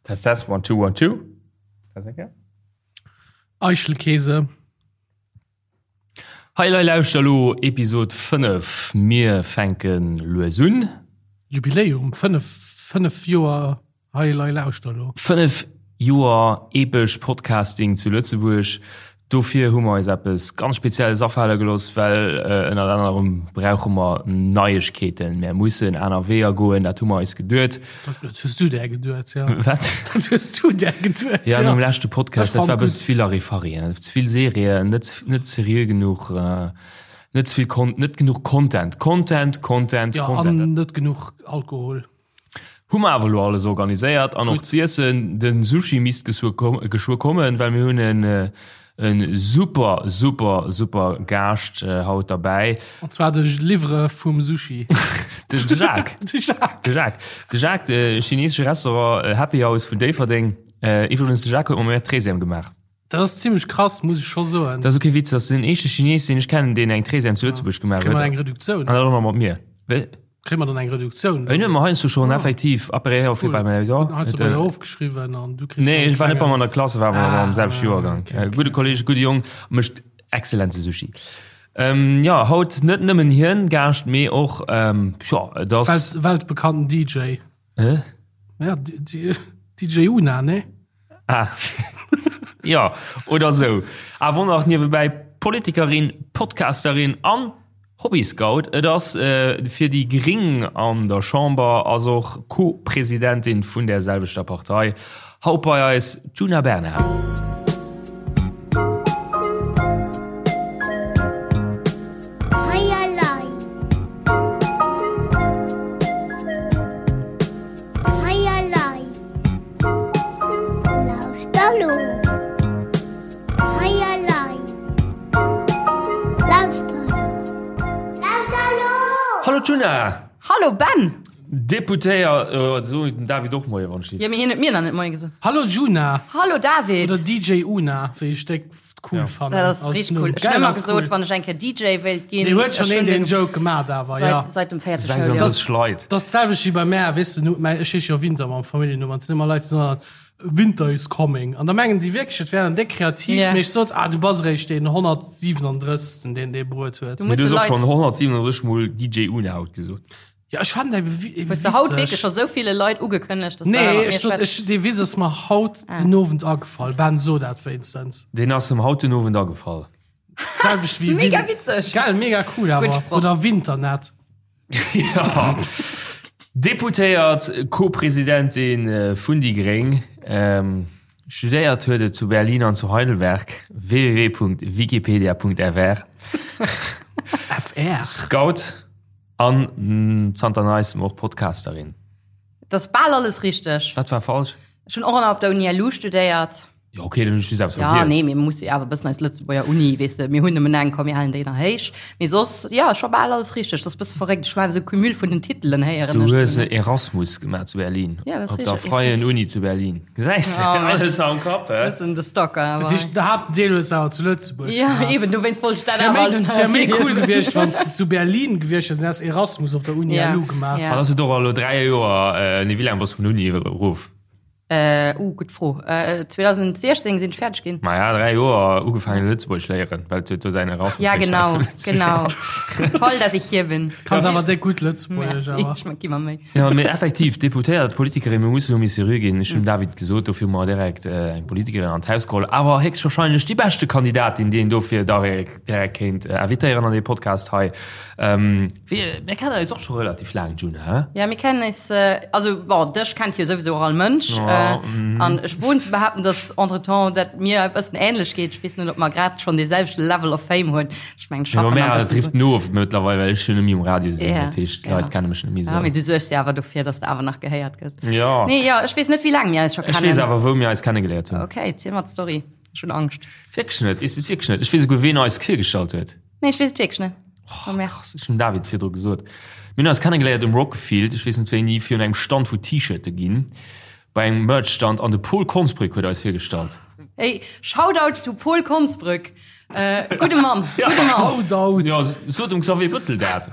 Test, test, one, two, one, two. Test eng Kéier. Eichelkäse. Hei lei lauschter lo Episod 5. Mir fänke lues un. Jubiläum, 5, 5 Joer Hei lei lauschter lo. 5 Joer epesch Podcasting zu Lëtzebuerg. Dofir hu mer eis eppes ganz Spezielles afale gelooss, well ënnert anerem brauche mer Neiegkeeten. Mär mussen aner Weeër goen, dat hu mer eis geduet. Dat hues du där geduet, jo. Wat? Dat hues du där geduet, jo. Ja, nom leschte Podcast, dat war e bëssen ze vill Larifari, ze vill Serien, net, net seriö genuch, net ze vill Con-, net genuch Content. Content, Content, Content. Jo, an net genuch Alkohol. Hu mer awer elo alles organiséiert an och z'iessen. Den Sushi misst geschwë kommen, well mir hunn en en super super super Gaascht haut derbäi. An zwar de Liwwereur vum Sushi. De Jacques. De Jacques. De Jacques. De Jacques, de chinesesche Restaurant Happy House vun Déifferdeng. Iwwregens, de Jacques huet mer mäi Treizième gemaach. Dat ass zimmlech krass, muss ech scho soen. Dat ass ok Witz, dat ass den éischte Chines, deen ech kennen, deen eng Treizième zu Lëtzebuerg gemaach huet. Kréie mer eng Reduktioun? An dat och nach mat mir. Kréie mer dann eng Reduktioun? Ech hunn mer heiansdo schonn effektiv après auf bei mir ja. Heiansdo bei der ofgeschriwwen an du kriss. Nee, ech war net bei mer an der Klass, war awer am selwechte Joergang. Gudde Kolleg, gudde Jong, mécht exzellente Sushi. Jo, haut net nëmmen hien Gaascht, mee och jo, et ass. Weltbekannten DJ. Hä? Ja, DJ Una, ne? Ah. ja, oder sou. Awer och nach niewebäi Politikerin, Podcasterin an Hobbyscout. Et ass äh, fir déi Gring an der Chamber, ass och Co-Presidentin vun där selwechter Partei. Haut bei eis d'Djuna Bernard. Hallo Djuna! Hallo Ben! Deputéiert, so den David och Moie wann ech Jo, mee hien huet mir nach net Moie gesot. Hallo Djuna! Hallo David! Oder DJ Una, wéi ech déck cool ja. fannen. Dat ass richtig cool. Ech hun ëmmer gesot, wann ech eng Kéier DJ wéilt ginn. Nee, huet schon een den Joke gemaat awer, ja. Seit dem vierte Schouljoer. 36 Leit. Dat ass d'selwecht wéi bei mär, weess de, mäi, ech heesche jo Winter mam Familljennumm an et sinn ëmmer Leit, déi soen, Winter is coming. An da mengen déi wierklech, et wär dann déck kreativ, Yeah. mee ech sot, ah, du bass eréischt deen 137. deen dee Bruet huet. Du Mee muss du de hues och Leit. schonn 137 mol DJ Una haut gesot. Ja, ech fannen dat eben Hues de haut witzeg. wierklech scho sou ville Leit ugekënnegt, dass de Nee, mat mir ech sot, schwätz? ech, dee Witz ass mer haut den Owend agefall. Ben, so dat wéinstens. Deen ass em haut den Owend agefall. Selwecht wéi Mega Win- witzeg. Gell, mega cool awer. Gutt Sproch. Oder Winternet. Ja. Deputéiert, Co-Presidentin vun déi Gréng, studéiert huet et zu Berlin an zu Heidelberg, www.wikipedia.fr. FR. Scout an zanter neistem och Podcasterin. Dat ass bal alles richteg. Wat war falsch? Ech hunn och nach op der Uni LU studéiert. Jo, okay, dann hunn ech just eppes Ja, vergiess. nee, mir musse jo awer e bëssen eis Lëtzebuerger Uni, weess de, mir hunn nëmmen eng, komm, mir halen déi nach héich. Mee soss, ja, scho bal alles richteg. Dat ass e bësse verréckt. Ech war esou Cumul vun den Titelen héieren Du ech hues sou. Erasmus gemaach zu Berlin. Ja, dat ass Op der richteg. Freien Uni zu Berlin. Gesäis de, Ja, alles am Kapp, hä? Bëssen de Stalker, Dat awer. heescht, de Haaptdeel hues de awer zu Lëtzebuerg Ja, gemaach. eben, dowéinst wollt ech dat Wär awer méi, allen wär méi cool erwähnen. gewiescht, wann s de zu Berlin gewiescht wiers an häss Erasmus op der Uni Ja, LU gemaach. ja. An ass et och elo 3 Joer, nee, wéi laang bass du vun der Uni erof? Äh, uh, gutt Fro. Äh, 2016 sinn ech fäerdeg ginn. Maja, 3 Joer ugefaangen Lëtzebuergesch léieren, well et huet do säin Erasmus Ja, genau, genau. Toll, dass ich hier bin. Kanns awer déck gutt Lëtzebuergesch Merci, awer. ech gi mer Méi. Ja, mee effektiv, Deputéiert, Politikerin, mir mussen elo méi seriö ginn. Ech hunn dem David gesot, dofir hu mer direkt eng Politikerin an d'Haus geholl, awer héchstwahrscheinlech déi beschte Kandidatin, déi een dofir direkt kéint invitéieren an dee Podcast hei. Wéi, mir kennen eis och scho relativ laang, Djuna, hä? Ja, mir kennen eis, also bon, dech kennt jo souwisou och all Mënsch. An ech woen ze behaapten, dass entretemps dat mir e bëssen ähnlech geet. Ech weess net, ob mer grad schonn dee selwechte Level of Fame hunn. Ech mengen, ech Jo, schaffen mä nach e et bëssen drifft drun. no of mëttlerweil, well ech jo net méi um Radio sinn. Ja, Dat heescht, ja. d'Leit kenne mech net méi Ja, mee esou. du suergs jo awer dofir, dass de awer nach gehéiert gëss. Jo. Nee, jo, ech weess net, wéi laang mir eis scho Ech weess kennen. awer, wou mir eis kennegeléiert hunn. Okay, ziel mer d'Story. Ech hunn Angscht. Wierklech net? Weess du et wierklech net? Ech weess esouguer, ween eis virgestallt huet. Nee, ech weess et wierklech net. Oh, krass, ech hunn David virdru gesot. Mir hunn eis kennegeléiert um Rockfield, ech weess net wéini, virun engem Stand wou T-Shirte ginn, bei engem Merch-Stand an de Paul Konsbrück huet eis virgestallt. Hey, Shoutout to Paul Konsbrück. Äh, gudde Mann, gudde Mann. Shoutout. Ja, sot dem Xavier Bëttel dat.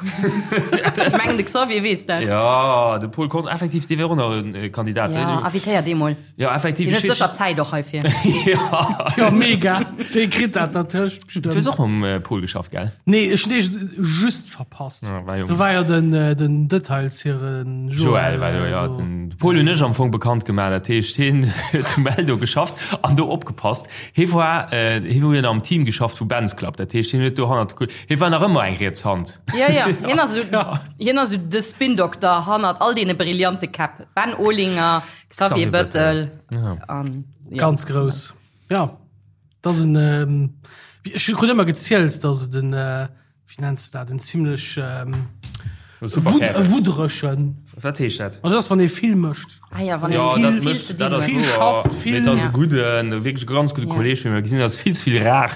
Ech mengen, de Xavier weess dat. Ja, de Paul Kons, effektiv, dee wär och nach en Kandidat. Ja, invitéier dee mol. Ja, effektiv. Deen huet sécher Zäit och heifir. Ja. Ja, mega. Dee kritt dat dertëscht Du hues bestëmmt. och mam Paul geschafft, gell? Nee, ech hunn dee just verpasst. Ja, war jo. Do war jo den, den Details hiren Joël war do, ja. do. Den Paul hunn ech am Fong bekannt gemaach. Dat heescht, hien huet zu Meldo geschafft an do opgepasst. Hie war, hie huet am Team geschafft vu Ben's Club. Dat heescht, hien huet do hannert de Kul-, hie war nach ëmmer eng riets Hand. Ja, ja, hien ass esou, hien ass esou de Spin-Dokter hannert all deene brillante Käpp. Ben Olinger, Xavier Xavier Bëttel. Bëttel an, ja. Ganz grouss. Ja, dat ass en, ech hu krut ëmmer gezielt, datt et en, wéi nenns de dat, en zimlech wudderegen. Wat heescht dat? Also dat ass, wann ee vill mécht. Ah ja, wann ee Ja, vill, dat vill mécht, ze dat dinn ass huet. Vill wouer. schafft, vill. Mee dat ass e Ja. gudden, wierklech e ganz gudde Ja. Kolleeg vun mir. Mir gesinn eis vill ze vill rar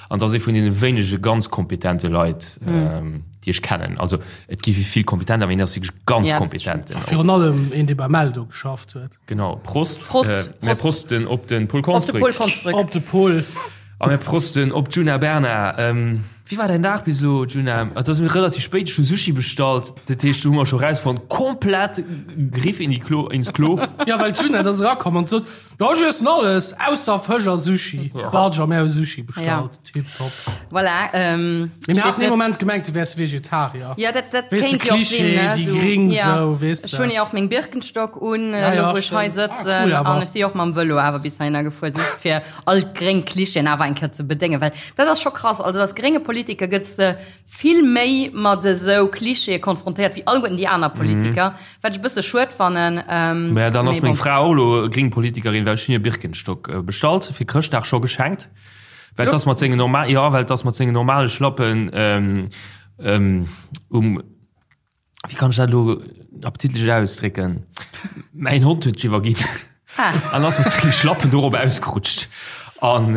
an dat ass ee vun deene wéinege ganz kompetente Leit, déi ech kennen. Also et gi vill kompetent, awer hien ass wierklech ganz Ja, dat kompetent. Virun allem een, dee bei Meldo geschafft huet. Genau, Prost. Prost, Äh, mir Prost. prosten op den Paul Op de Konsbrück. Paul Konsbrück. Op de Paul. A mir prosten op d'Djuna Bernard. Ähm, wéi war däin Dag bis elo, Djuna? Et ass mir relativ spéit, ech hu Sushi bestallt, dat heescht, do hu mer scho rausfonnt, komplett Griff in die Klo, ins Klo. Ja, well d'Djuna, dat ass erakomm an sot, Jo, ech iessen alles, ausser Fësch a Sushi. Barge a mir hu Sushi bestallt. Tiptop. Voilà, ähm, Mee ich mir weess haten ee net. Moment gemengt, du wäers Vegetarier. Ja, dat, dat Weess de, kéint jo och Klischee, sinn, ne? déi So, Gring, ja. sou, weess Ech de. hunn jo och meng Birkenstock un, Ja, elo ja, wou ech hei stimmt. Ah, sëtzen. cool awer. An ech si och mam Vëlo awer bis heihinner gefuer, just fir all d'gréng Klischeeën awer eng Kéier ze bedéngen. Well dat ass scho krass, also als grénge Politiker gëtts de vill méi mat esou Klischeeë konfrontéiert wéi alleguerten déi aner Politiker, wat ech e bësse schued fannen. Mä dann ass Mee meng bon. Fra och elo gréng Politikerin, well ech hunn hir Birkenstock bestallt, fir Chrëschtdag scho geschenkt, well 't ass mat sengen normal, jo, well 't ass mat sengen normale Schlappen um. Wéi kann ech dat elo appetitlech ausdrécken? Mäin Hond huet sech iwwerginn an ass mat senge Schlappen dorop ausgerutscht. An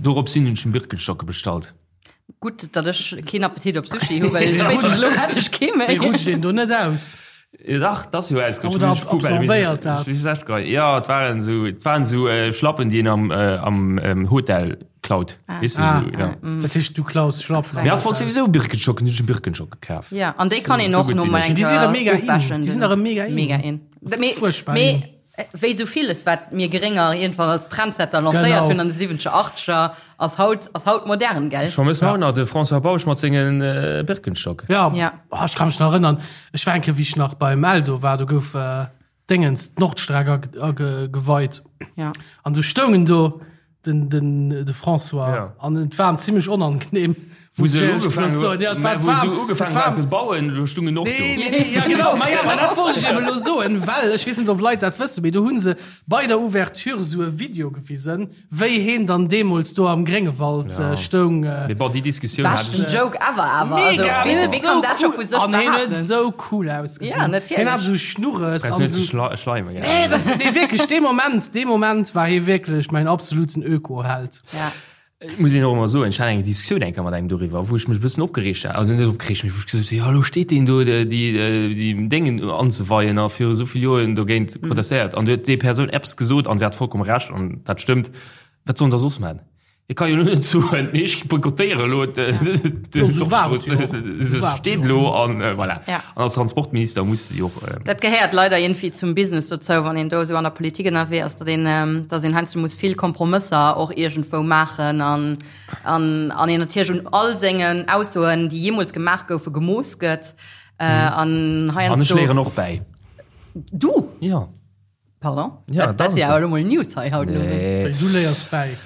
dorops hin hunn ech em Birkenstocke bestallt. Gutt, datt ech keen Appetit op Sushi hu, well spéitstens elo hätt ech kee méi. Wéi rutscht een do net aus? Dach, 't ass jo ausgerutscht. Oder absorbéiert dat? Jo, et waren esou, et waren esou Schlappen, déi een am, am Hotel klaut. Ah. Weess de, Ah. esou, ja. Dat heescht, du klaus Schlappen. Mee hatt wollt souwisou Birkenstocken, hunn ech em Birkenstock gekaf. Ja, an déi kann een Sou och gutt no sinn mal ech. eng Déi si erëm mega in. ofwäschen. Déi sinn erëm mega in. Mega in. Mee, Fuerchtbar mee in. wéi sou villes, wat mir Grénger iergendwann als Trendsetter lancéiert Genau. hunn an de siwwenzeger, achteger, ass haut, ass haut modern, gell? Ech vermëssen haut nach de François Bausch mat senge Birkenstock. Ja, Ja. Oh, ech ka mech nach erënnern, ech war eng Kéier, wéi ech nach beim Eldo war, do gouf äh, Déngens d'Nordstreck ageweit. Ja. An du stoungen do den, den, de François Ja. an et war em zimmlech onangenehm. Wou se Muss ich ugefaangen soen. Ja, et war mä wou se warm, ugefaangen et war haten ze bauen, do stungen och do. Nee, nee, nee, ja, genau, ma ja, ma dat wollt ech eben elo soen, well ech weess net, ob Leit dat wëssen, mee do hu se bei der Ouverture esou e Video gewisen, wéi heen dann deemools do am Gréngewald Ja. stoung. Mee bon, déi Diskussioun Wat hat en ech. Joke ever awer. Also, Mega, weess de, hien wéi huet kann sou dat scho cool- vu sech An hien huet behaapten? sou cool ausgesinn. Ja, natierlech. Hien hat esou Schnurres Brauchst an net ze esou. schla schleimen, gell? Nee, das, nee, wierklech, dee Moment, dee Moment war hie wierklech mäin absoluten Öko-Held. Ja. Et muss een och ëmmer soen, ech hat eng Diskussioun eng Kéier mat engem doriwwer, wou ech mech e bëssen opgereegt hat, also net opgereegt, mee wou ech gesot hunn, jo elo steet deen do déi déi Déngen anzeweien a viru esou vill Joren dogéint protestéiert an du huet déi Persoun eppes gesot an se hat vollkomm Recht an dat stëmmt, wat soll en da soss man? E ka jo elo net soen, nee ech boykottéiere elo d'Nordstrooss, se steet elo an voilà. An als Transportminister muss se jo och. Dat gehéiert leider iergendwéi zum Business dozou, wann een do esou an der Politik ënnerwee ass, datt een, datt een heiansdo muss vill Kompromësser och iergendwou maachen an, an, an een natierlech un all sengen Aussoen, déi jeemools gemaach goufen, gemooss gëtt. An heiansdo. An ech léieren och bäi. Du? Jo. Pardon? Ja, dat, dat ass ja elo mol News hei haut. Nee. Du léiers bäi.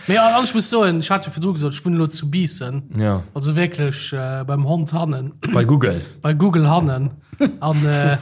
Mee an ech muss soen, ech hat jo virdru gesot, ech wunnen elo zu Biissen. Ja. Also wierklech äh, beim Hond hannen. Bei Google. Bei Google hannen. An, äh,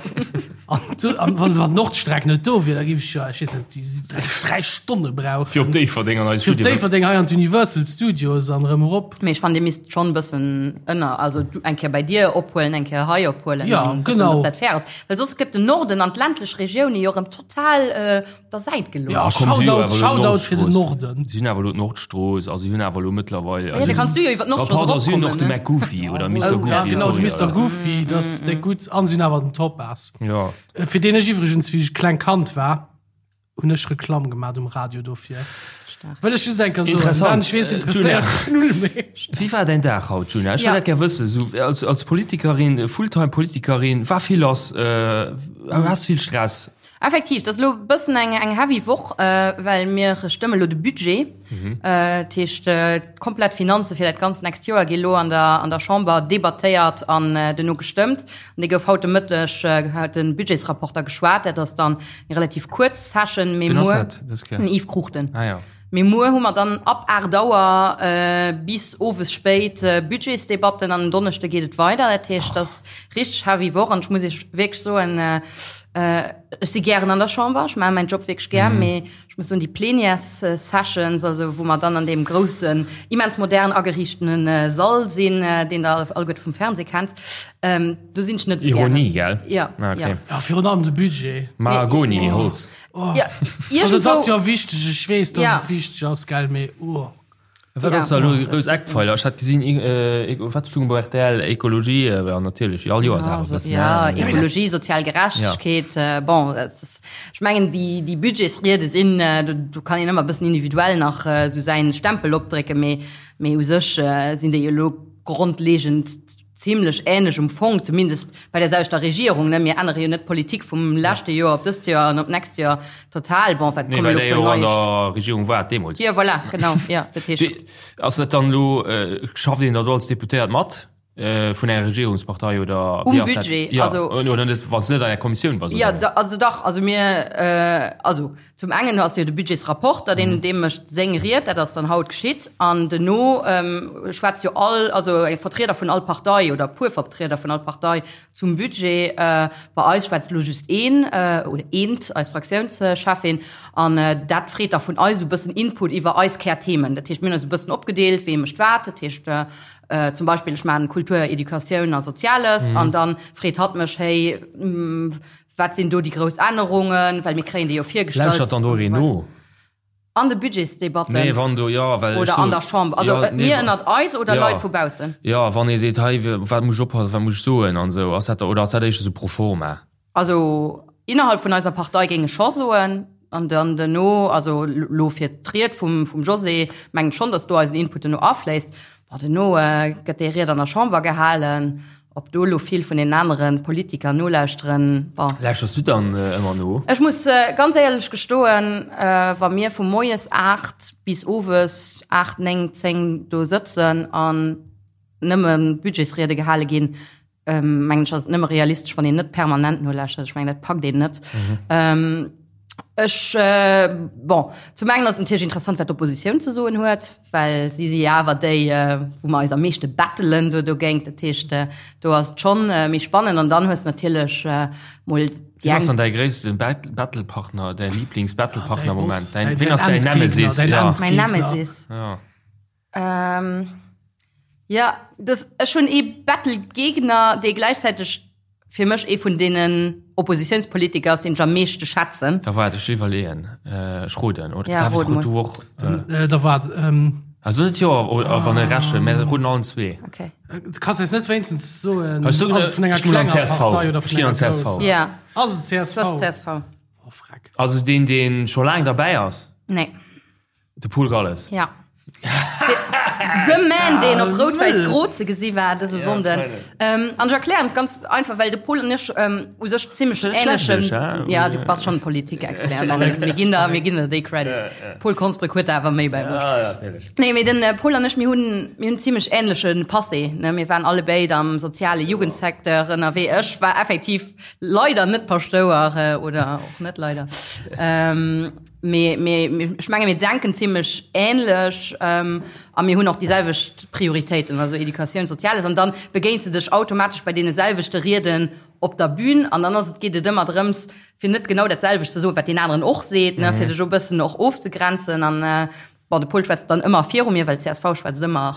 an, du, an wann, wann d'Nordstreck net do wier, da géif ech ja, ech weess net, déi dräi, dräi Stonne brauchen. Fir op Déifferdeng an eis Fir op Studioen. Déifferdeng hei an d'Universal Studios an erëm erop. Mee ech fannen, Dir misst schonn e bëssen ënner, also du eng Kéier bei dir ophuelen, eng Kéier hei ophuelen, Ja, an e bëssen, genau. dass dat fair ass. Well soss gëtt den Norden an d'ländlech Regioune jo erëm total op der Säit Ja, gelooss. komm, si hu Shoutout, awer elo Shoutout fir den d'Nordstrooss. Norden. Si hunn awer elo d'Nordstrooss, also si hunn awer elo mëttlerweil. Ja, da kanns du jo iwwer d'Nordstrooss Pardon, si hunn och de eropkommen, ne? McGoofy oder Mister Oh, Goofy. das- Genau, de sorry, Mister ja. Goofy, dat ass déck gutt. An si hunn awer den Topaz. Ja. Fir deen ech iwwregens, wéi ech kleng Kand war. Hunn ech Reklamm gemaat um Radio dofir. Stark. Wëll ech just eng Kéier soen. Interessant. Ech weess, interesséiert dech null méi. Wéi war däin Dag haut, Djuna? Ech wëll dat gär wëssen. Sou als, als Politikerin, Fulltime-Politikerin, war vill lass, has vill Stress? Effektiv, dat ass elo e bëssen eng, eng heavy Woch, well mir stëmme lo de Budget. Dat heescht, d'komplett Finanze fir dat ganzt nächst Joer gi lo an der, an der Chamber debattéiert an duerno gestëmmt. An dee gouf haut de Mëtteg, huet de Budgetsrapporter geschwat. Dat ass dann eng relativ kuerz Session, mee Wien ass muer, dat dës Kéier? den Yves Cruchten. Ah ja. Mee muer hu mer dann ab 8 Auer bis owes spéit Budgetsdebatten an en Donneschde geet et weider. Dat heescht, dat ass richteg heavy Woch an ech muss Iech wierklech soen, ech si gären an der Chamber, ech maache mäin Job wierklech gär, mee Ech muss soen, déi Plenières-Sessions, also wou mer dann an deem groussen, immens modern ageriichtene Sall sinn, deen Der alleguerte vum Fernseh kennt, do sinn ech net esou gären. Ironie, gell? Ja, Ah, okay. ja. Ja, virun allem de Budget. Mahagoni, Holz. Ja, Also et ass iergendwou. jo wichteg, ech weess, dass Ja. et wichteg ass, gell, mee oh. Wat ass da elo grouss Eckpfeiler? Ech hat gesinn, wat stoung bei rtl? Ekologie, jo natierlech, wéi all Joers awer e bëssen. Ja, Ekologie, sozial Gerechtegkeet, bon, ech mengen déi déi Budgetsriede sinn, do kann een ëmmer e bëssen individuell nach esou säin Stempel opdrécken, mee mee u sech sinn déi elo grondlegend zimlech ähnlech um Fong, zumindest bei der selwechter Regierung, ne? Mir ännere jo net d'Politik vum leschte Joer op dëst Joer an op d'nächst Joer total. Bon, wat Nee, komme well lo der puer jo an nei. der Regierung waart deemools. Jo, voilà, genau, jo, dat heescht. Wéi ass dat dann elo, schafft een da do als Deputéiert mat vun enger Regierungspartei oder Um wéi ass dat? Budget, Ja, also. oder net, wann s de net an enger Kommissioun bass, Jo, oder? da, also dach, also mir, also Zum engen ass jo de Budgetsrapporter, deen dee mécht seng Ried, dat ass dann haut geschitt, an duerno schwätzt jo all, also e Vertrieder vun all Partei oder e puer Vertrieder vun all Partei zum Budget. Bei eis schwätzt elo just een oder eent, eis Fraktiounscheffin, an dat freet da vun eis esou e bëssen Input iwwer eis Kärthemen. Dat heescht, mir hunn eis e bëssen opgedeelt, wee mécht wat. Dat heescht zum Beispill ech maachen Kultur, Educatioun a Soziales, an da freet hatt mech, hey, Wat sinn do déi grouss Ännerungen? Well mir kréien déi jo virgestallt. Lauschtert dann do een no? An de Budgetsdebatten? Nee, wann do, jo, well ech Oder an der Chamber? Also jo, nee, mir ënnert eis oder jo. Leit vu baussen? Jo, wann ee seet, hei, wat muss ech oppassen, wat muss ech soen an esou, ass dat da, oder ass dat éischter esou pro forma? Also innerhalb vun eiser Partei géing ech scho soen, an dann duerno, also elo fir d'Ried vum, vum José, mengen ech schonn, datt do eisen Input duerno afléisst. Bon, duerno gëtt déi Ried an der Chamber gehalen. Ob do elo vill vun den anere Politiker nolauschteren, bon. Lauschters du dann ëmmer no? Ech muss ganz éierlech gestoen, wa mir vu moies 8 bis owes 8, 9, 10 do sëtzen an nëmme Budgetsriede gehale ginn, mengen ech, ass et nëmme realistesch, wann een net permanent nolauschtert. Ech mengen, dat packt een net. Ech, bon, zum engen ass et natierlech interessant, wat d'Oppositioun ze soen huet, well si si jo awer déi, wou mer eis am meeschte battelen do dogéint. Dat heescht, do ass et schonn méi spannend. An dann hues de natierlech mol déi Wien ass eng. dann däi gréisste Battlepartner, däi Liiblingsbattlepartner am Däi Moment? Boss, Däin, däin wien ass däin Endgegner, Nemesis? däin Ja. Mäin Endgegner. Nemesis? Ja. Jo, dës, ech hunn ee Battlegegner, dee gläichzäiteg fir mech ee vun deenen Oppositiounspolitiker ass, deen ech am meeschte schätzen. Da waart, ech iwwerleeën. Ech roden, oder? Ja, David, rod rot mol. du och? Da waart. Also net jo, wann e Recht huet, mä roden allen zwee. Okay. Du kanns eis net wéinstens soen, Ech soen, ass et vun enger ech ginn an klenger csv. Partei oder Ech vun ginn an enger csv. grousser? Ja, Ass et dat csv? ass csv. Oh, freck. Also deen, deen scho laang derbäi ass? Nee. De Paul Galles. Ja. De Man, deen op Rout-Wäiss-Gro ze gesi war dëse Sonnden. An ech erklären et ganz einfach, well de Paul an ech u sech zimmlech ähnlechen. Ja, du bass schonn Politikexpert, mir ginn der, mir ginn der déi Credits. Paul Konsbrück huet der awer méi bäibruecht. Nee, mee den Paul an ech, mir hunn, mir hunn zimmlech ähnleche Passé, ne. Mir waren allebéid am soziale Jugendsecteur ënnerwee. Ech war effektiv leider net Paschtouer, oder och net leider. Mee, mee, ech menge mir denken zimmlech ähnlech ähm, a mir hunn och déi selwecht Prioritéiten, also Educatioun, Soziales. An dann begéins de dech automatesch bei deene selwechte Rieden op der Bühn an dann ass et, geet et ëmmer drëms, fir net genau dat selwecht ze soen, wat deen aneren och seet, ne, fir dech e bëssen och ofzegrenzen. An äh, bon. Bon, de Paul schwätzt dann ëmmer viru mir, well d'CSV schwätzt ëmmer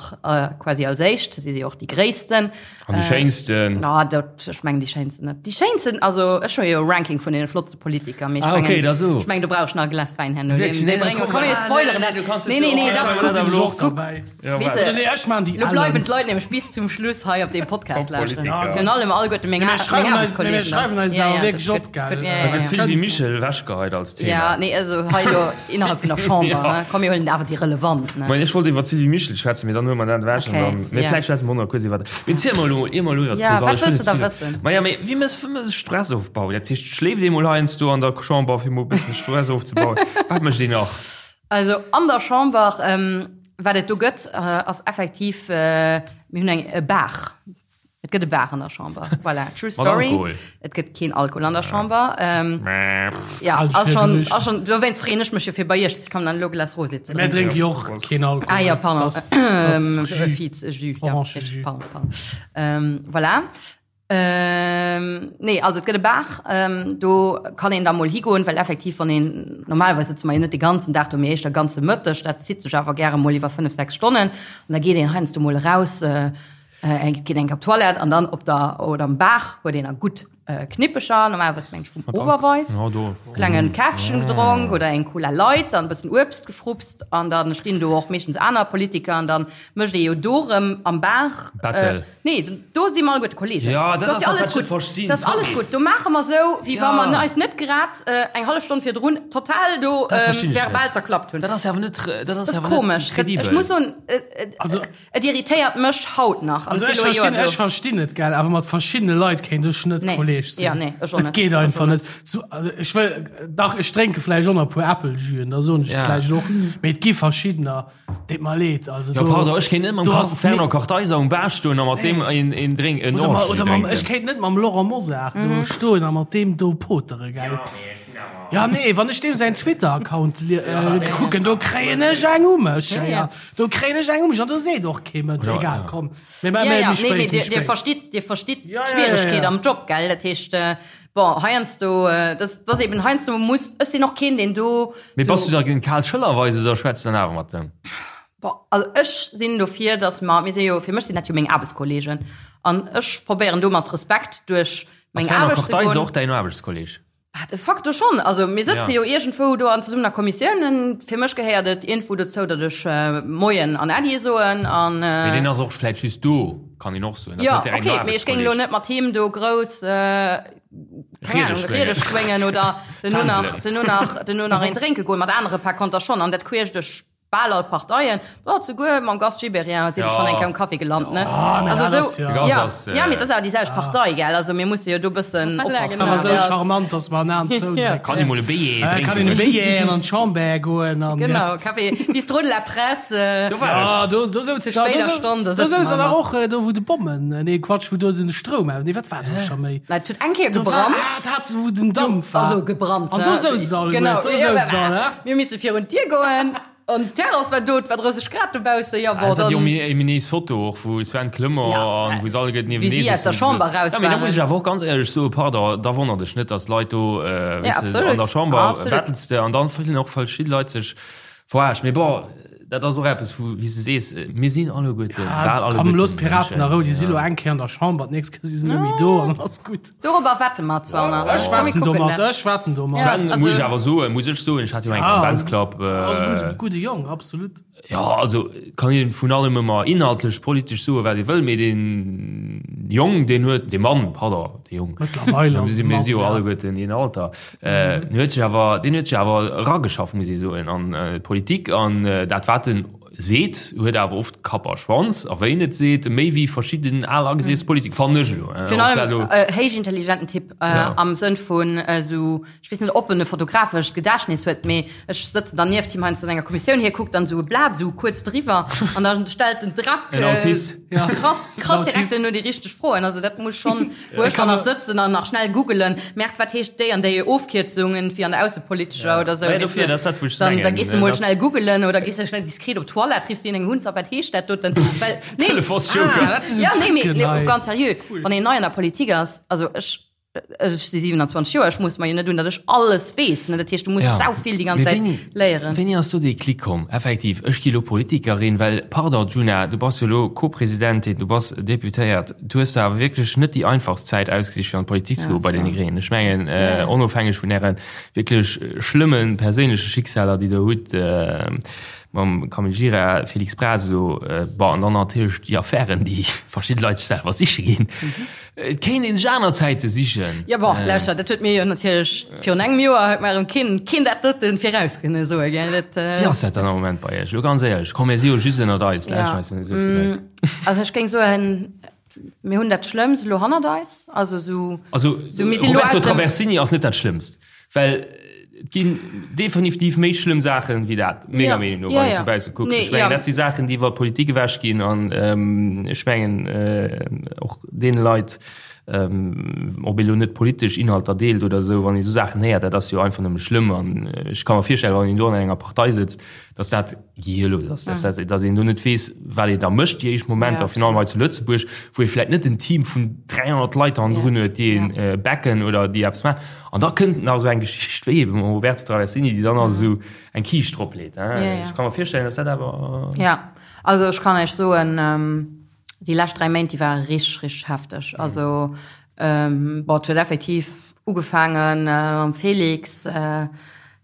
quasi als éischt. Si si och déi Gréissten. An déi Schéinsten. Na, dat, ech mengen déi Schéinsten net. Déi Schéinsten, also ech hu jo e Ranking vun deene flottste Politiker, mee ech Ah, okay, mengen, da so. ech mengen, do brauch ech nach e Glas Wäin herno. Wierklech? Dee Nee, brénge komm, komm, mir ah, spoileren nee, dat. nee, du kanns Nee, jetzt nee, nee, och- dach, Ech kuck, maachen dat och kuck. dabei. Ja, Weess wat? de, Nee, ech maan déi Lo bleiwen ellenst. d'Leit nämlech bis zum Schluss hei op deem Podcast Top lauschteren. Politiker. Virun allem alleguerte meng Mir Aar- meng schreiwen eis- mir Aarbechtskollegen. schreiwen eis Ja, awer ja, wierklech dat op, gëtt- dat gell? gëtt- ja, Da ja, gëtt ja. Sylvie Mischel ewechgeheit als Thema. Ja, nee, also hei lo innerhalb vun der Chamber, Ja. ne? Komm, mir huelen awer déi relevant, ne? Moien, ech wollt iwwer d'Sylvie Mischel schwätzen, mee dann huele mer dat ewech an Okay, dann, mee ja. vläicht schwätze mer och nach kuerz iwwer, mee ziel mol elo, ier mer elo iwwer Ja, d'Pol Gall, wat ech wëll wëlls du net da ze vill, wëssen? Ma ja, mee wéi mëss, wéi mëss Stressofbau? Dat heescht, schléift ee mol heiansdo an der Chamber, fir mol e bëssen Stress ofzebauen? Wat mécht een nach? Also an der Chamber, wat et do gëtt, ass effektiv, mir hunn eng e Bar. Et gëtt e Bar an der Chamber. Voilà, true Mat story. Alkohol? Et gëtt keen Alkohol an der Chamber. Ja, Alles ass fir schon, Gerücht. ass schon, dowéinst freeën ech mech jo fir bei iech, ich kann dann elo Glas Rosé ze Mir drénken. drénke jo och keen Alkohol. Ah ja, pardon. Das, das Ähm, Jus. Fiz, Jus, ja, Orange-Jus. pardon, pardon. Ähm, voilà. Ähm, nee, also et gëtt e Bar, ähm, do kann een da mol higoen, well effektiv wann een, normalerweis sëtze mer jo net de ganzen Dag do, mee éischter ganze Mëtteg, dat zitt sech awer gäre mol iwwer 5, 6 Stonnen an da geet een heiansdo mol eraus, äh, eng, geet eng op d'Toilette an dann op der, oder am Bar huet een a gutt äh, Knippecher, normalerweis meng ech vum Oberweis, Ja, do. klengen Käffchen gedronk oder eng Cola Light an e bëssen Uebst gefrupst an dann stinn do och meeschtens aner Politiker an dann mécht ee jo do rëm am Bar Battle. Äh, nee, do si mer alleguerte Kollegen. Ja, dat Do ass ass jo dat, alles wat ech net gutt. verstinn, Dat ass alles sorry. gutt. Do maache mer sou, wéi wa Ja. mer eis net grad äh, eng hallef Stonn virdrun total do Dat ähm, verstinn ech verbal net. zerklappt hunn. Dat ass awer net, dat ass Dat ass awer net komesch. kredibel. Ech muss soen, äh, äh, Also- et irritéiert mech haut nach. An Also et ech si lo e Joer verstinn, do. ech verstinn et, gell, awer mat verschiddene Leit kéint ech net Nee. Kolleg sinn. Ja, nee, ech och Et net. geet Ech och einfach net. net. So, also ech wëll, dach, ech drénke vläicht och nach e puer Äppeljüen, da soen ech et Ja. vläicht och, mee et gi verschiddener, deet mer leed. Also Ja, do, pardon, ech kéint net mam do ass Fernand Kartheiser um Bar stoen a mat deem een, een Drink, en Oder, ma, Orangejus oder mam, drénken. ech kéint net mam Laurent Mosar do stoen a mat deem do potere, gell. Ja, nee, wann ech deem säin Twitter-Account äh, kucken, do kréien ech eng u mech. Ja, ja. Do kréien ech eng u mech an do seet och kee Mënsch. Ja, Egal, ja. komm. Mee, mee, Ja, mee, ja, méi nee, spéit, mee méi dir, dir spéit. verstitt, dir verstitt Ja, ja, ja, d'Schwieregkeet ja. am Job, gell? Dat heescht, äh, bon, heiansdo, äh, das, das eben heiansdo muss, ech sinn och keen, deen do Mee so, bass du da géint Karl Schëllerweis oder schwätz dann awer mat dem? Bon, also ech sinn dofir, dass mer, mir si jo, fir mech sinn dat jo meng Aarbechtskollegen an ech probéieren do mat Respekt duerch Ass meng Fernand Aarbecht ze Kartheiser goen. och däin Aarbechtskolleg? Ah, de facto schonn. Also mir sëtze Ja. jo iergendwou do an zesummen a Kommissiounen. Fir mech gehéiert et iergendwou dozou, datt ech Moien an Äddi soen an. Mee deen ass och vläicht just do, kann een och soen. Ja, okay, mee ech géing elo net mat him do grouss, keng Ahnung, Riede schwéngen oder duerno nach, duerno nach, duerno nach een drénke goen. Mat anere par konter schonn an dat queesch duerch Bal all Parteien, oh, souguer mam Gast Gibéryen sinn ech schonn eng Kéier um Café gelant, ne? Ah, mee Also dat sou, ass jo- De Gast ja, ass, ja, mee dat ass awer déi selwecht Partei, gell? Also mir musse jo do bëssen oppassen. Awer sou Ja. charmant, dass mer en Aan zoudrécken. Kann ee mol e Béier Äh, Kann een e drénken. Béier an d'Chamber goen an. Genau, Café Bistrot de la Presse, äh, Do war ech. Ah, do, do souz Zu da, do spéider sou- Stonn, da do sëtze souz mer der nach. och äh, do wou de Bommen, äh, nee Quatsch, wou do den Stroum aus, nee wat war do scho méi? Na, et huet eng Kéier Do war, gebrannt. ah, dat hat wou den Dampf war. Also gebrannt. An do souz se alle Genau. guer, do souz se alle. Mir misse virun d'Dier goen. An d'Terrass war do, et war 30 Grad dobaussen, jo bon, Dat war déi dann. ominös Foto och wou Sven Clement Ja, an wou se alleguerten wéi niewenee si aus der sëtzen. Chamber raus Ja, mee da waren. muss ech awer och ganz éierlech soen, pardon, da wonnert ech net, datt Leit do, äh, Ja, weess de, absolut. an der Chamber Absolut. battels de an dann fillen och verschidde Leit sech verarscht. Mee bon, dat ass och eppes wou, wéi s de sees, mir sinn alleguerten, Ah, bal komm, alleguerten looss d'Piraten Mënschen. a Rou, déi si Ja. lo eng Kéier an der Chamber, d'nächst Kéier si se net méi do an dann ass gutt. Dorobber wette mer zwar nach. Ech Komm, mir wetten kucken domat, dat. ech wetten domat. Ja. Sven, Also- muss ech awer soen, muss ech soen, ech hat jo eng Ah. am Benz Club. Ass e Äh, gudde, gudde Jong, absolut. ja, also kann een vun allem ëmmer inhaltlech, politesch soe wat ee wëll, mee deen Jong, deen huet, dee Mann, pardon, dee Jong, Mëttlerweil mir ass si e mir Mann, si jo ja. alleguerten een Alter, äh, den huet sech awer, deen huet sech awer erageschafft, muss ee soen, an d'Politik an dat wat en seet, huet awer oft Kapp a Schwanz, a wéi en et seet, méi wéi verschidden al agesiess Politiker, fannen ech elo. Virun allem héich intelligenten Typ, am Sënn vun esou, ech weess net, ob en e fotografescht Gedächtnis huet, mee ech sëtzen dann nieft him heiansdo an enger Kommissioun, hie kuckt dann esou e Blat esou kuerz driwwer an da stellt en Drack En Autist. krass, krass direkt duerno déi richteg Froen. Also dat muss schonn, wou ech dann nach sëtzen an nach schnell googelen, Merkt, wat heescht déi an déi Ofkierzung irgendwie an der aussepolitescher oder sou, Ja, weess dofir, de. dat ass dat, wou ech Dann, da mengen, gees de mol dass- schnell googelen oder gees de schnell diskret op d'Toilette, riffs deen eng Hunz a wat heescht dat doten? Well, nee, Telefonsjoker. Ah, dat si sou ja, nee, mee, Trucken nee, hei. ganz seriö, wann een nei an der Politik ass, also ech. Ech si 27 Joer, ech mooss mer jo net un, datt ech alles weess, ne? Dat heescht, du muss sau vill déi ganz Zäit léieren. Wéini ass do dee Klick komm, effektiv, ech gi lo Politikerin? Well, pardon, Djuna, du bass jo lo Co-Presidentin, du bass Deputéiert, du hues der awer wierklech net déi einfachst Zäit ausgesicht, fir an d'Politik ze goen bei deene Gréngen. Ech mengen, onofhängeg vun äre wierklech schlëmme perséinleche Schicksaler, déi Der hutt, mam Camille Gira, Félix Braz elo, bon, an dann natierlech déi Affären, déi verschidde Leit sech selwer siche ginn. Et kéint een sech aner Zäite sichen. Jo, bon, lauschter, dat huet mir jo natierlech virun engem Joer huet mer erëm keen, keen dat doten viraus kënne soen, gell, dat. Wéi ass dat dann am Moment bei Iech? Elo ganz éierlech, komm, mir si jo just ënnert eis, lauschteren eis jo net esou vill Leit. Also ech géing soen, mir hunn dat Schlëmmst elo hannert eis, also esou. Also Roberto Traversini ass net dat Schlëmmst. Well et ginn definitiv méi schlëmm Saachen wéi dat, menger Meenung no, wann een vu bausse kuckt. Ech mengen, dat si Saachen, déi iwwer d'Politik ewech ginn an ech mengen och deene Leit, ob ee lo net politesch Inhalter deelt oder esou, wann ee esou Saachen héiert, dat ass jo einfach nëmme schlëmm. An ech ka mer virstellen, wann een do an enger Partei sëtzt, dass dat gehirlos ass, dass dat, dass een do net weess, wat een da mécht déi éischt Momenter, virun allem hei zu Lëtzebuerg, wou ee vläicht net en Team vun 300 Leit hannendrun huet, déi een backen oder déi eppes maachen. An da kënnt nach esou eng Geschicht wéi ebe mam Roberto Traversini, déi dann nach esou eng Kiischt drop leet. Ech ka mer virstellen, dass dat awer. Jo, also ech kann Iech soen, déi lescht 3 Méint, déi ware richteg, richteg hefteg. Also bon, et huet effektiv ugefaange mam Félix,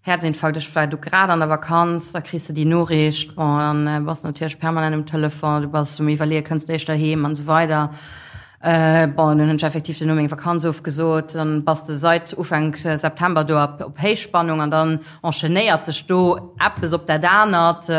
Herzinfarkt, ech war du grad an der Vakanz, da kriss de déi Noriicht, bon, dann bass de natierlech permanent um Telefon, du bass um Iwwerleeën, kënns de éischter heem an esou weider. Bon, dunn hunn ech effektiv duerno meng Vakanz ofgesot, dann bass de seit Ufank September do op op Héichspannung an dann enchaînéiert sech do eppes op dat anert,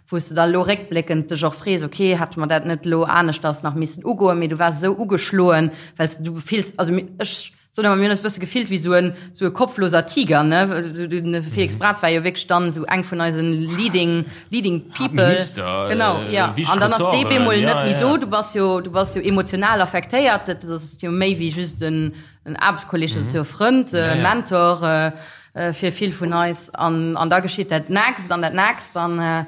wou s de da lo réckbléckend dech och frees, okay, hätte mer dat net lo aneschters nach missen ugoen, mee du waars esou ugeschloen, well s du fills, also ech Soen awer, mir hunn eis e bësse gefillt wéi sou en, sou e kopfloser Tiger, ne? De Felix Braz war jo wierklech dann esou eng vun eisen leading, leading people. Minister, Genau, ja. An dann ass dee bemol net méi do. Du bass jo, du bass jo emotional affektéiert. Dat ass jo méi wéi just en, en Aarbechtskolleg, dat ass jo e Frënd, e Mentor fir vill vun eis. An, an da geschitt dat nächst an dat nächst an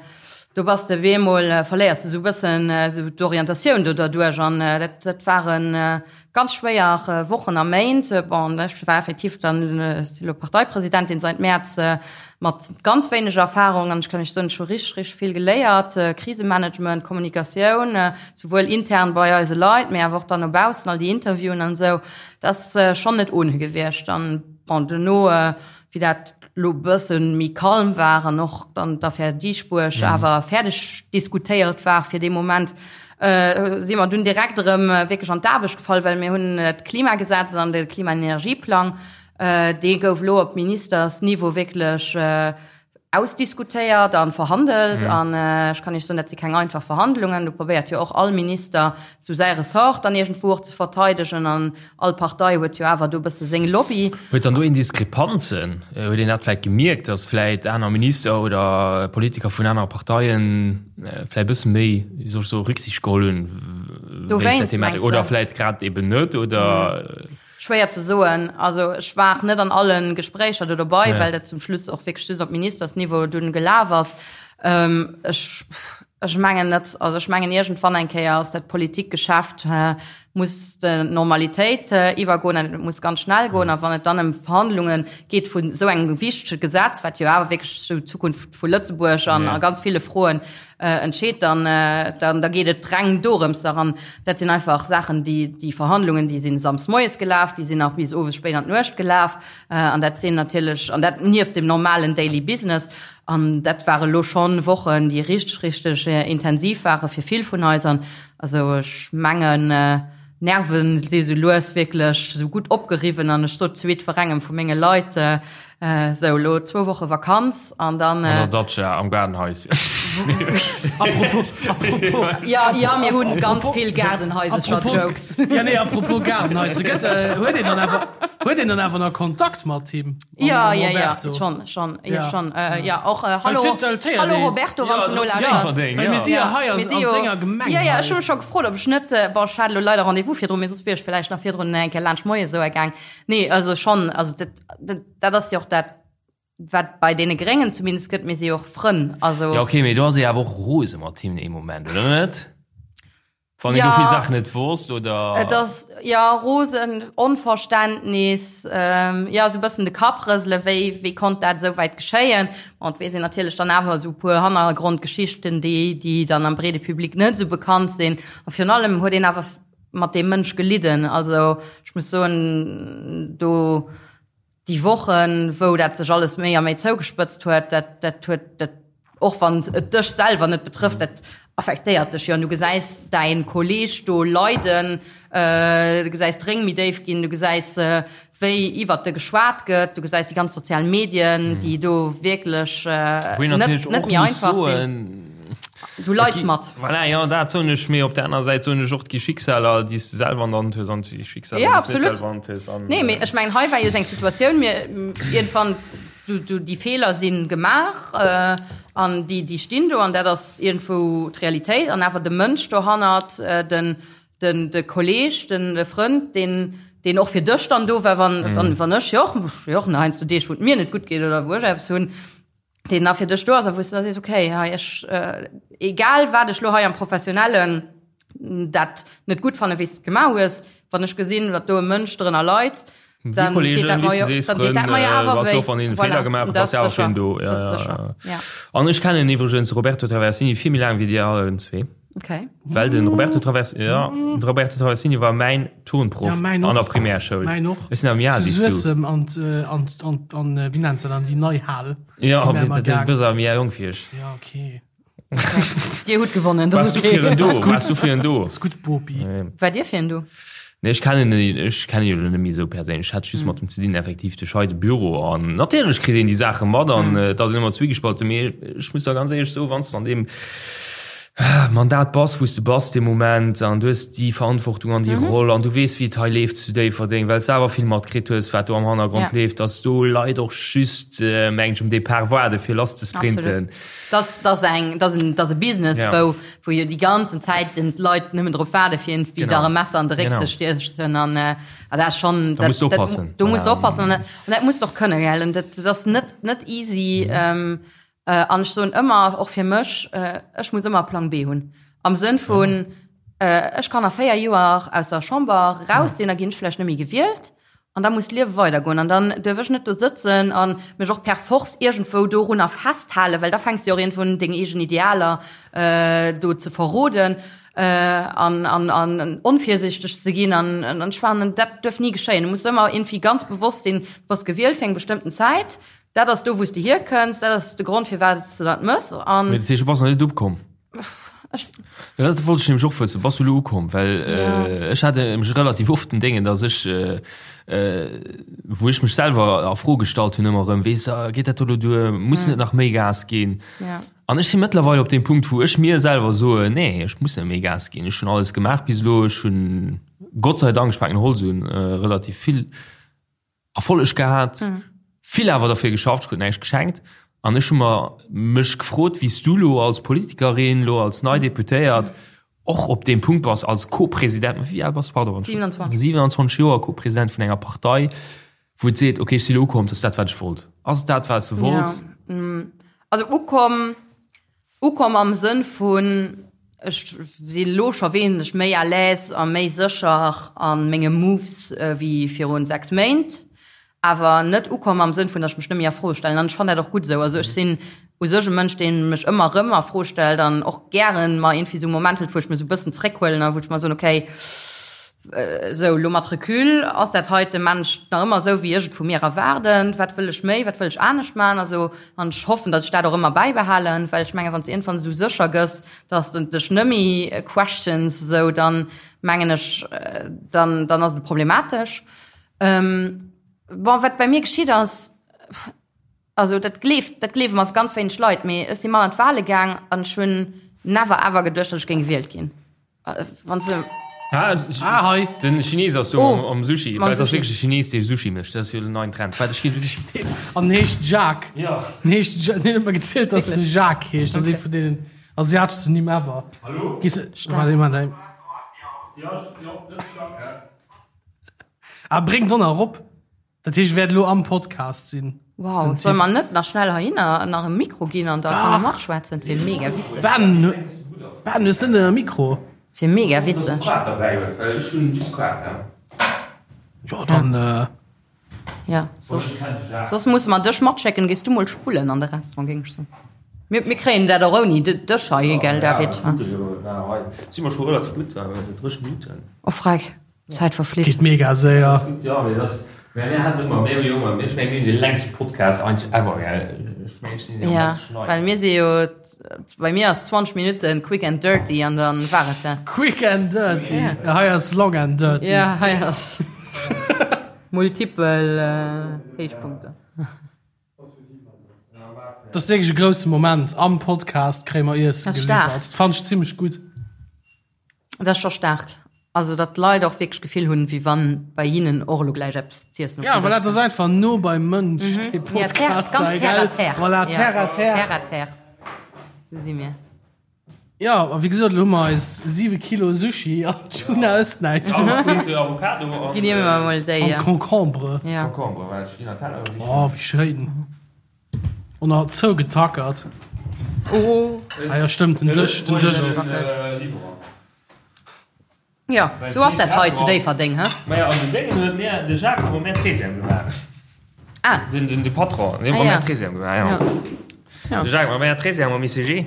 do bass de bemol, verléiers de sou e bëssen esou d'Orientatioun do derduerch. An dat, dat waren, Ganz schwéier Wochen a Méint. Bon, ech war effektiv dann, si lo Parteipresidentin seit Mäerz, mat ganz wéineg Erfahrung an ech kann Iech soen, ech hu richteg, richteg vill geléiert, Krisemanagement, Kommunikatioun, souwuel intern bei eise Leit, mee awer och dann no baussen, all déi Interviewen an esou. Dat ass schonn net ohne gewiescht. An bon, duerno, wéi dat lo bësse méi calm war an och dann d'Affär Dieschbourg awer fäerdeg diskutéiert war fir dee Moment, si mer dunn direkt erëm wierklech an d'Aarbecht gefall, well mir hunn d'Klimagesetz an de Klimaenergieplang, dee gouf elo op Ministersniveau wierklech ausdiskutéiert a verhandelt. An ech kann Iech soen, dat si keng einfach Verhandlungen. Do probéiert jo och all Minister sou säi Ressort dann iergendwou och ze verteidegen an all Partei huet jo awer do e bësse seng Lobby. Huet dann do een Diskrepanzen? Huet een dat vläicht gemierkt, datt vläicht aner Minister oder Politiker vun anere Parteien vläicht e bësse méi, wéi soll ech soen, Rücksicht geholl hunn wéinst der Thematik oder vläicht grad eben net oder? Schwéier ze soen. Also ech war net an alle Gespréicher do dobei, well dat zum Schluss och wierklech just op Ministersniveau dunn gelaf ass. Ech, ech mengen net. Also ech mengen iergendwann eng Kéier ass dat Politikgeschäft muss d'Normalitéit iwwergoen an et muss ganz schnell goen. A wann et dann ëm Verhandlunge geet vun esou engem wichtege Gesetz, wat jo awer wierklech esou d'Zukunft vu Lëtzebuerg an a ganz ville Froen entscheet, dann, dann da geet et reng dorëms. An dat sinn einfach Saachen, déi, déi Verhandlungen, déi sinn samsdes moies gelaf, déi sinn nach bis owes spéit an d'Nuecht gelaf. An dat sinn natierlech, an dat nieft dem normalen Daily Business. An dat ware lo schonn Wochen, déi richteg, richteg intensiv ware fir vill vun eis. An also ech mengen, Nerven si sou lues wierklech sou gutt opgeriwwen an ech sot zu jiddwerengem vu menge Leit, Sou, elo zwou Woche Vakanz an dann. An der Datscha am Gaardenhaischen. Apropos, apropos. Ja, ja, mir hunn ganz vill Gaardenhaisercher-Jokes. Ja, nee, apropos Gaardenhaischer, gëtt, huet een dann awer, huet een dann awer nach Kontakt mat him? Ja, ja, ja, schon, schon, ja, schon. Ja, och hallo, hallo Roberto, wann s de nolauschters. Well mir si jo hei a senger Gemeng. Ja, ja, ech hu mech scho gefrot, ob ech net, bon, ech hat elo leider Rendez-vous virdrun, mee soss wier ech villäicht nach virdrun eng Kéier laanscht moies esou gaang. Nee, also schon, also dat, dat, dat ass jo och dat, wat bei deene Gréngen zumindest gëtt, mir si jo och Frënn, also. Ja, okay, mee do ass ee awer och rose mat him ee Moment, oder net? Wann een do vill Saachen net wosst, oder? Et ass, jo, rosen, Onverständnis, jo, esou e bëssen de Kapp rëselen, wéi, wéi konnt dat esou wäit geschéien? Bon, et weess een natierlech dann awer esou e puer Hannergrondgeschichten, déi, déi dann am breede Public net esou bekannt sinn. A virun allem huet een awer mat deem Mënsch gelidden. Also, ech muss soen, do, déi Wochen, wou dat sech alles méi a méi zougespëtzt huet, dat, dat huet, dat, och wann et dech selwer net betrëfft, dat affektéiert dech jo. An du gesäis däin Kolleeg do leiden, du gesäis d'Réng méi déif ginn, du gesäis, wéi iwwert de geschwat gëtt, du gesäis déi ganz sozial Medien, déi do wierklech net, net méi einfach sinn. Du leids mat. Voilà, jo, dat soen ech, mee op der aner Säit soen ech och, et gi Schicksaler, déi s de selwer an der Hand hues an et gi Schicksaler, Ja, déi s de net absolut. selwer an der Hand hues. An, Nee, mee ech mengen, hei war jo esou eng Situatioun, mir iergendwann, du, du, déi Feeler si gemaach äh, an déi, déi stinn do an dat ass iergendwou d'Realitéit an awer de Mënsch dohannert, äh, den, den, de Kolleeg, den, de Frënd, deen, deen och fir dech dann do war, wann, wann, wann ech jo och, ech hu jo och heiansdo Deeg, wou et mir net gutt geet oder wou ech eppes hunn, deen da fir dech do ass a wou s du da sees, okay, hei ech, egal wat ech lo hei am Professionellen dat net gutt fanne wéi s de et gemaach hues, wann ech gesinn, datt do e Mënsch drënner leit, dann deet dat mer jo, dann deet dat mer jo awer wéi. Wann een Feeler gemaach huet, ass jo awer fir en do. Ja, ja, ja. An ech kennen iwwregens de Roberto Traversini vill méi laang wéi dir allen zwee. Okay. Well den Roberto Travers ja, den Roberto Traversini war mäin Turnproff Ja, mäin an och. der Primärschoul. Mäin och. Ech sinn am Jahr Zu wéi s du. Suessem an d', an d', an d', an wéi nennt se dann, déi nei Hal. Ja, Si mär ëmmer du gaang. bist am Jahr jong fir ech. Ja, okay. Dir hutt gewonnen, dat Warst ass du okay. fir en do? Das ist gut. Warst du fir en do? Ass gutt, Bopi. War dir fir en do? Nee, ech kennen en, ech kennen jo net méi esou perséinlech. Ech hat just mat em ze dinn, effektiv duerch hei de Büro. An natierlech kritt een déi Saache mat an et ass een ëmmer zwiegespalten. Mee ech muss der ganz éierlech soen, wann s de an deem Mandat bass, wou s de bass dee Moment an du hues déi Verantwortung an déi Roll an du weess, wéi et hei leeft zu Déifferdeng, well s de awer vill matkritt hues, wat do am Hannergrond leeft, dass do Leit och just, meng ech, um Depart waarde fir lass ze sprinten. Absolut. Dat ass eng, dat ass en, dat ass e Business, wou wou jo déi ganzen Zäit den d'Leit nëmmen drop waarde fir iergendwéi der e Messer an de Réck ze stiechen an äh, dat ass schonn Da musst du oppassen. Do musst du oppassen an dat musst du och kënne gell an dat ass net net easy ähm, äh, an ech soen ëmmer och fir mech äh, ech muss ëmmer Plang B hunn am Sënn vun äh, ech kann a 4 Joer aus der Chamber raus sinn, da ginn ech vläicht net méi gewielt. An da muss d'Liewe weidergoen. An dann duerf ech net do sëtzen a mech och per force iergendwou dorunner festhalen, well da fänks de jo och iergendwou un, deng eegen Idealer do ze verroden an, an, an onvirsichteg ze ginn. An, an ech fannen, dat duerf ni geschéien. Du muss ëmmer iergendwéi ganz bewosst sinn, du bass gewielt fir eng bestëmmten Zäit, dat ass do, wou s de hierkënns, dat ass de Grond, firwat s de dat mëss. An. Mee dat heescht, du bass nach net ukomm? Ech. Ja, dat wollt ech nämlech och wëssen. Bass du elo ukomm? Well äh, ech hat nämlech relativ oft den Déngen, dass ech, äh, äh, wou ech mech selwer a Fro gestallt hunn ëmmer erëm, weess, ah, geet dat do elo duer? Muss net nach méi Gas ginn? Ja. An ech si mëttlerweil op deem Punkt, wou ech mir selwer soen, nee, ech muss net méi Gas ginn. Ech hunn alles gemaach bis elo. Ech hunn Gott sei Dank, ech paken Holz un, äh, relativ vill Erfolleg gehat, vill awer derfir geschafft, ech krut näischt geschenkt. An ech hu mer mech gefrot, wéi s du lo als Politikerin, lo als nei Deputéiert och op deem Punkt bass als Co-President, wéi al bass du, pardon? 27. 27 Joer, Co-President vun enger Partei, wou et seet, okay, ech si lo ukomm, dat ass dat, wat ech wollt. Ass et dat, wat s de wollts? Ja, also ukomm, Ukomm am Sënn vun, ech si lo scho wesentlech méi à l'aise a méi sécher a menge Moves wéi virun 6 Méint, awer net ukomm am Sënn vun, datt ech mech net méi a Fro stellen. An ech fannen dat och gutt esou. Also ech sinn u sech e Mënsch, dee mech ëmmer erëm a Fro stellt an och gären mer iergendwéi esou e Moment hëlt, wou ech mech esou e bëssen zréckhuelen a wou ech mer soen, okay, Esou, elo mat Recul, ass dat heite Mensch nach ëmmer esou, wéi ech et vu mir erwaarden? Wat wëll ech méi, wat wëll ech anescht maachen? Also, an ech hoffen, datt ech dat och ëmmer bäibehalen, well ech mengen, wann s de iergendwann esou sécher gëss, datt s de dech net méi questions, esou, dann mengen ech, dann, dann ass et problematesch. Bon, wat bei mir geschitt ass, also dat gleeft, dat gleewe mer ganz wéineg Leit, mee ech si mat an d'Wale gaang an ech hunn never ever geduecht, datt ech géing gewielt ginn. Wann se Ah, ah, hei. Den Chines ass do oh, am, am Sushi. Mam Well ass Sushi. wierklech e Chines, dee Sushi mécht. Dat ass jo den neien Trend. Wat ech ginn. Chines. An heescht Jacques. Ja. Den heescht, den huet mer gezielt, dass en Jacques heescht. Dat ass ee vun deenen asiateschsten Nimm ever. Hallo? Gees, warte, iemand, ey. Ja, ja, dat ass Jacques. Ah, bréng d'Donner erop. Dat heescht, wäert elo am Podcast sinn. Wow, soll mer net nach schnell heihinner nach e Mikro ginn an da kann e matschwätzen? Dat wier mega witzeg. Ben, Ben, hues de net e Mikro? Wier mega witzeg. Jo, dann. Ja, soss, soss musse mer dech matschécken, gees du mol spullen an de Restaurant, géing ech soen. Mir, mir kréien dat och ouni dech hei, gell David? Si mer scho relativ gutt, 30 Minutten. Oh freck, d'Zäit verflitt. Geet mega séier. Jo, mee dass, mä mir haten ëmmer, mir hu jo ëmmer, ech mengen mir hunn dee längste Podcast eigentlech ever, gell? Ech mengen ech sinn jo Ja, ganz schnei. well mir si jo, bei mir ass 20 Minutten quick and dirty an dann war et dat. Quick and dirty. Ja, hei ass long and dirty. Ja, hei ass multipel Héichpunkter. Dat ass wierklech e grousse Moment. Am Podcast kréie mer Iessen Dat ass staark. geliwwert. Dat fannen ech zimmlech gutt. Dat ass scho staark. Also datt d'Leit och wierklech d'Gefill hunn, wéi wann bei hinnen och elo gläich eppes z'iessen op Ja, dem voilà, Dësch dat ass einfach no beim Mënsch, dee kënnt. Ja, terre, Podcast ganz hei, terre à gell? terre. Voilà, Ja, terre à terre. Terre à terre. Sou si mir. Ja, a wéi gesot, elo hu mer eis 7 Kilo Sushi an d'Juna ësst näischt dovun. Avocado an Ginn mir emol déi. An Concombre. Ja. Concombre, well ech ginn an Teller sichen. Oh, wéi schéin. Und nach zougetackert. Oh. Ah ja, stëmmt, den Dësch, den Dësch ass. Jo, sou ass dat hei zu Déifferdeng, he? Maja, an den Déngen huet mir de Jacques huet mer mär Trésième gemaach. Ah. Den, den, de Patron, deen huet mer mär Trésième gemaach, ja. Ja. De Jacques huet mer mär Trésième am ICG.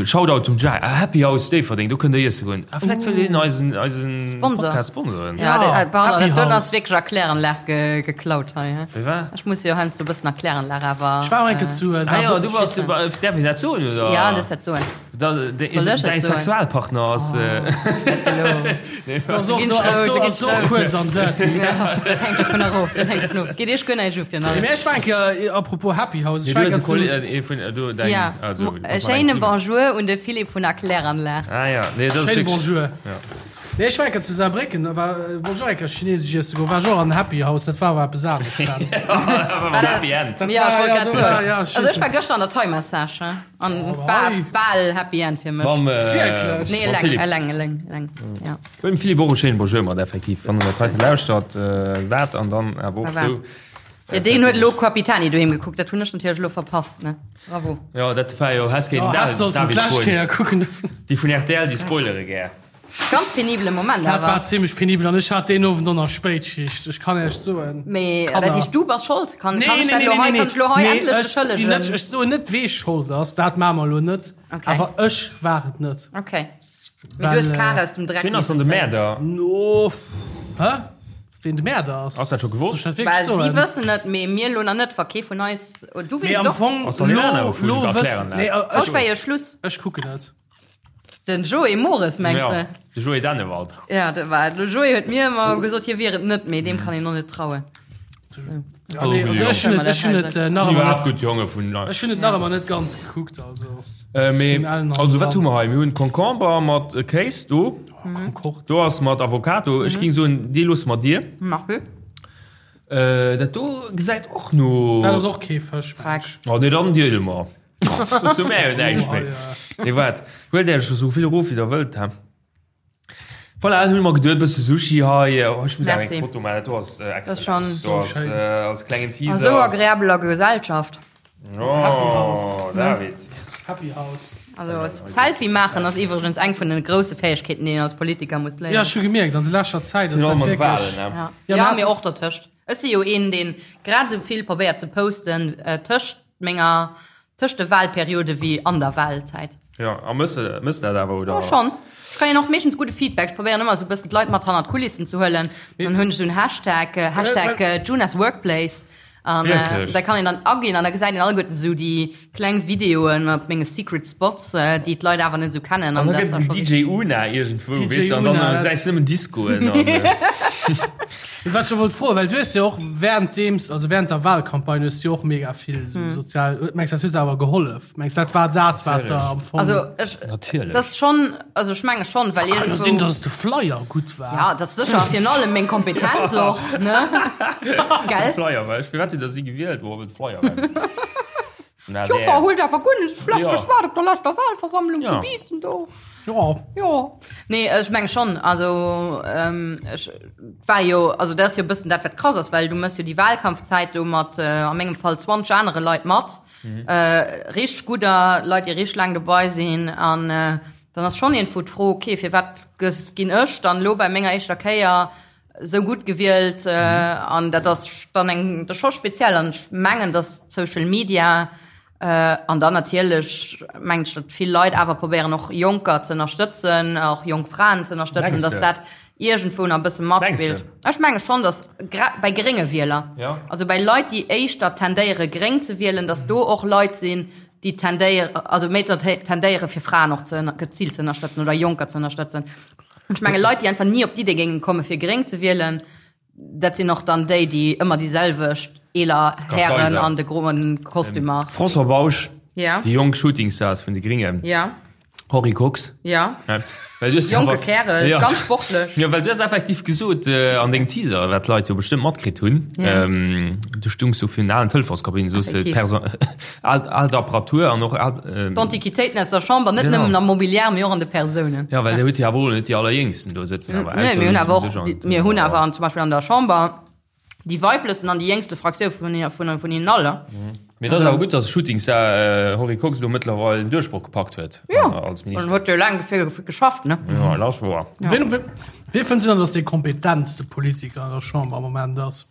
Shoutout zum Jacques. Ah, Happy House Déifferdeng, do kënnt der iesse goen. Ah, vläicht wëll een eisen, eisen Sponsor. Podcast sponsoren. Ja, Ja, de, pardon, Happy dat don House. ass wierklech a Kläranlag ge, geklaut hei, he? Wéi war? Ech muss jo heiansdo e bëssen a Kläranlag awer. Ech war och eng Kéier zu Ah ja, du warst, däerf een dat soen, oder? Ja, du dat soen. Däi Sexualpartner ass. Kuerz an dirty. Dat hänkt dovun erof. Dat hänkt dovun of. Geet Iech guer näischt u fir Mee ech war eng Kéier, apropos Happy House, ech war eng Kéier zu. Ja, e schéine Bonjour un de Philippe vun der Kläranlag. Ah ja, nee, dat ass Schéine wierklech. Bonjour. Nee, ech war eng Kéier zu Saarbrécken, da war, wollt ech och eng Kéier chinesesch iesse goen, war ech och an Happy House, dat war awer eppes anescht dann. War Happy End. Ja, ech wollt Ja, grad do soen. war, ja, ech Also ech war weess net. gëschter an der Thai-Massage, he. An oh, war bal Happy End fir mech. Mam, Wierklech? Nee, mam eleng, Philipp. eleng, eleng, eleng. Ja. Dem Philipp och e schéine Bonjour mat effektiv, wann en dat heite lauschtert, äh, dat an dann awer och Ça va. sou. Ja, deen huet elo Capitani doheem gekuckt, dat hunn ech natierlech elo verpasst, ne? Bravo. Ja, dat war jo, häss kéinten Oh, häss sollten David d'lescht froen. Kéier kucken. Déi vun rtl, déi spoilere gär. Ganz penibele Moment Dat war awer. zimmlech penibel an ech hat deen Owend och nach Spéitschicht. Ech kann Iech soen, Mee dat Kanner. heescht, du bass schold? Kann, Nee, kann ech nee, dat nee, elo nee, hei, nee, kann ech elo hei nee, endlech ech sinn net, beschëllegen? ech soen net, wee schold ass, dat maache mer elo net. Okay. Awer ech war et net. Okay. Mee du hues Well, d'Kar aus dem Dreck Wien ass dann de missen zéien. Mäerder? No, hä? Ween de Mäerder ass? Ass dat scho gewosst? Soll ech dat wierklech Well si soen? wëssen et, mee mir elo nach net, wa kee vun eis, oh, du Mee weess am et och. Fong, Ass dann een lo, anerer vun lo der wëssen, Kläranlag? nee, Haut ech, war jo Schluss. ech kucken et. Den Joé Mores, mengs Ja, de? de Joé Dennewald. Ja, dat war de Joé huet mir ëmmer gesot, hie wier et net, mee deem kann een och net trauen. Ja, nee, also ech hunn et, ech hunn et äh, nach Déi ëmmer iwwerhaapt net, gutt Jonge vun. ech hunn et nach ëmmer net ganz gekuckt, also. Äh, mee, Sinn allen also wat dran. hu mer hei? Mir hunn Concomber mat äh, Kéis do. Concorde. Do ass mat Avocado. Ech ging soen, dee loosse mer dir. Merci. Äh, dat do gesäit och no. Dat ass och kee Fësch, meng Frag. ech. Oh, nee, dann deele mer. Soss hu mär jo näischt méi. Nee, wat? Huelt Iech esou vill erof, wéi der wëllt, he? Voilà, dann hunn mer geduet, bësse Sushi hei. Oh, ech muss awer eng Merci. Foto maachen, dat do ass äh, Das ist schon- excellent. Do ass äh, als klengen A Teaser. sou agreabeler Gesellschaft. Oh, David. Happy House. Also Selfie maachen ass iwwregens eng vun den grousse Fäegkeeten, déi een als Politiker muss Ja, léieren. ech hu gemierkt, an der leschter Zäit ass Virun dat allem an de wierklech. Wahlen, ne? Ja, Ja, ja mä- mee och dertëscht. Ech si jo een, deen grad esou vill probéiert ze posten äh, tëscht menger, tëscht de Wahlperiode wéi an der Wahlzäit. Ja, a mëss de, mëss de dat awer, oder? Oh, schonn. Ech kréien och meeschtens gudde Feedback. Ech probéieren ëmmer esou e bëssen d'Leit mat hannert d'Kulissen ze huelen. Dann hunn ech esou en Hashtag, Hashtag Junas Workplace. An Wierklech? da kann een dann aginn an da gesäit een alleguerten esou déi kleng Videoen mat menge Secret Spots, déi d'Leit awer net esou kennen. An An da dat gëtt ass da den scho DJ richtig. Una iergendwou, DJ weess de, an dann Una, dat- gesäis de nëmmen Discoen an. Wat ech jo wollt froen, well du hues jo och währenddeems, also während der Wahlcampagne hues du jo och mega vill sou sozial, mengs dat huet der awer gehollef? Mengs dat war dat wat der am Fong. Also ech, Natierlech. dat ass schonn, also ech menge schonn, well Kann jo sinn, iergendwou. dass de Flyer gutt war. Ja, dat ass sécher virun allem meng Kompetenz och, ne? Gell? Flyer war ech, firwat hutt der si gewielt? Woer well de Flyer war. Na, D'Joffer där. huet awer guer net schlecht Ja. geschwat op der leschter Wahlversammlung zu Ja. Biissen do. Jo. Jo. Nee, ech meng schonn, also ähm, ech war jo, also dat ass jo e bëssen dat, wat krass ass, well du mëss jo déi Wahlkampfzäit do mat, äh, a mengem Fall 20 anere Leit mat, äh, richteg gudder Leit, déi richteg laang dobei sinn an äh, Dann ass schonn iergendwou d'Fro, okay, firwat gëss, ginn ech dann elo bei menger éischter Kéier esou gutt gewielt? An dat ass dann eng, dat ass scho speziell. An ech mengen, datt Social Media an dann natierlech mengen ech, datt vill Leit awer probéieren och Jonker ze ënnerstëtzen, och jonk Fraen ze ënnerstëtzen, datt dat iergendwou nach e bësse matspillt. Ech menge schonn, datt gra bei grénge Wieler, also bei Leit, déi éischter tendéiere gréng ze wielen, datt do och Leit sinn, déi tendéieren, also méi tendéiere fir Fraen och ze geziilt ze ënnerstëtzen oder Jonker ze ënnerstëtzen. Ech menge Leit, déi einfach ni op d'Idee géingen komme fir gréng ze wielen, dat sinn och dann déi, déi ëmmer déi selwecht eeler Hären an de groen Kostümer. François Bausch, déi jonk Shootingstars vun de Gringen. Henri Kox. Ja. ja. Well du Jonke Kärel, ja. ganz sportlech. Ja, well du hast effektiv gesot äh, an dengem Teaser, wat d'Leit jo bestimmt matkritt hunn. Ja. Ähm, du stungs so fir alen Telefonskabinen, so al, al Apparatur an och al, ähm, D'Antiquitéiten aus der Chamber, net nëmmen am Mobiliar, mee och an de Persounen. Ja, well ja. huet ja wohl net déi allerjéngsten do sëtzen. Aber nee, mir hunn awer och, mir hunn awer zum Beispiel an der Chamber Déi weiblechsten an déi jéngste Fraktioun vun vun vun hinnen all. Mee et ass awer gutt, datt Shootingstar Henri Kox elo mëttlerweil den Duerchbroch gepackt huet als Minister. En huet jo laang dofir geschafft, ne? Jo, dat ass wouer. Wien, wien fënns du dann, datt dee kompetentste Politiker an der Chamber am Moment ass?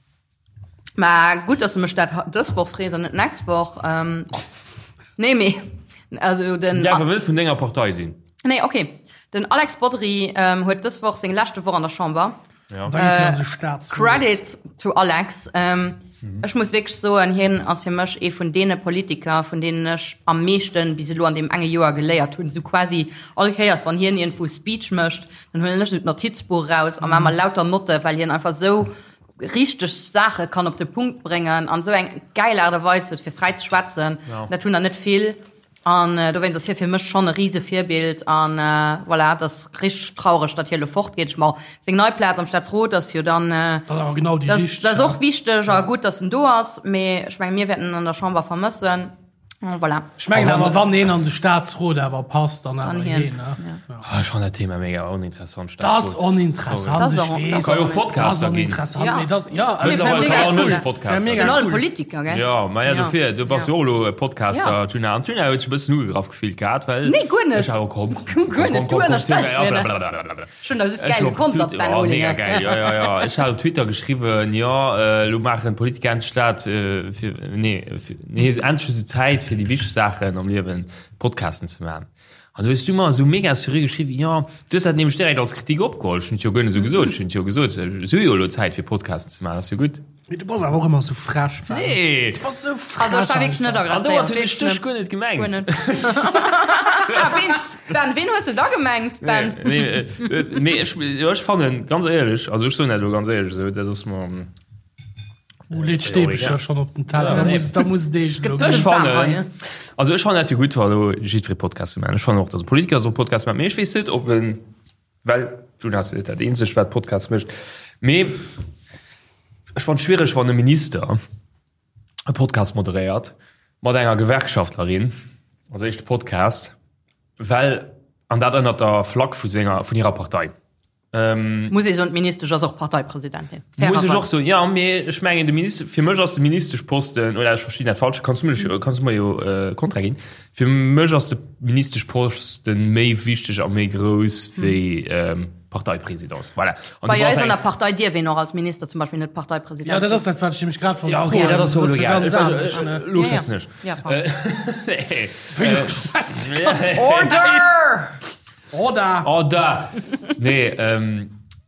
Mä gutt, datt s de mech dat dës Woch frees an net d'nächst Woch. Nee, mee also den. Däerf e wëll vun denger Partei sinn. Nee, okay. Den Alex Bodry huet dës Woch seng leschte Woch an der Chamber. Ja. Da geet hien an de Staatsrot. Credit to Alex. Ähm, mhm. Ech muss wierklech soen, hien ass fir mech ee vun deene Politiker, vun deenen ech am meeschten bis elo an deem enge Joer geléiert hunn. Sou quasi all Kéiers, wann hien iergendwou Speech mécht, dann huelen ech esou d'Notizbuch eraus a maache mer lauter Notte, well hien einfach sou richteg Saache kann op de Punkt bréngen an sou eng gäil Aart a Weis huet, fir fräi ze schwätzen. Ja. Dat hunn der net vill. An dowéinst ass hie fir mech schonn e rise Virbild. An voilà, et ass richteg traureg, datt hie elo fortgeet. Ech ma seng nei Plaz am Staatsrot ass jo dann, Dat ass awer genau déi richteg. dat ass och wichteg a gutt, datt en do ass. Mee ech menge mir wäerten en an der Chamber vermëssen. Voilà. Ech mengen awer, wann een an de Staatsrot awer passt, dann awer hien. Ech fannen dat Thema mega oninteressant. Dat ass oninteressant, ech weess. Ka jo och Podcaster ginn. Dat ass oninteressant, mee dat, ja. Wär mega cool. Politiker, gell? Jo, ma ja, dofir, du bass jo och elo e Podcaster, Djuna. An d'Djuna huet sech e bëssen ugegraff gefillt gehat, well. Nee, guer net. Ech awer, komm, komm, komm, komm, komm, komm, blablabla. Ech hunn da just gäil gekontert, Ben Mega Olinger. gäil, jo, jo, jo. Ech hat op Twitter geschriwwen, jo, elo maachen d'Politiker endlech dat, fir, nee, fir, nee, endlech hu se Zäit fir déi wichteg Saachen am Liewen, Podcasten ze maachen. An du hues du mer esou mega seriö geschriwwen, jo, du hues dat nämlech direkt als Kritik opgeholl. Ech hunn et jo guer net esou gesot. Ech hunn jo gesot, se hu jo elo Zäit fir Podcasten ze maachen, ass jo gutt. Mee du bass awer och ëmmer esou frech, Ben. Nee! Du bass esou frech. Also ech war wierklech net An agresséiert. domat hunn ech dech guer net gemengt. Guer net. Ah, ween, Ben, ween hues de da gemengt, Ben? Nee, nee, mee ech, jo, ech fannen, ganz éierlech, also ech soen dat elo ganz éierlech esou, dat ass mer. Oh, leet Stäbchen schon op den Teller. Da muss, da muss Deeg lo. Ech fannen, also ech fannen dat jo gutt, wa lo jiddweree Podcast ze maachen. Ech fannen och, dass e Politiker soll Podcast maachen, mee ech weess net, ob en, well d'Juna ass jo net dat eenzegt, wat Podcast mécht, mee ech fannen et schwiereg, wann e Minister e Podcast moderéiert mat enger Gewerkschaftlerin als éischte Podcast, well, an dat ënnert der Flagg vu senger, vun hirer Partei. Ähm, Muss ee soen, d'Ministesch ass och Parteipresidentin. Muss ech och soen, ja, mee ech mengen, de Minister, fir mech ass de Ministeschposten, oder ech verstinn dat falsch, kanns du mech, kanns du mer jo äh, Kontra ginn, fir mech ass de Ministeschposten méi wichteg a méi grouss wéi ähm, Parteipresidence. Voilà. An Bei eis an der Partei dierf een och als Minister zum Beispill net Parteipresident Ja, dat ass dat, wat ech nämlech grad wollt Ja, okay, dat ass jo elo egal. Ganz anescht, ne? Lo schwätzen ech. Ja, pardon. Order! Order! Order! Nee,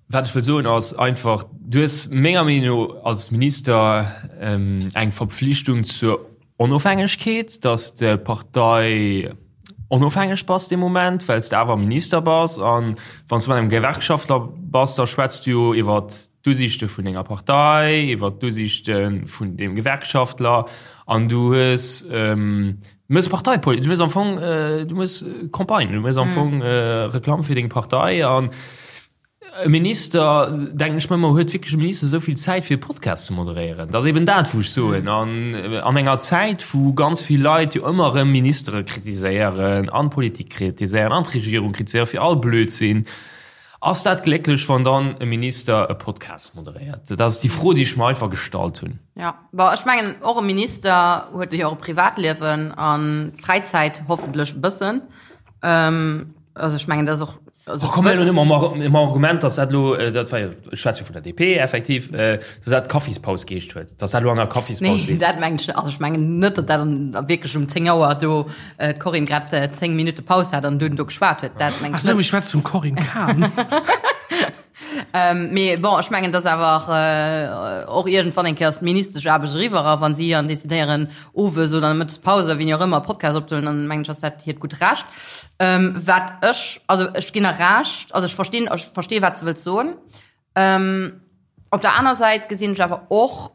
wat ech wëll soen ass einfach, du hues menger Meenung no als Minister eng Verpflichtung zur Onofhängegkeet, dass de Partei onofhängeg bass dee Moment, well s de awer Minister bass. An wann s de mat engem Gewerkschaftler bass, da schwätz du jo iwwer d'Usiichte vun denger Partei, iwwer d'Usiichte vun deem Gewerkschaftler an du hues, Du méchs Parteipolitik, du méchs am Fong, du méchs Campagne, du méchs am Fong Reklamm fir deng Partei an e Minister, denken ech mer ëmmer, huet wierklech e Minister esou vill Zäit fir e Podcast ze moderéieren? Dat ass eben dat, wou ech soen. An an enger Zäit, wou ganz vill Leit jo ëmmer erëm Ministere kritiséieren an d'Politik kritiséieren an d'Regierung kritiséieren fir all Blödsinn, Ass dat glécklech, wann dann e Minister e Podcast moderéiert? Dat ass déi Fro, déi ech mer einfach gestallt hunn. Ja, bon, ech mengen, och e Minister huet jo och e Privatliewen a Fräizäit, hoffentlech e bëssen. also ech mengen, dat ass och, also. Oh, komm elo net mam Argument, dass dat elo, dat war jo, ech schwätze jo vun der DP effektiv, dass dat Kaffispaus geheescht huet, dass dat elo an der Kaffispaus Nee, dat mengen ech net. Also ech mengen net, datt dat an wierklech um 10 Auer do d'Corinne grad 10 Minutte Paus hat an dunn do geschwat huet. Dat mengen ech net. Ach sou, ech schwätze vum Corinne Cahen. Mee bon, ech mengen, dass awer och iergendwann eng Kéier ass d'Ministeschaarbecht eriwwer a wa si dann decidéieren, owes oder an der Mëttespaus oder wéini och ëmmer e Podcast opzehuelen, dann mengen ech, ass dat hiert gutt Recht. Wat ech, also ech ginn der Recht, also ech verstinn, ech verstehe wat s de wëlls soen. Op der aner Säit gesinn ech awer och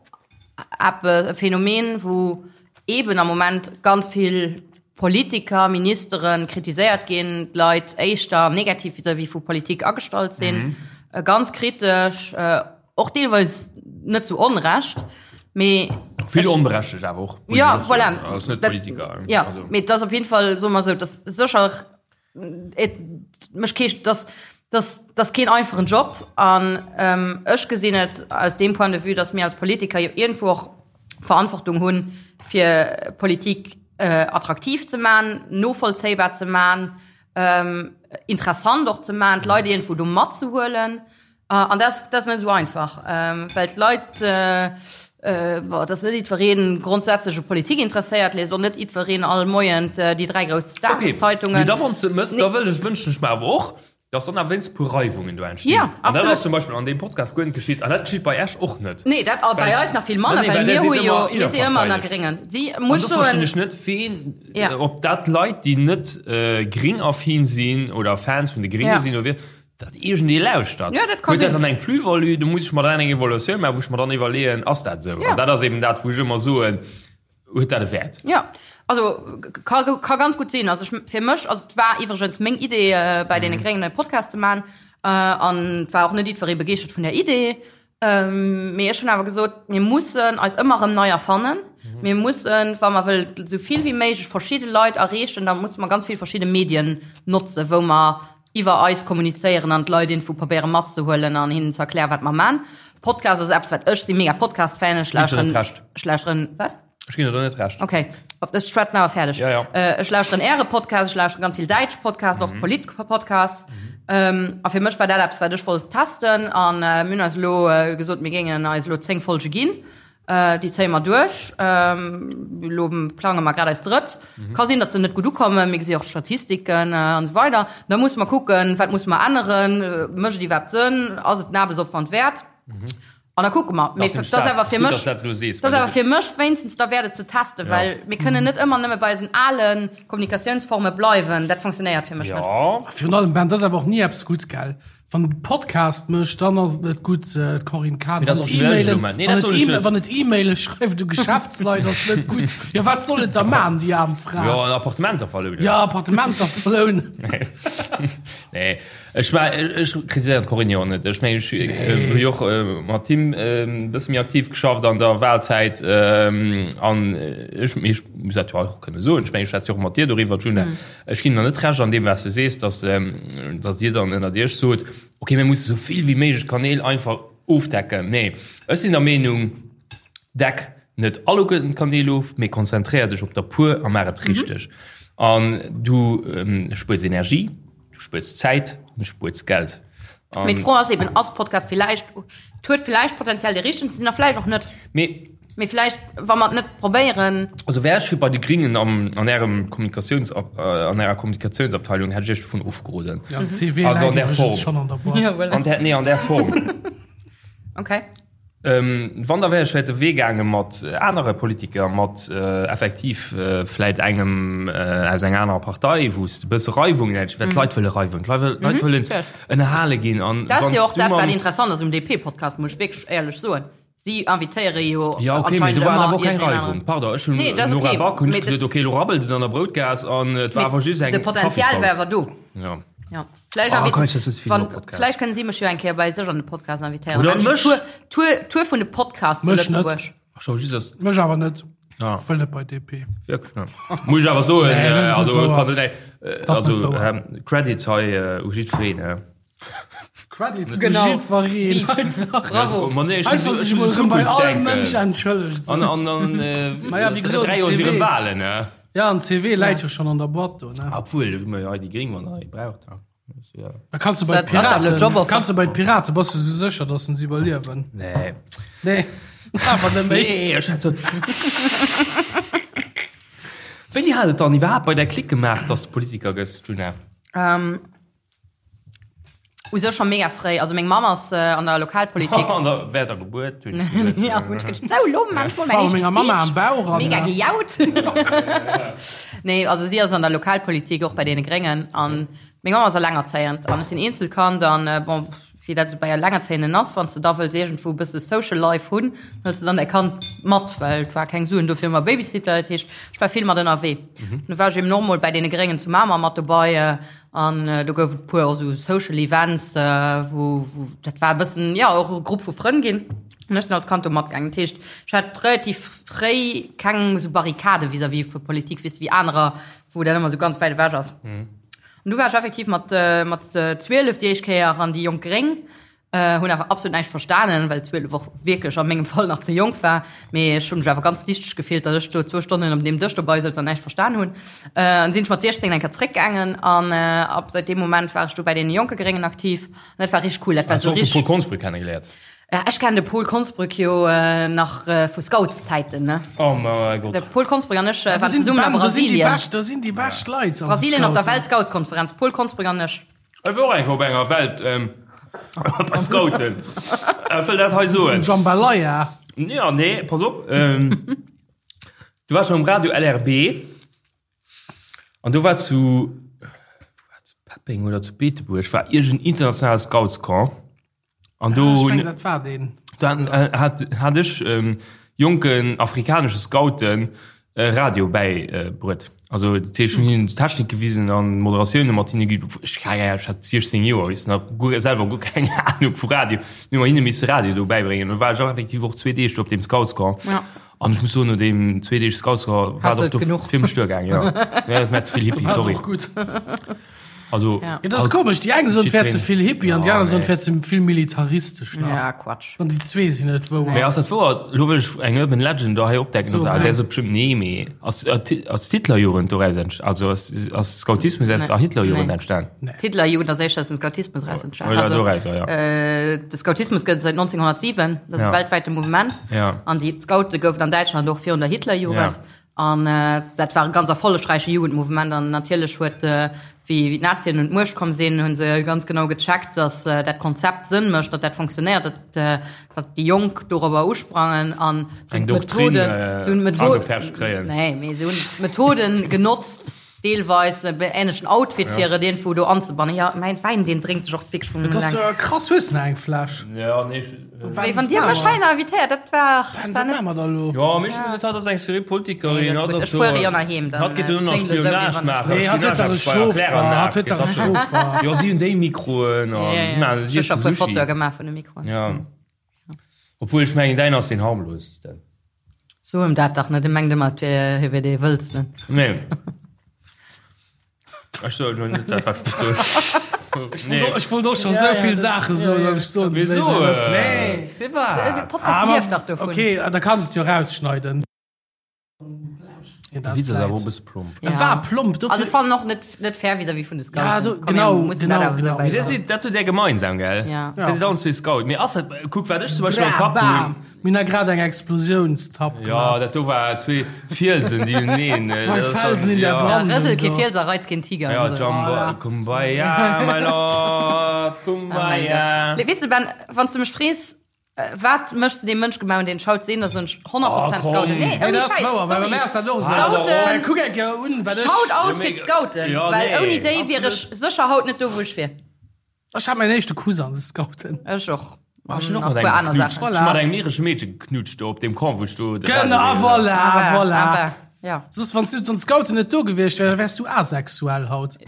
eppes, e Phänomen, wou eeben am Moment ganz vill Politiker, Ministere kritiséiert ginn, d'Leit éischter negativ vis-à-vis vu Politik agestallt sinn, ganz kritesch, och deelweis net zu Onrecht, mee Vill onberechtegt awer och. Ja, voilà. Ass net Politiker. Ja, mee et ass op jeden Fall, soe mer esou, et ass sécher Et mécht kee, dass, dass, dass keen einfachen Job an ähm, ech gesinn et aus deem Point de vue, dass mir als Politiker jo iergendwou och Verantwortung hunn, fir Politik äh, attraktiv ze man, novollzéibar ze man, ähm, interessant och ze man, d'Leit iergendwou do matzehuelen. An dat ass net esou einfach, well d'Leit, bon, et ass net jiddweree grondsätzlech u Politik interesséiert, liest och net jiddwereen all Moien déi 3 grouss Dageszeitungen. Okay, mee da wann s de et mëss, da wëll ech, wënschen ech mer awer och, dass dann awer wéinst e puer Reiwungen do entstinn. Ja, absolut. An dat ass zum Beispill an deem Podcast guer net geschitt an dat geschitt bei Iech och net. Nee, dat bei eis nach vill manner, well mir hu jo, mir si ëmmer ënner Gréngen. Si muss soen. An do verstinn ech net, ween, ob dat Leit, déi net gringaffin sinn oder Fans vun de Gringe sinn oder wéi, Dat iergendee lauschtert. Ja, dat kann Huet dat sinn. dann eng Plus-value? Do muss ech mer dann eng Evaluatioun maachen, wou ech mer dann iwwerleeën, ass dat esou? Ja. An dat ass eben dat, wou ech ëmmer soen, huet dat e Wäert? Ja, also ka, ka ganz gutt sinn. Also ech, fir mech, also et war iwwregens meng Idee, äh, bei deene Gréngen e Podcast ze maachen. Äh, an et war och net jiddweree begeeschtert vun der Idee. Ähm, mee ech hunn awer gesot, mir mussen eis ëmmer erëm nei erfannen. Mir mussen, wa mer wëllen esou vill wéi méiglech verschidde Leit erreechen, da musse mer ganz vill verschidde Medien notzen, wou mer iwwer eis kommunizéieren an d'Leit iergendwou probéiere matzehuelen an hinnen ze erklären, wat mer man. Podcast ass eppes, wat ech si mega Podcast-Fan, ech lauschteren, ech lauschteren, wat? Ech ginn der do net Recht. Okay, ech schwätzen awer fäerdeg. Ja, ja. Äh, ech lauschteren äre Podcast, ech lauschteren ganz vill däitsch Podcasts, och Polit-Podcasts. Ähm, a fir mech war dat eppes, wat ech wollt testen an äh, mir hunn eis elo äh, gesot, mir géingen eis elo 10 Folge ginn. Äh, déi zéie mer duerch. Ähm, elo plange mer grad eis drëtt. Mhm. Ka sinn, datt se net gutt ukommen, mir gesi och d'Statistiken äh, an esou weider. Da musse mer kucken, wat musse mer änneren, äh, mécht et iwwerhaapt Sënn, ass et den Aarbechtsopwand wäert? Mhm. An da kucke mer. Mee Das dat ass awer fir mech, dat du sees, dat ass awer fir mech wéinstens da wäert et ze testen, Ja. well mir kënnen net ëmmer nëmme bei eisen ale Kommunikatiounsforme bleiwen. Dat funktionéiert fir mech net. Ja. Virun allem, Ben, dat ass awer och ni eppes Gutts, gell? Wann e Podcast mécht, dann ass et net gutt, d'Corinne Cahen. Mee dat Wann ass et och schwiereg E-Mailen, elo, Mann. Nee, wann dat et soll ech E-Mail, net. wann et E-Maile schreift u Geschäftsleit, ass net gutt. Jo, wat soll et da man, déi aarm Fra? Jo, an Appartementer verlounen. Ja, Appartementer verlounen. Nee, ech war, ech kritiséieren d'Corinne jo och net. Ech mengen, ech hu jo och mat him e bësse méi aktiv geschafft an der Wahlzäit. An ech, mee ech muss dat jo och kënne soen, ech mengen, ech schwätze jo och mat dir doriwwer, Djuna. Ech ginn der net Recht an deem, wat s de sees, dass, dass Dir dann ënnert Iech sot, okay, mir musse sou vill wéi méiglech Kanäl einfach ofdecken. Nee, ech sinn der Meenung, deck net alleguerten d'Kanäl of, mee konzentréier dech op der puer a maach et richteg. An du spuers Energie, du spuers Zäit an du spuers Geld. Mee d'Fro ass eben, ass Podcast villäicht, et huet villäicht Potenzial dee richtegen ze sinn a villäicht och net. Mee. Mee villäicht, wa mer et net probéieren. Also wär ech fir bei de Gringen am, an ärem Kommunikatiouns, an ärer Kommunikatiounsabteilung, hätt ech iech dovun ofgeroden. Ja, den CV Also an läit där iwwregens Form. schonn an der Boîte. Ja, voilà. An där, nee, an där Form. Okay. Wann, da wär ech vläicht de Wee gaange mat anere Politiker, mat effektiv vläicht engem aus enger anerer Partei, wou s de e bësse Reiwungen hätt, well d'Leit wëlle Reiwung, d'Leit wëllen ënnerhale ginn. An Dat ass wann jo och s du dat, wat mam. interessant ass um DP-Podcast, muss ech wierklech éierlech soen. Si invitéiere jo Ja, okay, mee anscheinend do war ëmmer awer och keng iergendeen Reiwung. aneren. Pardon, ech hunn Nee, dat ass Nora okay, Back hunn ech mee geduet, okay, elo rabbelt et an der Broutgaass an et war Mee awer just eng de Potenzial war Kaffispaus. awer do. Ja. Ja. Vläicht Ah, invit- kann ich das jetzt wann, viel Podcast. vläicht kënnen si mech jo eng Kéier bei sech an de Podcast invitéieren. Oder Dann mech. Tour, Tour, Tour vun de Podcasts zu Mech net. Lëtzebuerg. Ach, schau, just das. Mech awer net. Ja. Ech wëll net bei DP. Wirklich net. Muss ich awer soen, Nee, dat äh, ass net also, wouer. pardon, nee, äh, Das ass net also, wouer. ähm, Credits hei äh, u jiddwereen. Äh. Credits Genau. u jiddwereen. Bravo. Ma nee, ich Einfach muss, sech ich muss mol in erëm bei Zukunft all denken. Mënsch entschëllegt. An, an, an, äh, Ma ja, wéi gesot, 3 Joer si CV. rëm Wahlen, ne? Ja, an CV läit jo schonn an der Boîte do, ne? Obwuel, hu mer jo hei déi Gréng, wann der ee braucht. Ja. Da kannst du bei Piraten, kannst du bei Piraten, bass du sou sécher, dass se iwwerliewen? Nee. Nee. Awer net méi. Nee, ech hat so. Wéini hat et dann iwwerhaapt bei der Klick gemaach, dass du Politiker gëss, Djuna? Ähm, U sech scho mega fréi. Also meng Mamm ass an der Lokalpolitik. An der während der Gebuert hunn ech gesot. Ja, hunn ech geduecht, sou, lo maan ech mol mäin éischte Speech. Bauch an, Mega gejaut. Nee, also si ass an der Lokalpolitik, och bei deene Gréngen. An meng Mamm ass allengerzéiend an ech sinn Eenzelkand an bon, wéi dat esou bei Allengerzéienden ass, wann s de da wëlls iergendwou e bësse Social Life hunn, hëls de dann däi Kand mat, well et war keng Suen do fir ëmmer Babysitter. Dat heescht, ech war vill mat ënnerwee. Du war ech eben och mol bei deene Gréngen zu Mamer mat dobei. An do gouf et puer och esou Social Events, wou, wou, dat war e bëssen, jo, och e Grupp vu Frënn ginn. An ech sinn als Kand do matgaangen. Dat heescht, ech hat relativ fréi keng esou Barrikade vis-à-vis vu Politik, weess de, wéi anerer, wou dat ëmmer esou ganz wäit ewech ass. An du war ech effektiv mat, mat 12 déi éischt Kéier an déi Jonk Gréng. Hunn awer absolut näischt verstanen, well 12 och wierklech a mengem Fall nach ze jonk war. Mee ech hunn mech awer ganz dichteg gefillt, datt ech do zwou Stonnen op deem Dësch dobei souz an näischt verstan hunn. An sinn ech mat 16 eng Kéier zréckgaangen an ab säit deem Moment war ech du bei deene jonke Gréngen aktiv. An dat war richteg cool. Dat war Has du sou och de richteg. Paul Konsbrück kennegeléiert? Ja, ech kennen de Paul Konsbrück jo nach vu Scoutszäiten, ne? Oh mäi Gott. De Paul Konsbrück an ech Da waren sinn, zesummen a da sinn déi Brasilien. bescht, da sinn déi bescht Leit an de Brasilien op der Scouten. Weltscoutskonferenz, Paul Konsbrück an ech. Ech war och eng Kéier op enger Welt bei Scouten. Ech wëll dat hei soen. Jambalaya. Ja, nee, pass op. Du war schon um Radio LRB an do war zu, war zu Peppeng oder zu Beetebuerg war iergend internationale Scoutscamp. An do Ech hunn mengen, dat war deen. Dann hat hat ech jonken afrikanesche Scouten Radio bäibruet. Also dat heescht, ech hunn hinnen d'Technik gewisen an Moderatioune mat hinne ginn. Ech keng Ahnung, ech hat 16 Joer, weess nach guer selwer guer keng Ahnung vu Radio. Mir hu mer hinne misse Radio do bäibréngen. Do war ech och effektiv och zwee Deeg do op deem Scoutscamp. Ja. An ech muss soen, no deem zwee Deeg Scoutscamp war Hast et du och do genuch? fir mech duergaang, jo. Ja, dat ass mir ze vill Hippie, War sorry. och gutt. Also, Ja. Ja, dat ass komesch, déi eng soen, et wär ze vill Hippie an déi Ja, aner soen, et nee. wär ze vill militaristesch nach. Ja, Quatsch. An déi zwee sinn net wouer. Mee ass dat wouer? Lo wëll ech eng Urban Legend do hei opdecken. So, oder? nee. Der sot bestimmt nee, mee ass, ass d'Hitlerjugend doraus entst also ass, ass Scoutismus aus Nee. der Hitlerjugend Nee. entstan? D'Hitlerjugend ass éischter aus dem Scoutismus raus entstanen. Oder Also, doraus, ja. äh, de Scoutismus gëtt et säit 1907, dat ass Ja. e weltwäite Mouvement. Ja. An déi Scoute goufen an Däitschland och virun der Hitlerjugend. Ja. An dat war e ganz erfollegräiche Jugendmouvement. An natierlech huet, wéi d'Nazien un d'Muecht komm sinn, hu se ganz genau gecheckt, datt dat Konzept Sënn mécht, datt dat fonctionnéiert, datt datt déi Jonk dorobber usprangen an se hunn Eng Doktrin d'Methoden, se hunn d'Metho-, agepfercht kréien. Nee, mee se hunn d'Methoden genotzt, Deelweis e ähnlechen Outfit fir et iergendwou do anzebannen. Jo, mäin Wäin, deen drénkt sech och wierklech vum Et ass eleng. krass, hues de nach eng Fläsch? Ja, nee, ech. Wéi wann Dir mech hei nach invitéiert, dat war Ben, zwar wat maache mer net. da lo? Jo, mee ech hunn net, hatt ass eng seriö Politikerin, Nee, dat ass hatt gutt. ass Ech so. fuere jo nach heem, dann Hatt geet elo nach kléngt et esou, wéi Spionage wann ech. maachen. Nee, hatt huet dach e Chauffer, hatt huet dach e Chauffer. Jo, si hunn déi Mikroen an Ja, si ja. maachen, Ech si hu scho iessen puer Sushi. Fotoe gemaach vun de Mikroen. Ja. Obwuel ech mengen, däin ass deen harmlosesten. So em dat dach net, e mengt ëmmer, et wier, hie wier dee Wëllsten. Nee. Ech soen elo net dat, wat ech wollt soen. Nee. Ech wollt och scho sou vill Saache soen, an ech soen se Wieso? léiwer net. Nee. Firwat? De Podcast lieft dach dovun. Okay, da kanns et jo rausschneiden. De Witz ass awer och e bësse plomp. E war plomp, dofir. Also ech fannen och net, net fair vis-à-vis vun de Scouten. Ja, do, Komm, genau, mir mussen genau, dat awer genau. esou Mee dat bäibehalen. sidd, dat hutt Där gemeinsam, gell? Ja. Dat sidd allen zwee Scout. Mee ass dat, kuck, wat ech zum Beispill am Bra, Kapp bam! hunn. Mir hunn da grad eng Explosiounstapp Ja, gemaach. dat do war zwee Fielsen, déi uneen. Zwei Felsen in der Ja, Brandung. rësel kee do. Fiels a reiz keen Tiger. Ja, an esou. Jumbo, Voilà. Kumbaya, my lord, Oh mein Kumbaya. Gott. Weess de, Ben, wann s du mech frees, Wat méchs de deem Mënsch gemaach, deen ech haut sinn, da soen ech 100 Oh, Prozent komm. Scouten. Nee, Nee, ouni dat ass Schäiss, wouer, well bei sorry. mär ass dat och esou. Scouten, Kuck eng Kéier un, wat ech. Shout out Ja, fir mee- d'Scouten, Ja, well nee. ouni déi wier ech Absolut. sécher haut net do, wou ech wier. Ech hat mäin éischte Kuss an de Scouten. Ech och. Ech hunn An och nach mat e puer engem aner geknutscht. Saachen. Ech hunn mat engem iresche Meedche geknutscht do op deem Camp, wou ech do de Genau, Radio ah, voilà, Aber, voilà. aber, ja. Soss, wann s du an d'Scouten net do gewiescht wär, da wäers du asexuell haut.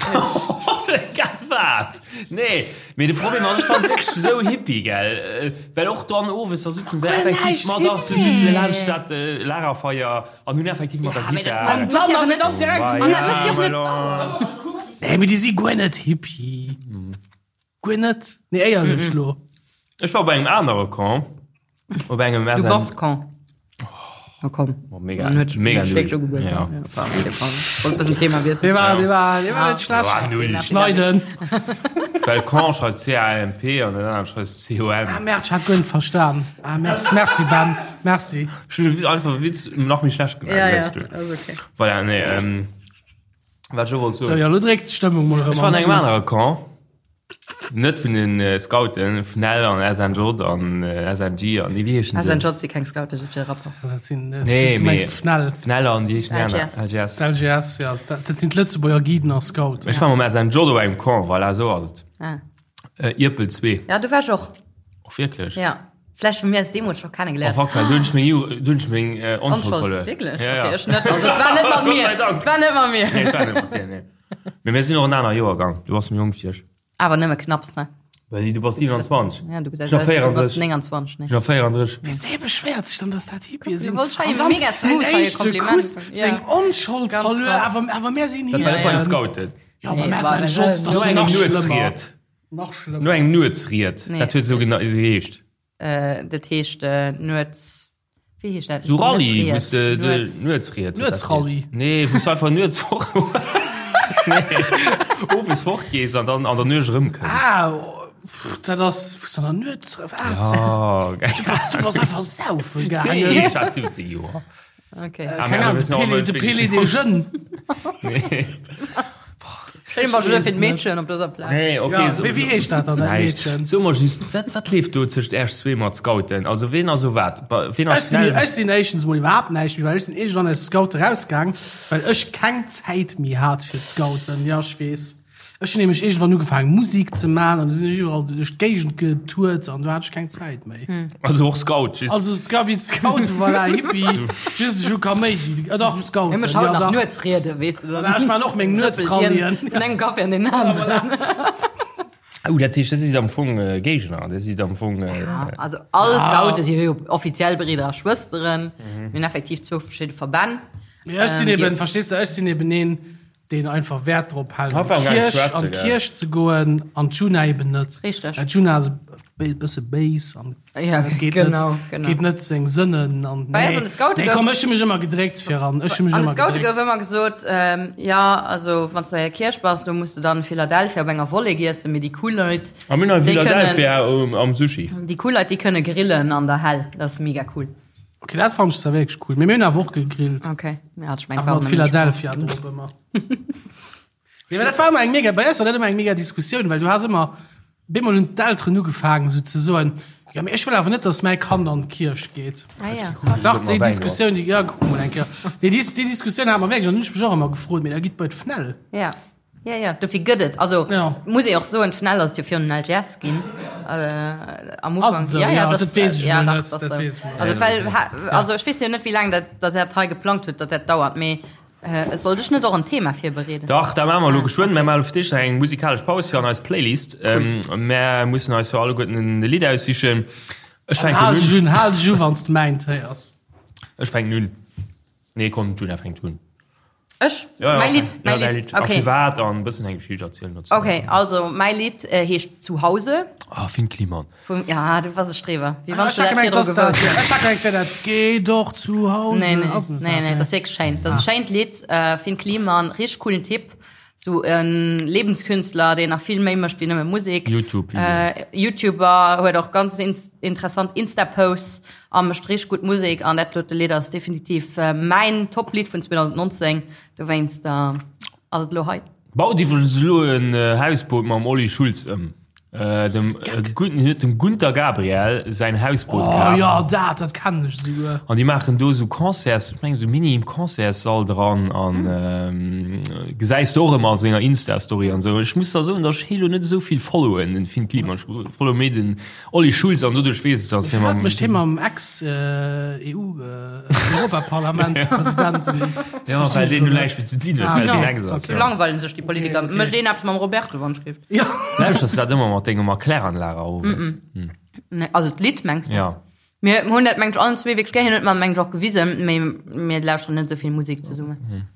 Wat? Nee, mee de Problem ass, ech fannen et wierklech esou hippie, gell? Well och dann owes, da sutzen se effektiv, ma dach, se sutzen laanscht dat Lagerfeier an hunn effektiv mat der Gittar. An dann ass et dann direkt An dat mécht dir och net. Nee, mee déi si guer net hippie. Guer net. Nee, éierlech lo. Ech war op engem anere Camp, op engem Du SN. bass Camp. Na komm. Oh, mega, Dann huet mega huet null. wierklech ugebueden. Ja. Ja, war auf jeden Fall. Wollt bëssen Thema wiesselen. Dee war, dee war, dee war net War schlecht. null. Schneiden. Well Con schreift C-A-M-P an den aneren schreift C-O-N. Ah, merde, ich hat guer net verstan. Ah, merci, merci Ben, merci. Ech hunn einfach e Witz nach méi schlecht gemaach. Ja, ja, weißt du. ass okay. Voilà, nee, ähm, wat ech och wollt So, soen. ja, lo dréckt d'Stëmmung mol erëm Ech war an an engem d'Lut. anere Camp. Net vun den Scouten, FNEL an SNJ an SNG an nee wéi heeschen se? SNJ si keng Scouten, dat si Rapper. Dat sinn, Nee, du mengs mee- d'FNEL. FNEL an déi heeschen déi aner? LGS. LGS. D'LGS, ja, dat dat sinn d'Lëtzebuerger Guiden a Scouten. Ech war mam SNJ op engem Camp, voilà, esou ass et. Ah. Ierpel 2. Ja, do war ech och. Och wierklech? Ja. Vläicht hu mir eis deemools scho Oh kennegeléiert. fuck, well do hunn ech meng Ju, do hunn ech meng Onschuld Onschuld, verluer. wierklech? Ja, ja. Okay, ech net. Also et war net mat Gott mir. sei Dank. Et war net mat mir. Nee, et war net mat dir, nee. Mee mir sinn och en aner Joergang. Du bass méi jonk wéi ech. Awer nëmme knapps, ne? Well du bass 27. Ja, du gesäis Ech nach aus, du bass 34. 29, ne? Ech nach 34. Wéi beschwéiert sech dann, dass dat Hippie sinn? Du wollt schei An dann mega smooth säin hei e éischte Kompliment. Kuss, Ja. seng Onschold Ganz verluer, krass. awer, awer mir sinn Dat war net bei de Hippien. Scouten. Ja, aber Nee, mir war sinn net. Jotz, das No ass engem nach schlimmer. Nuetsried. Nach schlimmer. No engem Nuetsried. Nee. Dat huet esou gena- geheescht. Äh, dat heescht äh, Nuets. Wéi heescht dat? Sou Rallye, Net wou s de Ried, de Nuets. Nuetsried. huet dat Nuetsrallye. geheescht. Nee, wou s du einfach nuets fort. Nee, owes fortgees an dann an der Nuecht erëmkënns. Ah, oh, pff, dat ass, wou s du an der Nuets, wat? Oh, geil. Du bass, du bass einfach saufen Nee, gaangen. ech hat 17 Joer. Okay. Ah, Keng mä Ahnung, wir de sinn och Pele, net de wirklich Pele des Jeunes. Nee. Stell dir mal Ich fir weess d'Meedchen op dëser Plaz. Nee, okay. Ja, so, wéi, wéi heescht dat dann, dat Näischt. Meedchen? So mer just, wat, wat leeft do tëscht Äerch zwee mat Scouten? Also ween ass o wat? Ba- Ween Ech ass sinn, schnell? ech sinn éischtens mol iwwerhaapt näischt méi, well ech sinn iergendwann aus Scoute rausgaang, well ech keng Zäit méi hat fir d'Scouten. Ja, ech weess. Ech hunn nämlech iergendwann ugefaangen, Musik ze man an du sinn ech iwwerall duerch d'Géigend getourt an du hat ech keng Zäit méi. Also och Scout, just. Also Scout, wéi d'Scouten, voilà, Hippie, just ech hu Kaméidi, äh, dach, Scouten, Hie mécht haut ja, nach dach. Nuetsriede, weess de dann. Voilà, ech man och meng Trëppelt hien Nuetsrallyen. Vun engem Café an deen aneren. Oh, dat heescht, dat sidd am Fong äh, Géigner, dat sidd am Fong. Äh, Ja, also all Scoute si jo offiziell Bridder a Schwësteren. Mir hunn effektiv zwou verschidde Verbänn. Mee ech sinn Ähm, eben, déi- verstees de, ech sinn eben een, deen einfach Wäert drop hält, an Einfach gar nicht d'Kierch, schwätzen, an gell. d'Kierch ze goen, an d'Juna eben net. Richteg. Well d'Juna ass e bësse béis an Ja, dat geet genau, net, genau. geet net seng Sënnen an Bei eis an de Scoute nee, gouf- komm, ech hu mech ëmmer gedréckt fir an, ech hu mech An de ëmmer Scoute gouf gedréckt. ëmmer gesot, ähm, ja, also wann s du an der Kierch bass, do muss du dann Philadelphia op enger Volley giessen, mee déi cool Leit, A mir hunn déi kënnen, Philadelphia um, am Sushi. déi cool Leit, déi kënne grillen an der Hell. Dat ass mega cool. Okay, dat fand ech zwar wierklech cool. Mee mir hunn awer och gegrillt. Okay, ja, ech meng, Awer mat Philadelphia drop ëmmer. Nee, mä dat war ëmmer eng mega, bei eis war dat ëmmer eng mega Diskussioun, well du has ëmmer, bemol hunn d'Elteren ugefaangen esou ze soen, jo mee ech wëll awer net, datt mäi Kand an d'Kierch geet. Ah, ja. krass. Dach, déi Wäin Diskussioun, déi, ja, kuck mol eng Kéier. Nee, déi, déi Diskussioun hate mer wierklech, an hunn ech mech och ëmmer gefrot, mee da gitt bei d'FNEL. Ja. Ja, ja, dofir gëtt et. Also, Ja. muss ee och soen, d'FNEL ass et jo virun den LGS ginn. Äh, am Ass Ufank. et esou? Ja, ja, Ja, das, dat weess ech ja, mol dach, net, das dat sou. weess ech mol Also, net. well, ha, also ech weess jo net, wéi laang dat, dat dat hei geplangt huet, datt dat dauert, mee äh, sollt ech net och en Thema virbereeden? Dach, dat maache mer elo Ah, geschwënn. okay. Mir maache fir d'éischt nach eng musikalesch Paus fir an eis Playlist. Ähm, mär mussen eis jo alleguerten en Lidd aussichen. Ech fänken Hal dech un. un, hal dech u, wann s de mäint héiers. Ech fänken un. Nee, komm, d'Juna fänkt un. Ech? Ja, ja, Mäi Lidd, ja, mäi däi Lidd. Lidd. A Okay. firwat an e bëssen eng Geschicht erzielen dozou. Okay, also mäi Lidd äh, heescht Zuhause. Ah, Finn Kliman. Vum, ja, du bass e Streber. Wéi wann Ech du hat dat gemengt, virdru dass dat, gewosst häss. ech hat gemengt, wär dat Geh doch zu Hause. Nee, nee, Ass net nee, dat, nee, dat ass wierklech schéin. Dat ass e schéint Lidd, äh, Finn Kliman, richteg coolen Typ. Sou en Lebenskünstler, deen nach vill méi mécht wéi nëmme Musek. YouTube. Äh, YouTuber, huet och ganz ins interessant Insta-Posts a mécht richteg gutt Musek. An dat dote Lidd ass definitiv äh, mäin Top-Lidd vun 2019. Dowéinst äh, ass et elo hei. Baut iwwregens elo en Hausboot mam Olli Schulz ëm. Dem gudden, hien huet dem Gunter Gabriel säin Hausboot Oh kaf. jo, dat, dat kennen ech esouguer. An déi maachen do esou Concerts, ech mengen esou Mini-Concertssall dran an gesäis de och ëmmer a senger Insta-Story an esou. Ech muss da soen, datt ech hie lo net esou vill followen, den Finn Kliman. Ech followe méi den Olli Schulz an doduerch weess ech, datt hie Wat mam. mécht hie mam Ex-EU, Europaparlamentspresident? Ja, well deen elo näischt méi ze dinn huet, well deen Ex ass. Do langweilen sech déi Politiker. Mécht een eppes mam Roberto, wann ech géif. Ja. Lauschters du dat ëmmer mat dengem Erkläranlager owes? Nee, also d'Lidd mengs du? Ja. Mir hunn dat mengt allen zwee wierklech gär. Hien huet mer mengt och gewisen, mee mir lauschteren net esou vill Musek zesummen.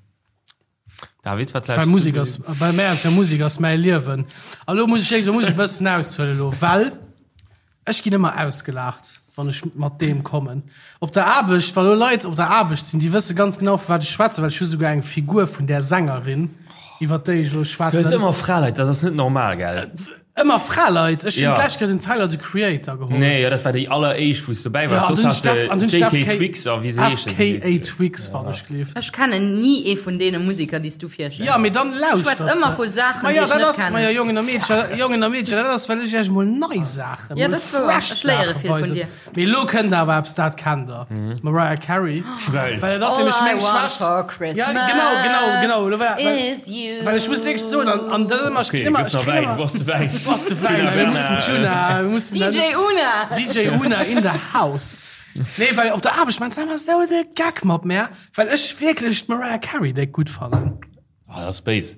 David, wat Well lauschters du Musek fir ass, bei mär ass ja Musek ass mäi Liewen. A lo muss ech wierklech, lo muss ech e bëssen aushuelen elo, well ech ginn ëmmer ausgelaacht. Wann ech mat deem kommen. Op der Aarbecht, wa lo Leit op der Aarbecht sinn, déi wësse ganz genau, vu wat ech schwätzen, well ech hu souguer eng Figur vun där Sängerin, iwwer déi ech elo Du hues schwätzen. ëmmer Fraleit, dat ass net normal, gell? Ëmmer Fraleit? Ech hunn Ja. d'lescht Kéier den Tyler, the Creator geholl. Nee, jo, dat war déi alleréischt, wou s du dobäi Ja, waars. an Soss dunn has de Steff, an dunn JK FK, Twigs a wéi se heeschen. FKA Twigs, wann ech gleeft. Ech kennen ni ee vun deene Musiker, déi s du virstells. Ja, mee dann lauschtert Schwätz ëmmer se. vu Saachen, Ma déi ja, ech dat net ass, ma ja, kennen. Jongen a Meedcher, Jongen a Meedcher, dat ass, well ech iech mol nei Saachen, Ja, mol dat ass wouer. fresh Ech léiere Saache vill vun weisen. dir. Mee elo kënnt awer eppes, dat kennt der. Mariah Carey. Geil. Well et ass All nämlech I meng want Schwächt. for Christmas Ja, genau, genau, genau. Elo war, well, is you. well ech muss wierklech soen, an, an dat ass ëmmer, ech Okay, kritt ëmmer, gëff ech nach kritt Wäin, ëmmer, du brauchs de Wäin. du brauchs de Wäin, Djuna mir mussen Bernard, Djuna, mir mussen DJ Una! DJ Una in the house. Nee, well op der Aarbecht maan se ëmmer esou de Geck mat mär, well ech wierklech d'Mariah Carey déck gutt fannen. Ah, dat ass béis.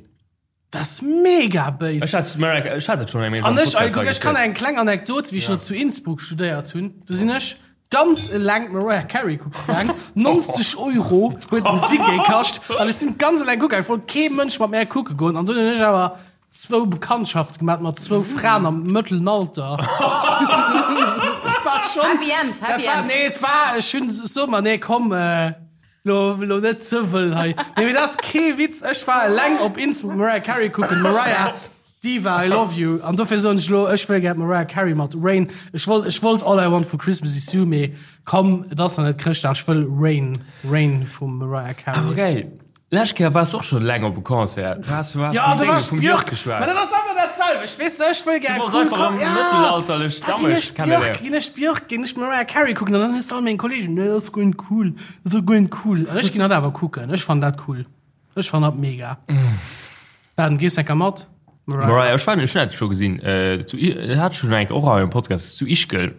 Dat ass mega béis. Ech hat Mariah, ech hat et schonn eng Méi An ech, ey, kuck, ech kann eng kleng Anekdot, wéi ech nach zu Innsbruck studéiert hunn, do sinn ech ganz eleng d'Mariah Carey kucke gaang. 90 Euro huet den Ticket kascht. An ech sinn ganz eleng kucke gaang, et wollt kee Mënsch mat mär kucke goen. An dunn hunn ech awer zwou Bekanntschafte gemaat mat zwou Fraen am mëttelen Alter. War schon, Happy End, Happy dat war, End. Nee, et war, ech hunn, so mer, nee, komm, Lo, lo net ze wëll hei. Nee, mee dat ass kee Witz. Ech war eleng op Innsbruck Mariah Carey kucken. Mariah, Diva, I love you. An dofir soen ech lo, ech wëll gär d'Mariah Carey mat Rain. Ech wollt, ech wollt All I Want for Christmas is You, mee komm, et ass nach net Chrëschtdag. Ech wëll Rain, Rain vum Mariah Carey. Awer geil. Lescht Kéier waars de och scho leng op e Concert. Du has vum Ja, do war Dénge ech vum Björk Björk geschwat. Ma dat ass awer dat selwecht, weess de, ech wëll gär Du wolls cool einfach Con am ja, mëttelalterlech da ginn Dammesch ech Björk, kenneléieren. ginn ech Björk, ginn ech Mariah Carey kucken an dann hues de all meng Kollegen, nee, dat ass guer net cool, dat ass guer net cool. An ech ginn dat awer kucken, ech fannen dat cool, ech fannen dat mega. Dan, gees enker mat? Mariah, Mariah, ech war, ech hunn dat scho gesinn, äh, zu, I- hat schon eng och hei am Podcast, zu Ischgl,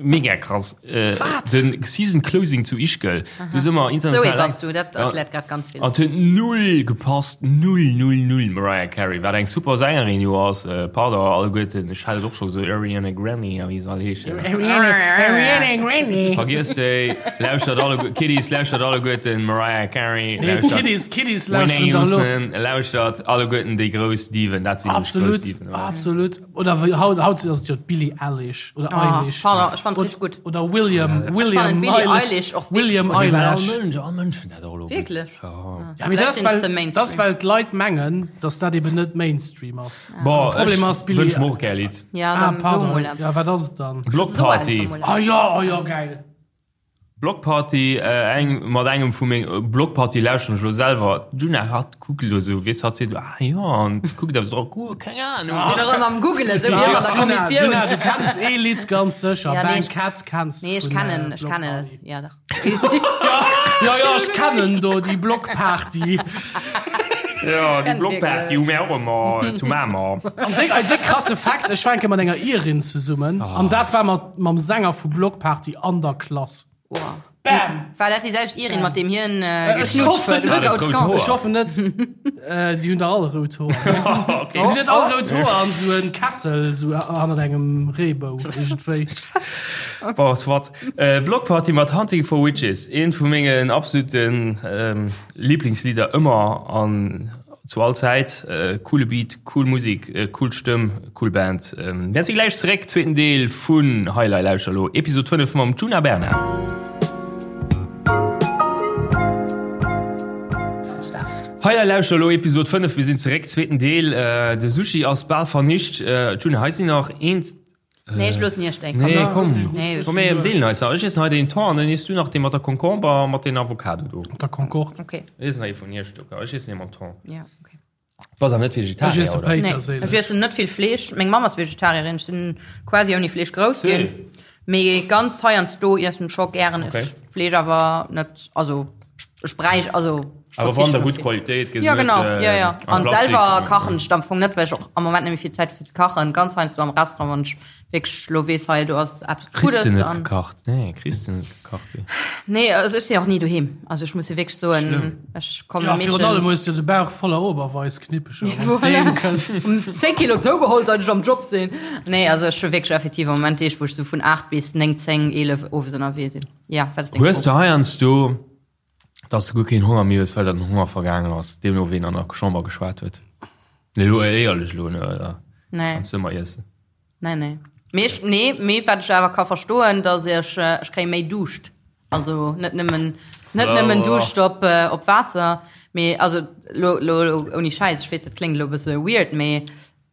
mega krass. Äh, Wat? Den Season Closing zu Ischgl. Du si mer Zoe international. bass du, dat Ja. erkläert grad ganz vill. An huet null gepasst, null, null, null Mariah Carey, wat eng super Sängerin jo ass, äh, pardon alleguerten, ech hat et och scho gesot, Ariana Grande a wéi se all heeschen. Ariana, Ariana Grande. Vergiesst déi, lauschtert alle, Kiddies, lauschtert alleguerten Mariah Carey, Nee, lauschtert d'Kiddies, d'Kiddies Whitney lauschteren da lo. Houston, lauschtert alleguerten déi grouss Diven, dat sinn nämlech grouss Absolut, Diven, oder? absolut. Oder wéi haut, haut ass et jo d'Billie Eilish oder Ah, Eilish. pardon, ech fand Oder- richtig gutt. Oder William, William fand d'Billie Eilish och wirklich William gutt. Well all Eilish. Mënsch, all Mënsch fënnt dat och elo gutt. Wierklech? Ja. Ja, mee dat ass, Vielleicht sind's well, de Mainstream. dat ass, well d'Leit mengen, dass dat eben net Mainstream ass. Bon, De Problem ech ass, Billie- wënsch mer och gär e Lidd. Ja, Ah, dann so pardon. mol eppes. Ja, wat ass et dann? Block So Party. einfach mol Ah ja, ah ja, geil. Block Party, äh, eng, mat engem vu meng, Block Party lauschteren ech lo selwer. D'Djuna hatt kuckt elo sou, weess hatt seet, ah jo, an kuckt awer sou, oh, keng Ahnung. Sinn erëm am Googelen, sou wéi ëmmer an der Djuna, Kommissioun. Djuna, du kenns ee Lidd ganz sécher, Ja, nee, Bang ech- Cat kenns Nee, ech vun, kennen, äh, ech Block kennen Party. et, ja dach. Ja, ja, ech kennen do déi Block Party. Ja, déi Block Party hu mir och ëmmer zu Mamer. An déck, ein déck krasse Fakt, ech war eng Kéier mat enger Irin zesummen, an dat war mat, mam Sänger vu Block Party an der Klass. Wow. Bam! War dat déi selwecht Irin, mat deem hien äh, Ech geknutscht hoffen huet? net. Scouts Rout Camp? Hoer. Ech hoffen net. Äh, déi hunn der all rout Hoer. Okay. Déi hunn net all rout Hoer an sou en Kessel sou hannert engem Reebou iergendwéi. Bon, soit. Äh, Block Party mat Hunting for Witches, eent vu mengen absoluten ähm, Lieblingslieder ëmmer an zu all Zäit. Äh, coole Beat, cool Musik, äh, cool Stëmm, cool Band. Ähm, mir si gläich zeréck, zweeten Deel vun Hei Lei Lauschter Lo, Episod 5 mam Djuna Bernard. Hei Lei Lauschter Lo, Episod 5, mir sinn zeréck, zweeten Deel. Äh, de Sushi ass bal vernicht. Äh, Djuna, hei sinn nach eent, Nee, ech loossen iech déi. Nee, komm. Nee, Komm, mir deelen eis nach. Ech iessen hei den Thon an dann iess du nach dee mat der Concombre a mat den Avocado do. Mat der Concorde. Okay. Ech iessen nach ee vun iech Stécker. Ech iessen ee mam Thon. Ja, okay. Bass awer net Ech Vegetarier, iesse oder? Nee, Péiterséileg. ech iessen net vill Fleesch. Meng Mamm ass Vegetarierin. Ech sinn quasi ouni Fleesch grouss ginn. Mee ganz heiansdo iessen ech scho gären Okay. Fleesch, awer net, also ech bräich, also ech Awer wann verzichten der op gutt vill. Qualitéit, gëss Ja, net, genau, äh, ja, ja. am An Plastik. selwer kachen ech am Fong net, well ech och am Moment net méi vill Zäit hu fir ze kachen. Ganz heiansdo am Restaurant, wann ech wierklech lo weess, hei do ass eppes Kriss Guddes de net an. gekacht? Nee, kriss de net gekacht. Wéi? Nee, also ech sinn och ni doheem. Also ech muss jo wierklech soen, ech komme Ja, virun allem meeschtens hues du de Bauch voller Oberweißknippecher, wann s Voilà. de heem kënns. 10 Kilo zougeholl, seit ech am Job sinn. Nee, also ech hu wierklech effektiv am Moment Deeg, wou ech sou vun 8 bis 9, 10, 11 owes ënnerwee sinn. Ja, wat ass deng Hues Fro? de heiansdo, dass du guer keen Honger méi hues, well der den Honger vergaangen ass, deemno ween an der Chamber geschwat huet? Nee, elo éierlech elo, ne, oder? Nee. Kanns du ëmmer iessen? Nee, nee. Mee ech, nee, mee wat ech awer ka verstoen, dass ech, ech kréie méi Duuscht. Also net nëmmen, net nëmmen Duuscht op, op Waasser, mee also lo, lo, lo ouni Schäiss, ech weess, dat kléngt elo e bësse weird, mee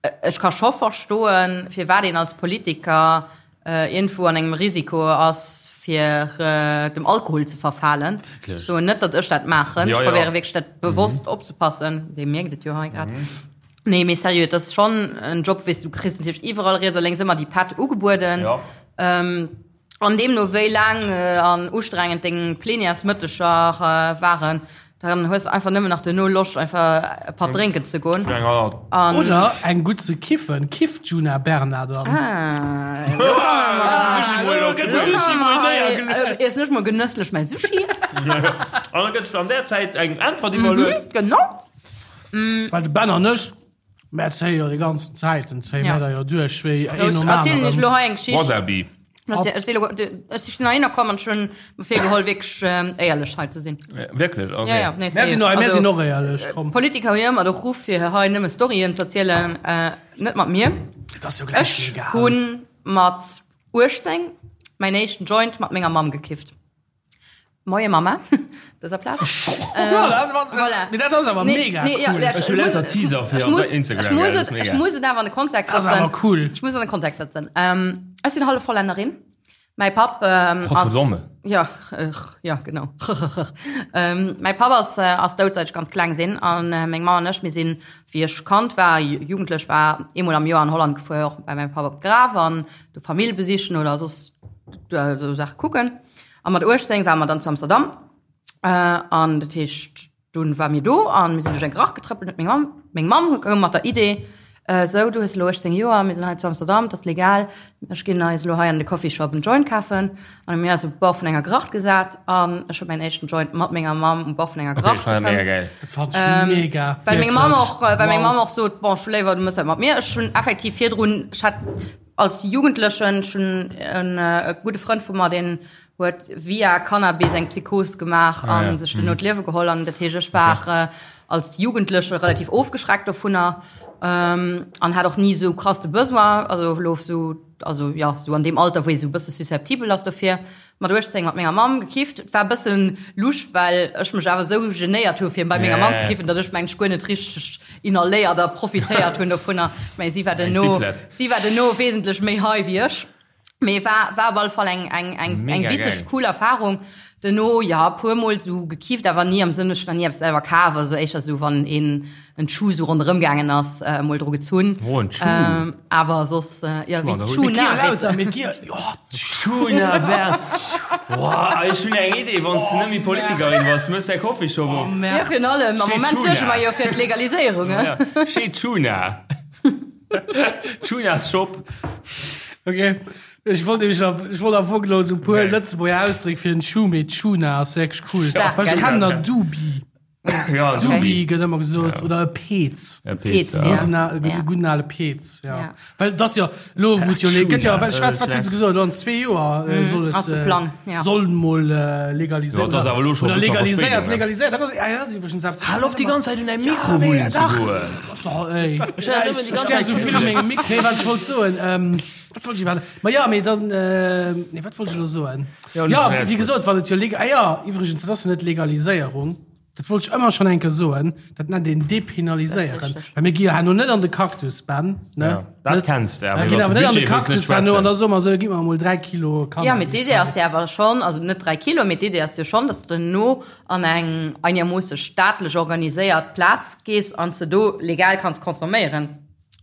ech ka scho verstoen, firwat een als Politiker iergendwou an engem Risiko ass, fir dem Alkohol ze verfalen. Ech soen net, datt ech dat maachen. Ech probéiere wierklech dat bewosst opzepassen. Dir mierkt et jo hei grad. Nee, mee seriö, et ass schonn en Job, weess du, kriss natierlech iwwerall riets a lénks ëmmer déi Pätt ugebueden. An deemno wéi laang an ustrengend deng Plenièresmëtteger waren, dann hues de einfach nëmmen nach duerno Loscht einfach e Patt drénken ze goen. An Oder eng gutt ze kiffen. Kifft d'Djuna Bernard dann? Ah, elo komme mer. Elo gëtt de Sushi mol néiergeluecht. Iessen ech mol genësslech mäi Sushi. An da gëtt an där Zäit eng Äntwert iwwerluecht. Genau. Well de Ben an ech, mär zéie jo déi ganzen Zäiten, zéie mär da jo duerch wéi een nom Ech erzielen iech aneren. elo hei eng Geschicht. Wasabi. Ech si elo, ech sinn heihinner komm an ech hunn mer virgeholl wierklech éierlech hei ze sinn. Wierklech? Okay. Ja, ja, nee, Mär sinn, mär sinn och éierlech, komm. Politiker hu jo ëmmer de Ruff fir hei nëmme Storyen ze erzielen, net mat mir. Et ass jo gläich Ech egal. hunn mat 18 mäin éischten Joint mat menger Mamm gekifft. Moie Mama, dëser Plaz. Voilà. Mee dat ass awer mega cool. Ech hu lauter Teaser fir op Instagram. Ech muss et, ech muss et awer an de Kontext setzen. Dat ass awer cool. Ech muss an de Kontext setzen. Ech sinn hallef Hollännerin. Mäi Papp ass. Godverdomme. Ja, ja, genau. Mäi Papp ass, ass dout seit ech ganz kleng sinn. An meng Mamm an ech, mir sinn, wéi ech Kand war, jugendlech war, eemol am Joer an Holland gefuer, och bei mäi Papp op d'Graf an do Famill besichen oder soss esou Saache kucken. A mat 18 ware mer dann zu Amsterdam. An dat heescht, dunn ware mir do a mir sinn duerch eng Gracht getrëppelt. Huet meng Mamm, meng Mamm koum mat der Idee, Sou, du hues elo 18 Joer, mir sinn hei zu Amsterdam, et ass legal, ech ginn eis elo hei an de Coffeeshop en Joint kafen. An hu mir eis op de Bord vun enger Gracht gesat an ech hu mäin éischten Joint mat menger Mamm um Bord vun enger Gracht Okay, mega gefëmmt. geil. Dat fand ech mega. Well meng Mamm och, well meng Wow. Mamm och sot, bon, ech hu léiwer, du mëss dat mat mir. Ech hunn effektiv virdrun, ech hat Als Jugendlechen, ech hunn en gudde Frënd vu mer, deen huet via Cannabis eng Psychos gemaach a sech duerno d'Liewe geholl. An dat heescht, ech war als Jugendleche relativ ofgeschreckt dovunner an hat och ni esou krass de Besoin, also elo esou, also jo, esou an deem Alter, wou ee esou e bësse susceptibel ass dofir. Mat 18 mat menger Mamm gekifft. Et war e bëssen lusch, well ech mech awer esou genéiert hu fir bei menger Mamm ze kiffen, datt ech mengen ech guer net richteg inhaléiert a profitéiert hunn dovunner. Mä si war duerno, si war duerno wesentlech méi high wéi ech. Mee war, war op alle Fall eng, eng, eng, eng witzeg, cool Erfahrung. Duerno, jo, e puer Mol esou gekifft, awer ni am Sënn, ech hunn nach ni eppes selwer kaf, also éischter esou wann een en Schuh sou ronderëm gaangen ass, emol dru gezunn. Oh, en Schuh. Awer soss, jo, wéi d'Schuna, weess de. D'Schuna, Bernd. Boah, ech hunn eng Idee, wann s de net méi Politikerin bass, mëss däi Coffeeshop op. Jo, virun allem, am Moment suerge mer jo fir d'Legaliséierung, he. Chez Tuna. Tuna's Shop. Ok, ech wollt nämlech nach, ech wollt am Fong elo esou e puer Lëtzebuerger Ausdréck fir en Schuh, mee Tuna ass wierklech cool. Stark, Well ech gell? kennen der Dubi. Ja, Okay. Dubi gëtt ëmmer gesot oder e Peez. E Peez, Peez, ja. ja. Gudden, al- Ja. gudden ale Peez, ja. Ja. Well das jo lo wou et jo le- gëtt jo wat wat wat huet se gesot elo an zwee Joer äh, soll et ass de äh, Plang, ja. soll mol äh, legaliséiert Ja, dat ass awer elo scho oder e bëssen legaliséiert Verspéidung, ne? legaliséiert dat ass ja, dat ass iwwregens eppes Hal op déi ganz Zäit un däi Mikro mee, wullen ze dach. goen. So, ey. Ech hat nëmmen déi Ech ganz gär Zäit so vill a mengem Mikro. Nee, wat ech wollt soen, ähm, wat wollt ech iwwerhaapt? Ma ja, mee dann, äh, nee, wat wollt ech elo soen? Ja, Ja, alles wéi gut. gesot, wann et jo leg-, ah ja, iwwregens, dat ass jo net Legaliséierung. Dat wollt ech ëmmer schonn eng Kéier soen, dat nennt een depenaliséieren. Well mir gi jo herno net an de Cactus, Ben, ne? Ja, dat Net- kenns de, awer Mir ginn iwwer awer de net an de Budget wëlls net Cactus herno an schwätzen. da soe mer esou, gitt mer emol 3 Kilo Cannabis. Ja, mee d'Idee ass jo awer schonn, also net 3 Kilo, mee d'Idee ass jo schonn, dass de no an eng einermoosse staatlech organiséiert Plaz gees an s de do legal kanns consomméieren.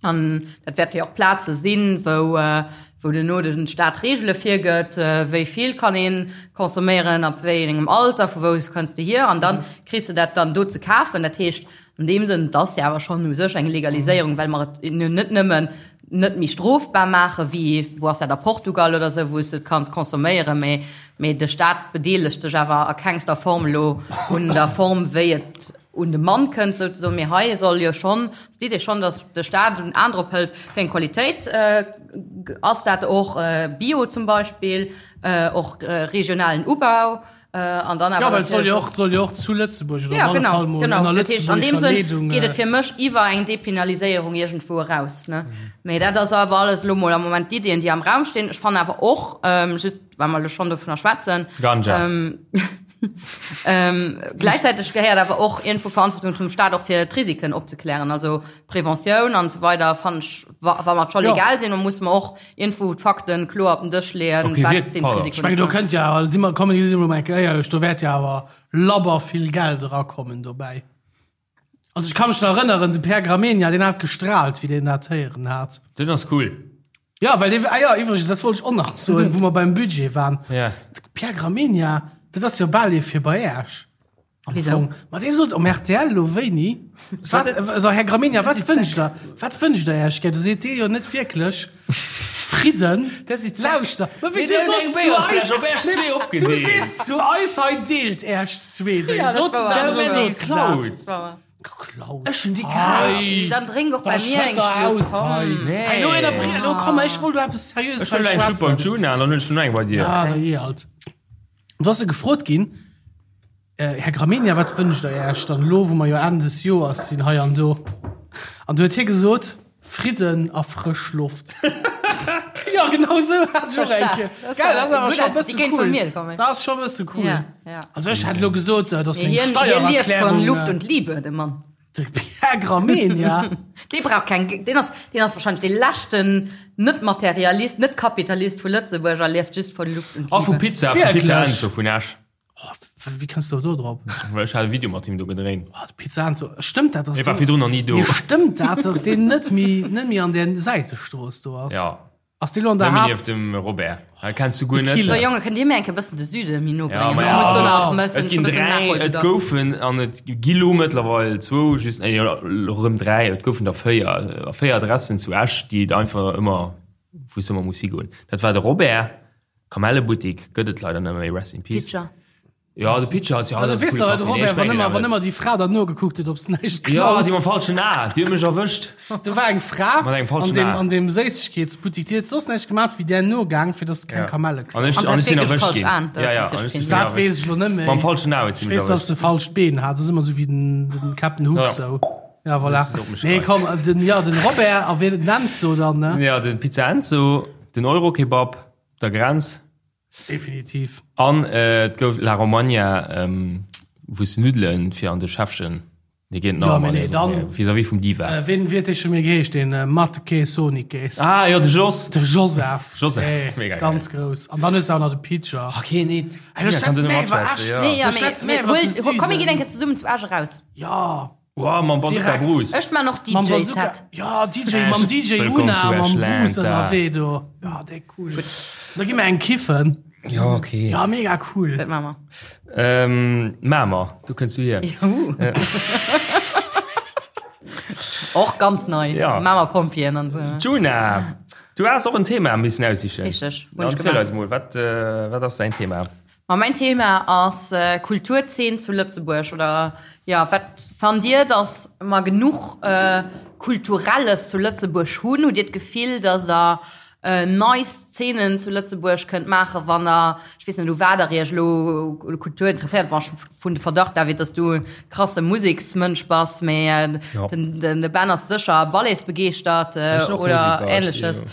An dat wäerte jo och Plaze sinn, wou, wou duerno de Staat Reegele virgëtt, wéi vill kann ee consomméieren, ab wéi engem Alter, vu wou kënns de hier. An da kriss de dat dann do ze kafen. Dat heescht an deem Sënn, et ass jo awer schonn u sech eng Legaliséierung, well mer et net nëmmen net méi strofbar maache wéi, wou ass dat, a Portugal oder esou, wou s de et kanns consomméieren, mä, mä de Staat bedeelegt sech awer a kengster Form elo un der Form, wéi et un de Mann kënnt souzesoen, mee hei soll jo schonn, ass d'Idee schonn, datt de Staat en An drop hëlt, wéi eng Qualitéit ass dat och, Bio zum Beispill, och regionalen Ubau. An dann awer Ja, well et soll jo natierlech och, soll jo och zu Lëtzebuerg oder Ja, op alle genau, Fall mol genau. ënner Dat heescht, an deem lëtzebuergescher Sënn Leedung. geet et fir mech iwwer eng Depenaliséierung iergendwou eraus, ne? Mee dat ass awer alles elo mol am Moment d'Iddien, déi am Raum stinn. Ech fannen awer och, just well mer elo schonn dovunner schwätzen, Ganja. Ähm, gläichzäiteg gehéiert awer och iergendwou Verantwortung zum Staat och fir d'Risiken opzeklären. Also Preventioun an esou weider fannen ech, wa, wa mer et scho Ja. legal sinn, da musse mer och iergendwou d'Fakten kloer op den Dësch leeën, Okay, wat wierk- sinn pardon. d'Risiken Ech mengen, do dovun. kënnt jo awer, si mer, kommen, si mer mol eng Kéier éierlech, do wäert jo awer labber vill Geld erakommen dobäi. Also ech ka mech nach erënneren, de Pierre Gramegna, deen hat gestrahlt, wéi deen dat héieren hat. Den ass cool. Ja, well dee, ah ja, iwwregens, dat wollt ech och nach soen, wou mer beim Budget waren. Ja. De Pierre Gramegna, dat ass jo bal ee fir bei Äech. Am Wieso? Fong. Ma dee sot um RTL lo wéini, wat, also Här Gramegna, wat wënscht der, wat wënscht der Äech gär? Do seet dee jo net wierklech Fridden. Lauschter, ma wéi du soss zu eis, du sees zu eis hei, deelt Äech zwee, déi soten dat oder soten dat. Geklaut. Ech hunn déi kaf. Dann drénk och Da bei mir eng schëtter Schlupp, aus komm. hei. Nee. Hey, lo ënnerbri-, lo komm, ech wollt lo eppes Seriöses Ech huelen eng Schlupp beim Juna an dann hunn ech noch eng bei dir. Ah, da jee alt. Du ass se gefrot ginn, äh, Här Gramegna, wat wënscht der Iech dann elo, wou mer jo Enn des Joers sinn hei an do? An du huet hie gesot, Fridden a frësch Loft. Ja, genau sou hat ech och eng Kéier. Gell, dat ass awer scho e Déi bësse kéint vun cool. mir kommen. Dat ass scho e bësse cool. Ja, ja. Also ech hätt elo gesot, äh, dass meng Hien, hie lieft Steiererklärung. von Luft äh, und Liebe, de Mann. De Pierre Gramegna. Dee brauch keng, deen ass, deen ass wahrscheinlech dee leschten Net-Materialist, Net-Kapitalist vu Lëtzebuerg a lieft just von Luft und A vu Liebe. Pizza, vu Pizza Wierklech? Enzo vun Esch. Oh, wéi kënns du do drop? Well ech hat e Video mat him do gedréint. Oh, de Pizza Enzo. Stëmmt dat, dass Hie war deen, virdrun nach ni do. Mee stëmmt dat, dass deen net méi, net méi an där Säitestrooss do ass? Ja. Ass dee lo an der Nëmmen Haapt? nieft dem Robert. Dat kenns du guer De net. Killer. So Jonge, kënnt Dir mir eng Kéier bëssen de Süde méi no Ja, bréngen? ma Ech ja. muss do nach Et mëssen, ginn schon bëssen dräi, et Nachholbedarf. goufen an et gi lo mëttlerweil zwou, just, nee, elo rëm dräi, et goufen der véier, véier Adressen zu Esch, déi et einfach ëmmer, wou s de ëmmer muss higoen. Dat war de Robert, Kamellebuttik gëtt et leider net méi, rest in peace. Pitcher. Ja, de Pitcher ass, ja, Ja, dat du ass e weess coole doch, de Café. Nee, Robert, ech wann mengen ëmmer, awer wann ëmmer déi Fra dann nogekuckt huet, ob s näischt Ja, déi mam klaus. falschen A, déi huet mech erwëscht. Do war eng Fra Mat engem an falschen deem, A. an deem Séissegkeetsbuttik, déi huet soss näischt gemaat, wéi där nogaang, fir dass se keng Ja. Kamelle An klaut. ech, An an se ech sinn hat wierklech erwëscht falsch ginn. an, dat Ja, ass ja, an natierlech ech sinn peinlich. Dat erwëscht. weess ech lo net méi. Mam falschen A huet si Ech mech weess, dass erwëscht. se falscht Been hat. Dat ass ëmmer sou wéi den, den Captain Hook Ja. sou. Ja, voilà. Dat ass op mech Nee, gereizt. komm, den, ja, den Robert a wien, den Enzo dann, ne? Ja, den Pizza Enzo, den Euro-Kebab, der Grenz. Definitiv. An et gouf La Romagna, wou s de Nuddelen fir an de Schäffchen, dee geet nach Ja, mee ëmmer, nee, dann. vis-à-vis vum Diva. Wien, wéi huet dee scho méi geheescht, deen Matke Sonikes? Ah jo, de Jos. De Joseph. Joseph, Hey, mega geil. Ganz grouss. An dann hues de auch nach de Pitcher. Okay, nee, Hey, du Tina kann schwätz do net méi iwwer matschwätzen, Esch. ja. Nee, ja, Du mee, schwätz mee méi iwwer de hol, hol, komm, mir Süden. ginn eng Kéier zesummen zu Esch eraus. Ja. Wow, mam Bazooka Direkt. Bruce. Ech man och Mam DJ Bazooka. Set. Ja, DJ, mam Esch, DJ wëllkomm Una, zu mam Eschland, Bruce da. ënnerwee do. Ja, déi cool. Da gi mer eng kiffen. Ja, okay. Ja, mega cool. Dat man mer. Ähm, Mamer, do kënns du hier. Juhu. Och ganz nei. Ja. Mamer Pompjeeën an sou. Djuna, du has och en Thema missen aussichen. Richteg, hunn Dann ech erziel gemaach. eis mol, wat, äh, wat ass däin Thema? Ma mäin Thema ass Kulturzeen zu Lëtzebuerg oder jo, wat fannt Dir, datt mer genuch Kulturelles zu Lëtzebuerg hunn? Hutt Dir d'Gefill, datt Der nei Szenen zu Lëtzebuerg kënnt maachen, wann Der, ech weess net u wat Der Iech elo Kultur interesséiert, bon ech hunn de Verdacht, David, datt du e krasse Museksmënsch bass, mee den de Ben ass sécher Balletsbegeeschtert oder Ähnleches.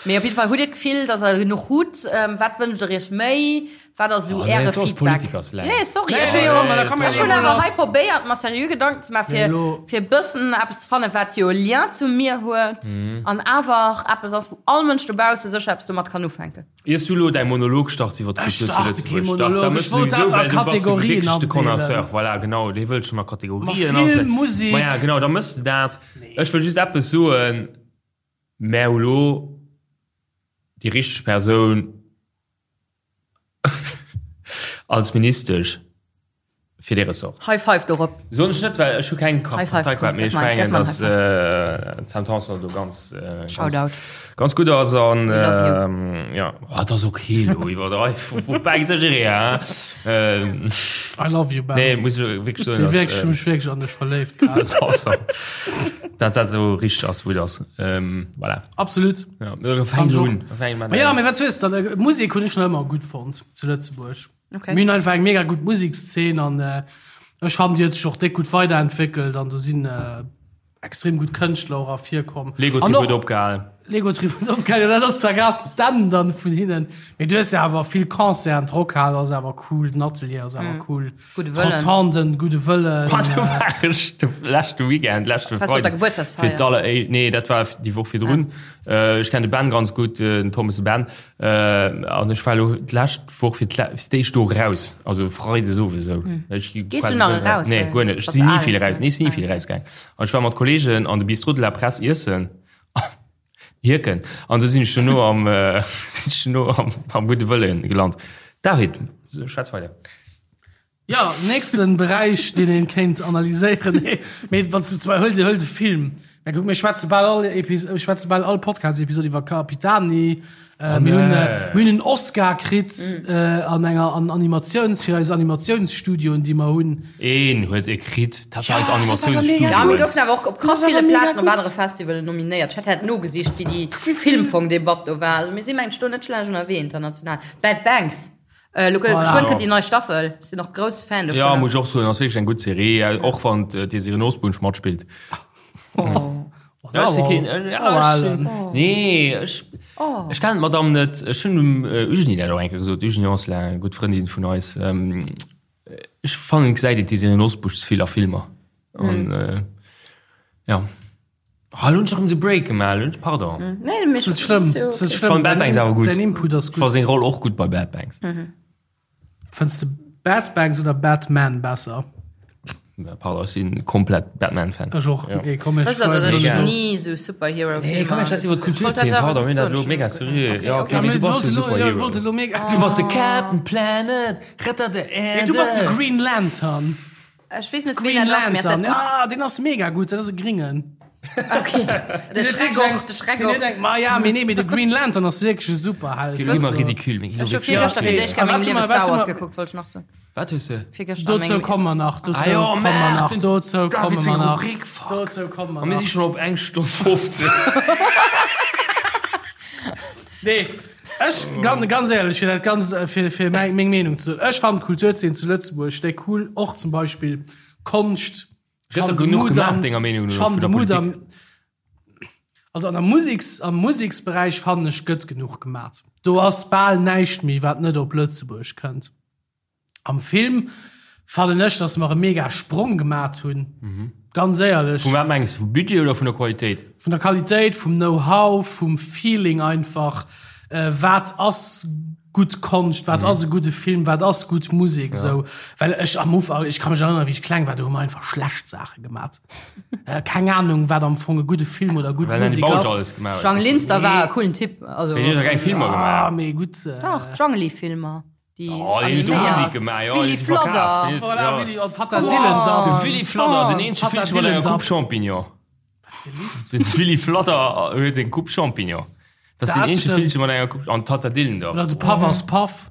Mee op jidde Fall, hutt Dir d'Gefill, dass Der genuch hutt? Wat wënscht Der Iech méi? Wat ass esou Oh, nee, Äre dat ass Feedback? Politikerslang. Nee, sorry, Nee, ech hu nee, jo, komm, da komm ech hunn elo awer hei lass. probéiert, mer seriö Gedanken ze maachen, Nee, fir, elo. fir e bëssen eppes ze fannen, wat jo e Lien zu mir huet an awer eppes ass, wou all Mënsch dobausse sécher eppes domat kann ufänken. Iers du elo däi Monolog starts iwwer Ech d'Kultur zu starte kee Lëtzebuerg, dach, da Monolog, mëss ech du wollt souwisou, dat a well du bass de Kategorien wierklech de andeelen. Connoisseur, voilà, genau, dee wëllt schonn a Ma Kategorien Film, andeelen. Musek. Ma ja, genau, da mëss de dat. Ech wëll just eppes soen. Mä hu lo déi richteg Persoun als Ministesch fir dee Ressort. High five dorop. Soen ech net, well ech hu keng High five, Parteikaart, mee komm, ech gëff mer, mengen, gëff mer en datt d'Sam Tanson do ganz, Shoutout. ganz gutt ass an We love you. jo, oh, et ass ok elo iwwerdreiw, faut pas exagérer, hein. I love you, Ben. Nee, muss ech wierklech soen, Mee datt wierklech, ech hu mech wierklech an dech verléift grad. Dat dat esou richteg ass, wou et ass. Voilà. Absolut. Ja, fänk Kann un. Ma ja, mee wat hues dann? Musek hunn ech nach ëmmer gutt fonnt zu Lëtzebuerg. Okay. Mir hunn einfach eng mega gutt Musekszeen an ech fannen, déi huet sech och déck gutt weiderentwéckelt an do sinn extrem gutt Kënschtler och ervirkomm. Lego Trip huet opgehal. Lego Trip huet opgehal, jo dat ass zwar grad d'Enn dann vun hinnen, mee du hues jo awer vill Concerten, d'Rockhal ass awer cool, den Atelier ass awer cool, Gudde Wëllen. d'Rotonden, Gudde Wëllen. Wann do war ech de leschte Weekend, leschte Warst du op der Freiden Gebuertsdagsfeier? fir d'alleréischt, nee dat war déi Woch virdrun. Ech kennen de Ben ganz gutt, den Thomas de Ben, an ech war elo d'lescht Woch fir d'éischt do raus, also Freides owes esou. Ech gi Gees du quasi nach guer net eraus? Nee, guer net. Ech Bass sinn ni al. vill eraus, nee, ech sinn ni vill erausgaang. An ech war mat Kollegen an de Bistrot de la Presse iessen, Hierken, an du sinn ech duerno am, sinn ech duerno am, am Gudde Wëllen gelant. David, schwätz weider. Jo, nächsten Beräich, deen een kéint analyséieren. Nee, mee wann s du zum Beispill, huel, huel de Film. Mä kuck, mir schwätze bal all Epis-, mir schwätze bal all Podcast-Episod iwwer Capitani. Äh, mir hunn, äh, mir hunn en Oscar kritt, äh, an enger, an Animatiouns-, fir eis Animatiounsstudioen, déi mer hunn. Een huet e kritt, dat war Ja, eis dat ass awer mega Animatiounsstudio. Ja, mir gutt. goufen awer och op krass Dat ass awer ville mega Plazen op gutt. anere Festivalen nominéiert. Ech hat hat nogesicht, wéi déi Wéi vill? Filmfong-Debatt do war. Also mir si mengen ech do net schlecht ënnerwee international. Bad Banks. Äh, lo Voilà. geschwënn kënnt déi nei Staffel. Ech sinn och grousse Fan Ja, dovunner. muss ech och soen, ass wierklech eng gutt Serie, och wann d'Désirée Nosbusch matspillt. Oh. Ja, ech si keen, äh, ja, ech sinn, nee, ech, ech kennen d'Madame net. Ech hunn dem Eugénie dat och eng Kéier gesot, d'Eugénie Anselin, eng gutt Frëndin vun eis. Ech fannen, et gesäit een d'Désirée Nosbusch ze vill a Filmer. An, ja. Ah, lo hunn ech erëm de Break gemaach, lo hunn ech, pardon. Nee, mee Ass net schlëmm, ass net schlëmm. Fand Bad Banks awer gutt. Däin Input ass Ech fand gutt. seng Roll och gutt bei Bad Banks. Fënns de Bad Banks oder Batman besser? Pardon, ech sinn komplett Batman-Fan. Ech och. Ja. Nee, komm, ech Wësst der, datt ech Mega. ni sou Superhero-Filmer Nee, komm, ech schwätz iwwer d'Kulturzeen, pardon, mir hunn dat elo mega seriö. Ja, okay, Ja, mee mee du bass jo wollt elo, ja, Superhero. wollt elo mega. Du bass de Captain Planet, Retter der Nee, Erde. du bass de Green Lantern. Ech weess net, ween Green dat ass, mee ass dat Lantern, gutt? ah, deen ass mega gutt, dat ass e Gringen. Okay. De Schreck och, de Schreck Den och. huet eng, ma ja, mee nee, mee de Green Lantern ass wierklech e Superheld. Ginn ëmmer ridicule, mee Ech hu virgëschter fir d'éischt Ah, Kéier a mengem wat Liewe soll Star mer- Wars wat gekuckt, wollt ech nach soen. Wat hues de? Virgëschter a Dozou mengem komme mer nach, dozou Ah jo, komme mer nach, Maarten, dozou David komme seng mer nach, Rubrik, fuck. dozou komme mer A mir si nach. schonn op eng Stonn 15. Nee, ech, ganz, ganz éierlech, fir dat Ganzt, fir, fir meng, meng Meenung ze soen, ech fannen d'Kulturzeen zu Lëtzebuerg déck cool, och zum Beispill Konscht. Gëtt der genuch gemaach, denger Meenung no, vun der Politik? Also an der Musiks, am Museksberäich fannen ech gëtt genuch gemat. Do ass bal näischt méi, wat net op Lëtzebuerg kënnt. Am Film fannen ech, dass mer e mega Sprong gemat hunn. Ganz éierlech. Vu wat mengs de? Vum Budget oder vun der Qualitéit? Vun der Qualitéit, vum Know-how, vum Feeling einfach. Wat ass gutt Konscht, wat ass e gudde Film, wat ass gutt Musek esou. Well ech am Ufank, ech ka mech erënneren, wéi ech kleng war, do hu mer einfach schlecht Saache gemat. Keng Anung, wat am Fong e gudde Film oder gutt Well Musek Bausch ass. alles gemaach huet. Jang Linster war e coolen Typ. Also, Wéi, deen huet der keng Filmer Ah, gemaach? mee gutt. Dach, d'Jangeli-Filmer. Déi Oh, déi huet do Musek gemaach, jo, Willy déi verkaaft, Fladder. déi huet- Voilà, ja. Willy, an Tatta Dillen da. De Willy Fladder, den eenzege Tatta Villche mat enger Dillen Coupe Champignon. De Willy Fladder huet eng Coupe Champignon. Dat ass den Dat eenzege stimmt. Villche mat enger Coupe, an Tatta Dillen da. Oder de Paff ass Paff.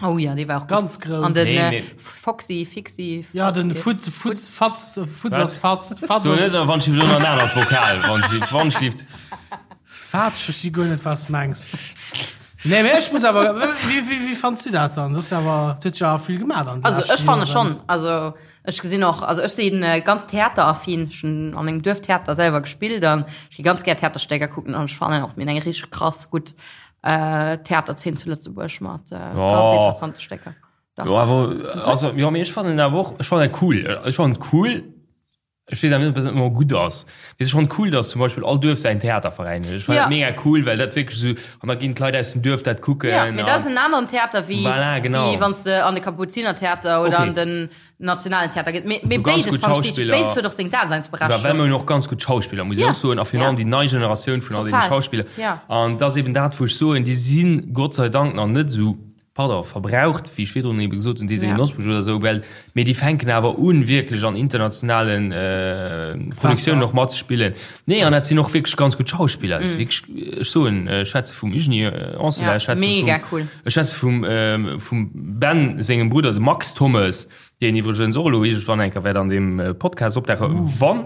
Oh ja, dee war och gutt. Ganz grouss. An den Nee, äh, nee. Foxy, Fixi. Ja, den Futz, Futz, Fatz, Futz ass Fatz, Fatz So net, ass wann ech elo nach en anert Vokal, wann ech, wann ech lift. Fatz, ech versti guer net, wat s mengs. Nee, mee ech muss awer, wéi, wéi, wéi fandst du dat dann? Dat ass awer, dat huet jo awer vill gemaach an de Also leschten ech fanne Joren. schonn, also ech gesinn och, also ech sinn ganz theateraffin, ech hunn an engem Duerftheater selwer gespillt an ech gi ganz gär Theaterstécker kucken an ech fannen och mir hunn eng richteg krass gutt Theaterzeen zu Lëtzebuerg mat ganz interessante Stécker. Dach. Jo awer, also jo mee ech fannen awer och, ech fannen dat cool, ech fannen et cool, Ech weess awer net, ob dat ëmmer gutt ass. Mee et ass schonn cool, dass zum Beispill all Duerf säin Theaterveräin huet. Ech fannen Ja. dat mega cool, well dat wierklech esou, an da ginn d'Leit aus dem Duerf dat kucken. Ja, mee dat ass an en aneren Theater wéi, Voilà, genau. wéi wann s de an de Kapuzinertheater oder Okay. an den Nationalen Theater gees. Mee, mee Du ganz béides gutt fannen ech wichteg. Schauspiller. Béides huet och seng Well mir Daseinsberechtigung. hunn och ganz gutt Schauspiller, muss ech Ja. och soen, a virun Ja. allem déi nei Generatioun vun all deene Total. Schauspiller. Ja. An dat ass eben dat, wou ech soen, déi sinn Gott sei Dank nach net esou pardon, verbraucht, wéi ech virdrun ebe gesot hunn, Désirée Nosbusch oder esou, well, mee déi fänken awer un, wierklech an internationalen Produktiounen och matzespillen. Nee, an dat sinn och wierklech ganz gutt Schauspiller. Dat si wierklech, ech soen, ech schwätze vum Eugenie Anselin, ech schwätze vum, ech schwätze vum, vum Ben sengem Brudder, dem Max Thommes, deen iwwregens och elo iergendwann eng Kéier wäert an deem Podcast opdauchen, wann,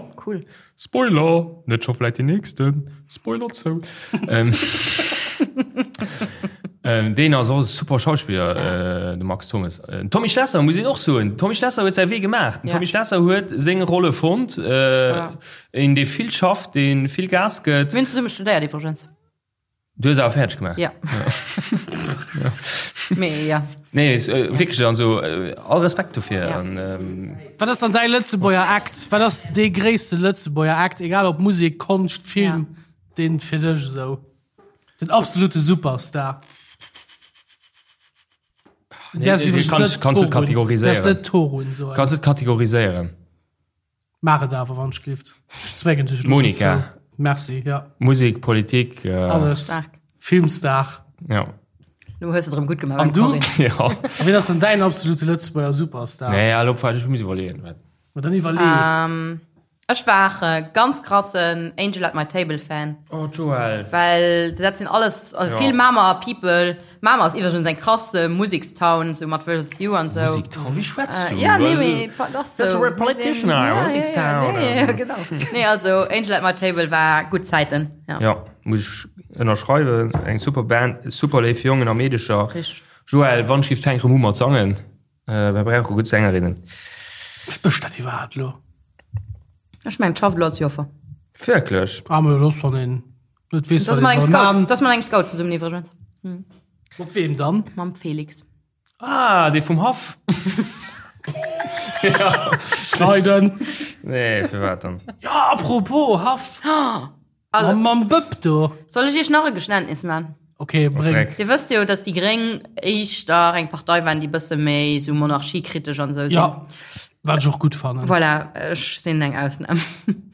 Spoiler! Net scho vläit deen nächsten? Spoiler zou. Deen ass och e super Schauspiller, de Max Thommes. Den Tommy Schlesser muss een och soen. Den Tommy Schlesser huet säi Wee gemaach. Den Tommy Schlesser huet seng Rolle fonnt. Een, dee vill schafft, dee vill Gas gëtt. Mir hunn zesumme studéiert iwwregens. Du hues awer fäerdeg gemaach? Ja. Mee ja. Nee, wierklech, also all Respekt dofir. Ja. Wat ass dann däi Lëtzebuerger Act? Wat ass dee gréisste Lëtzebuerger Act, egal ob Musek, Konscht, Film, deen fir dech esou den absolute Superstar? Nee, kanns du kategoriséieren. Däerfs net Torun soen. Kanns du kategoriséieren. Maach et awer wann ech glift. Ech zwéngen dech elo Monika. dozou. Merci, ja. Musek, Politik. Alles. Stark. Filmstar. Ja. Lo hues de et erëm gutt gemaach An beim du? Corinne. Ja. A wien ass dann däin absolute Lëtzebuerger Superstar? Nee, elo ech muss iwwerleeën. Ma dann iwwerlee. Ech war e ganz krassen Angel at my Table Fan. Oh Joël. Well dat sinn alles also Ja. vill Mamer People. Mamer ass iwwregens eng krass Musekstown, sou mat Versus You an sou. Musektown, wéi schwätz du? Ja, nee, mee pa- das Das sou. ist a politician, Ja, Musekstown. ja, ja, ja, genau. Nee, also Angel at my Table war gutt Zäiten. Ja. Ja, muss ech ënnerschreiwen. Eng super Band, super léif Jongen a Meedecher. Richteg. Joël, wann ech giff fänk rëm u mat sangen. Äh, wer brauche gutt Sängerinnen? Was mécht dat iwwerhaapt elo? Ech mengen, schafft elo als Joffer. Wierklech? Ah, ma dat ass, wann een net weess, Dat wat ass mat ee engem soll Scout, man. dat ass mat engem Scout zesummen iwwregens. Mat weem dann? Mam Felix. Ah, dee vum Haff. Schneiden. Nee, firwat dann? Ja, apropos Haff. Also, Mam, mam Bëpp do. Soll ech iech nach e Geständnis man? Okay, bréng. Freck. Dir wësst jo, dass déi Gréng éischter eng Partei waren, déi bësse méi sou monarchiekritesch an sou sinn. Ja, wat ech och gutt fannen. Voilà, ech sinn eng Ausnam.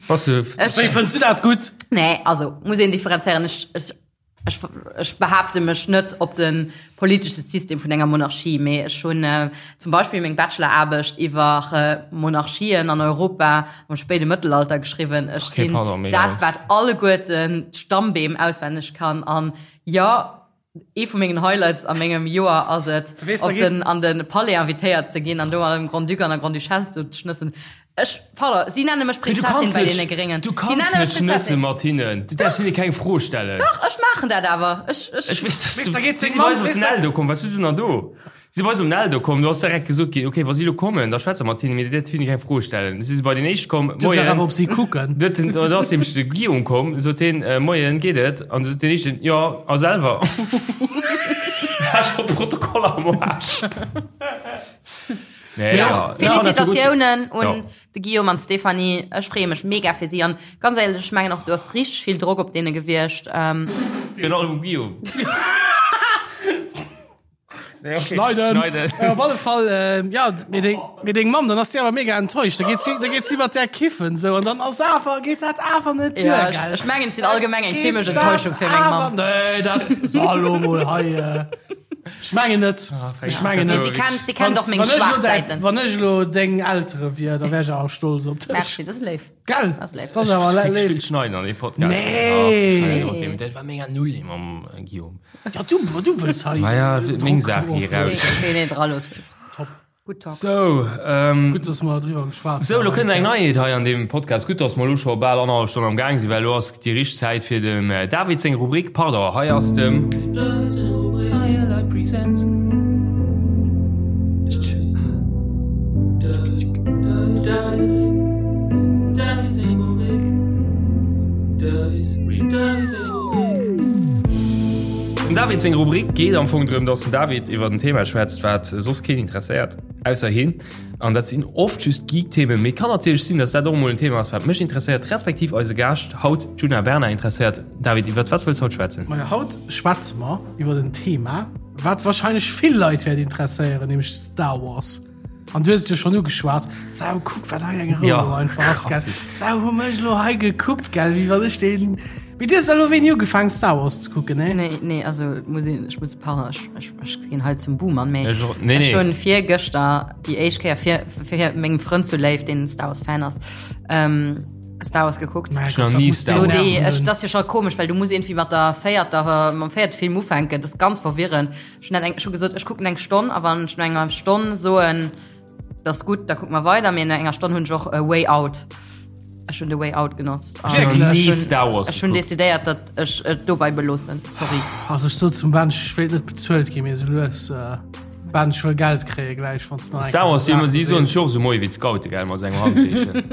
Was du? Ech, Wéi fënns du dat gutt? nee, also muss een differenzéieren. Ech, ech, ech, ech behaapte mech net op de politesche System vun enger Monarchie, mee ech hunn zum Beispill meng Bacheloraarbecht iwwer Monarchien an Europa am spéide Mëttelalter geschriwwen. Ech Okay, sinn pardon, mega. dat, wat alleguerten d'Stammbeem auswenneg kann. An jo, ee vu mengen Highlights a mengem Joer ass et, weess, da op geet- den, an de Palais invitéiert ze ginn an do mat dem Grand-Duc an der Grande-Duchesse do ze schnëssen. Ech, pardon, si nenne mech Du Prinzessin kanns bei net, deene Gréngen. du Si kanns nenne net mech schnësse Prinzessin. mat hinnen. Du däerfs hinne keng Fro stellen. Dach, ech maachen dat awer. Ech, ech, Ech weess, dass Weess, du, da geet si seng si bei Mamm, eis op weess den de- Eldo komm. Wat du denn dann do? Si si bei eis op den Eldo komm, do ass direkt gesot ginn, okay, wa si elo kommen, da schwätze mat hinnen, mee dir däerft hinne keng Fro stellen. Si si bei den éischt komm, Duerf dach awer Moien. op si kucken. Do huet den, do ass nämlech de Guillaume komm, sot hien, Moien, geet et? An du sot den éischten, Jo, a selwer? War scho Protokoll am Aarsch. Nee, ja, Félicitatiounen un Ja. de Guillaume an d'Stéphanie. Ech freeë mech mega fir si an ganz éierlech, ech mengen och do ass richteg vill Drock op deene gewiescht. Ähm, Virun allem um Guillaume. Nee, okay. Schneiden. Schneiden. Äh, op alle Fall, äh, ja, mee deng, mee deng Mamm, dann ass si awer mega enttäuscht. Da geet si, da geet si mat där kiffen, sou, an dann ass awer, geet dat awer net duer, ja, ech, gell? ech mengen, et sinn allgemeng eng Geet zimmlech dat Enttäuschung fir meng awer- Mamm. Nee, dat, so, hallo mol hei, äh, Ech mengen net. Ech mengen Mee net. si kennt, si kennt och meng Wann ech elo schwaach däi- Säiten. Wann ech elo deng Eltere wier, da wär ech awer stolz op dech. Merci, dat ass léif. Gell? Dat ass léif. Dat ass awer Ech léif. vill schneiden an deem Podcast. Nee. Ah, schneiden op deem. Dat war mega null mam Guillaume. Ja, du, du wëlls hei. Ma ja, meng Saach Druck hier raus. Nee, nee, dra loossen. Top. Gutt Talk. Sou, ähm, Gutt, dass mer driwwer geschwat Sou, lo kënnt eng Neiheet hei an deem Podcast. Gutt, dass mer lo scho bal annerhallef Stonn am Gaang sinn, well lo ass déi richteg Zäit fir dem David seng Rubrik. Pardon, hei ass dem. Dem David seng Rubrik geet am Fong drëm, dass den David iwwer en Thema schwätzt, wat soss keen interesséiert, ausser hien. An dat sinn oft just Geek-Themen, mee kann natierlech sinn, dass dat och emol en Thema ass, wat mech interesséiert, respektiv eise Gaascht haut, d'Djuna Bernard, interesséiert. David, iwwer wat wëlls haut schwätzen? Majo, haut schwätze mer iwwer en Thema, wat warscheinlech vill Leit wäert interesséieren, nämlech Star Wars. An du hues et jo schonn ugeschwat. Sau, kuck, wat hei eng Rou Ja. einfach ass, gell. Sau, hu mech lo hei gekuckt, gell, wéi wann ech den. Mee du hues da lo wéini ugefaangen, Star Wars ze kucken, ne? Nee, nee, also muss een, ech muss, pardon, ech, ech, ech ginn hei zum Boomer, mee Ech och- nee, ech nee. hunn virgëschter déi éischt Kéier fir, fir mengem Frënd zu Léif, deen Star Wars Fan ass, ähm, Star Wars gekuckt. Mein Ech nach Gott, nie dat muss Star Do Wars. déi, nerven. ech, das ist jo scho komesch, well du muss irgendwie mat der véierter, mam véierte Film ufänken, das ist ganz verwirrend. Ech hunn dat eng, ech hu gesot, ech kucken eng Stonn a wann ech no enger Stonn soen, dat ass gutt, da kucke mer weider, mee no enger Stonn hunn ech och a way out. Ech hunn The Way Out genotzt. Ech hunn nach ni Star Wars Ech hunn gekuckt. decidéiert, datt ech et dobei beloossen. Sorry. Also ech sot zum Ben, ech wéilt net bezuelt ginn, mee sou lues Ben, ech wëll Geld kréie gläich, wann s du nach eng Star Kéier Wars, sou si Saache si soen sees. sech och esou moie wéi d'Scoute, gell, mat sengem Handzeechen.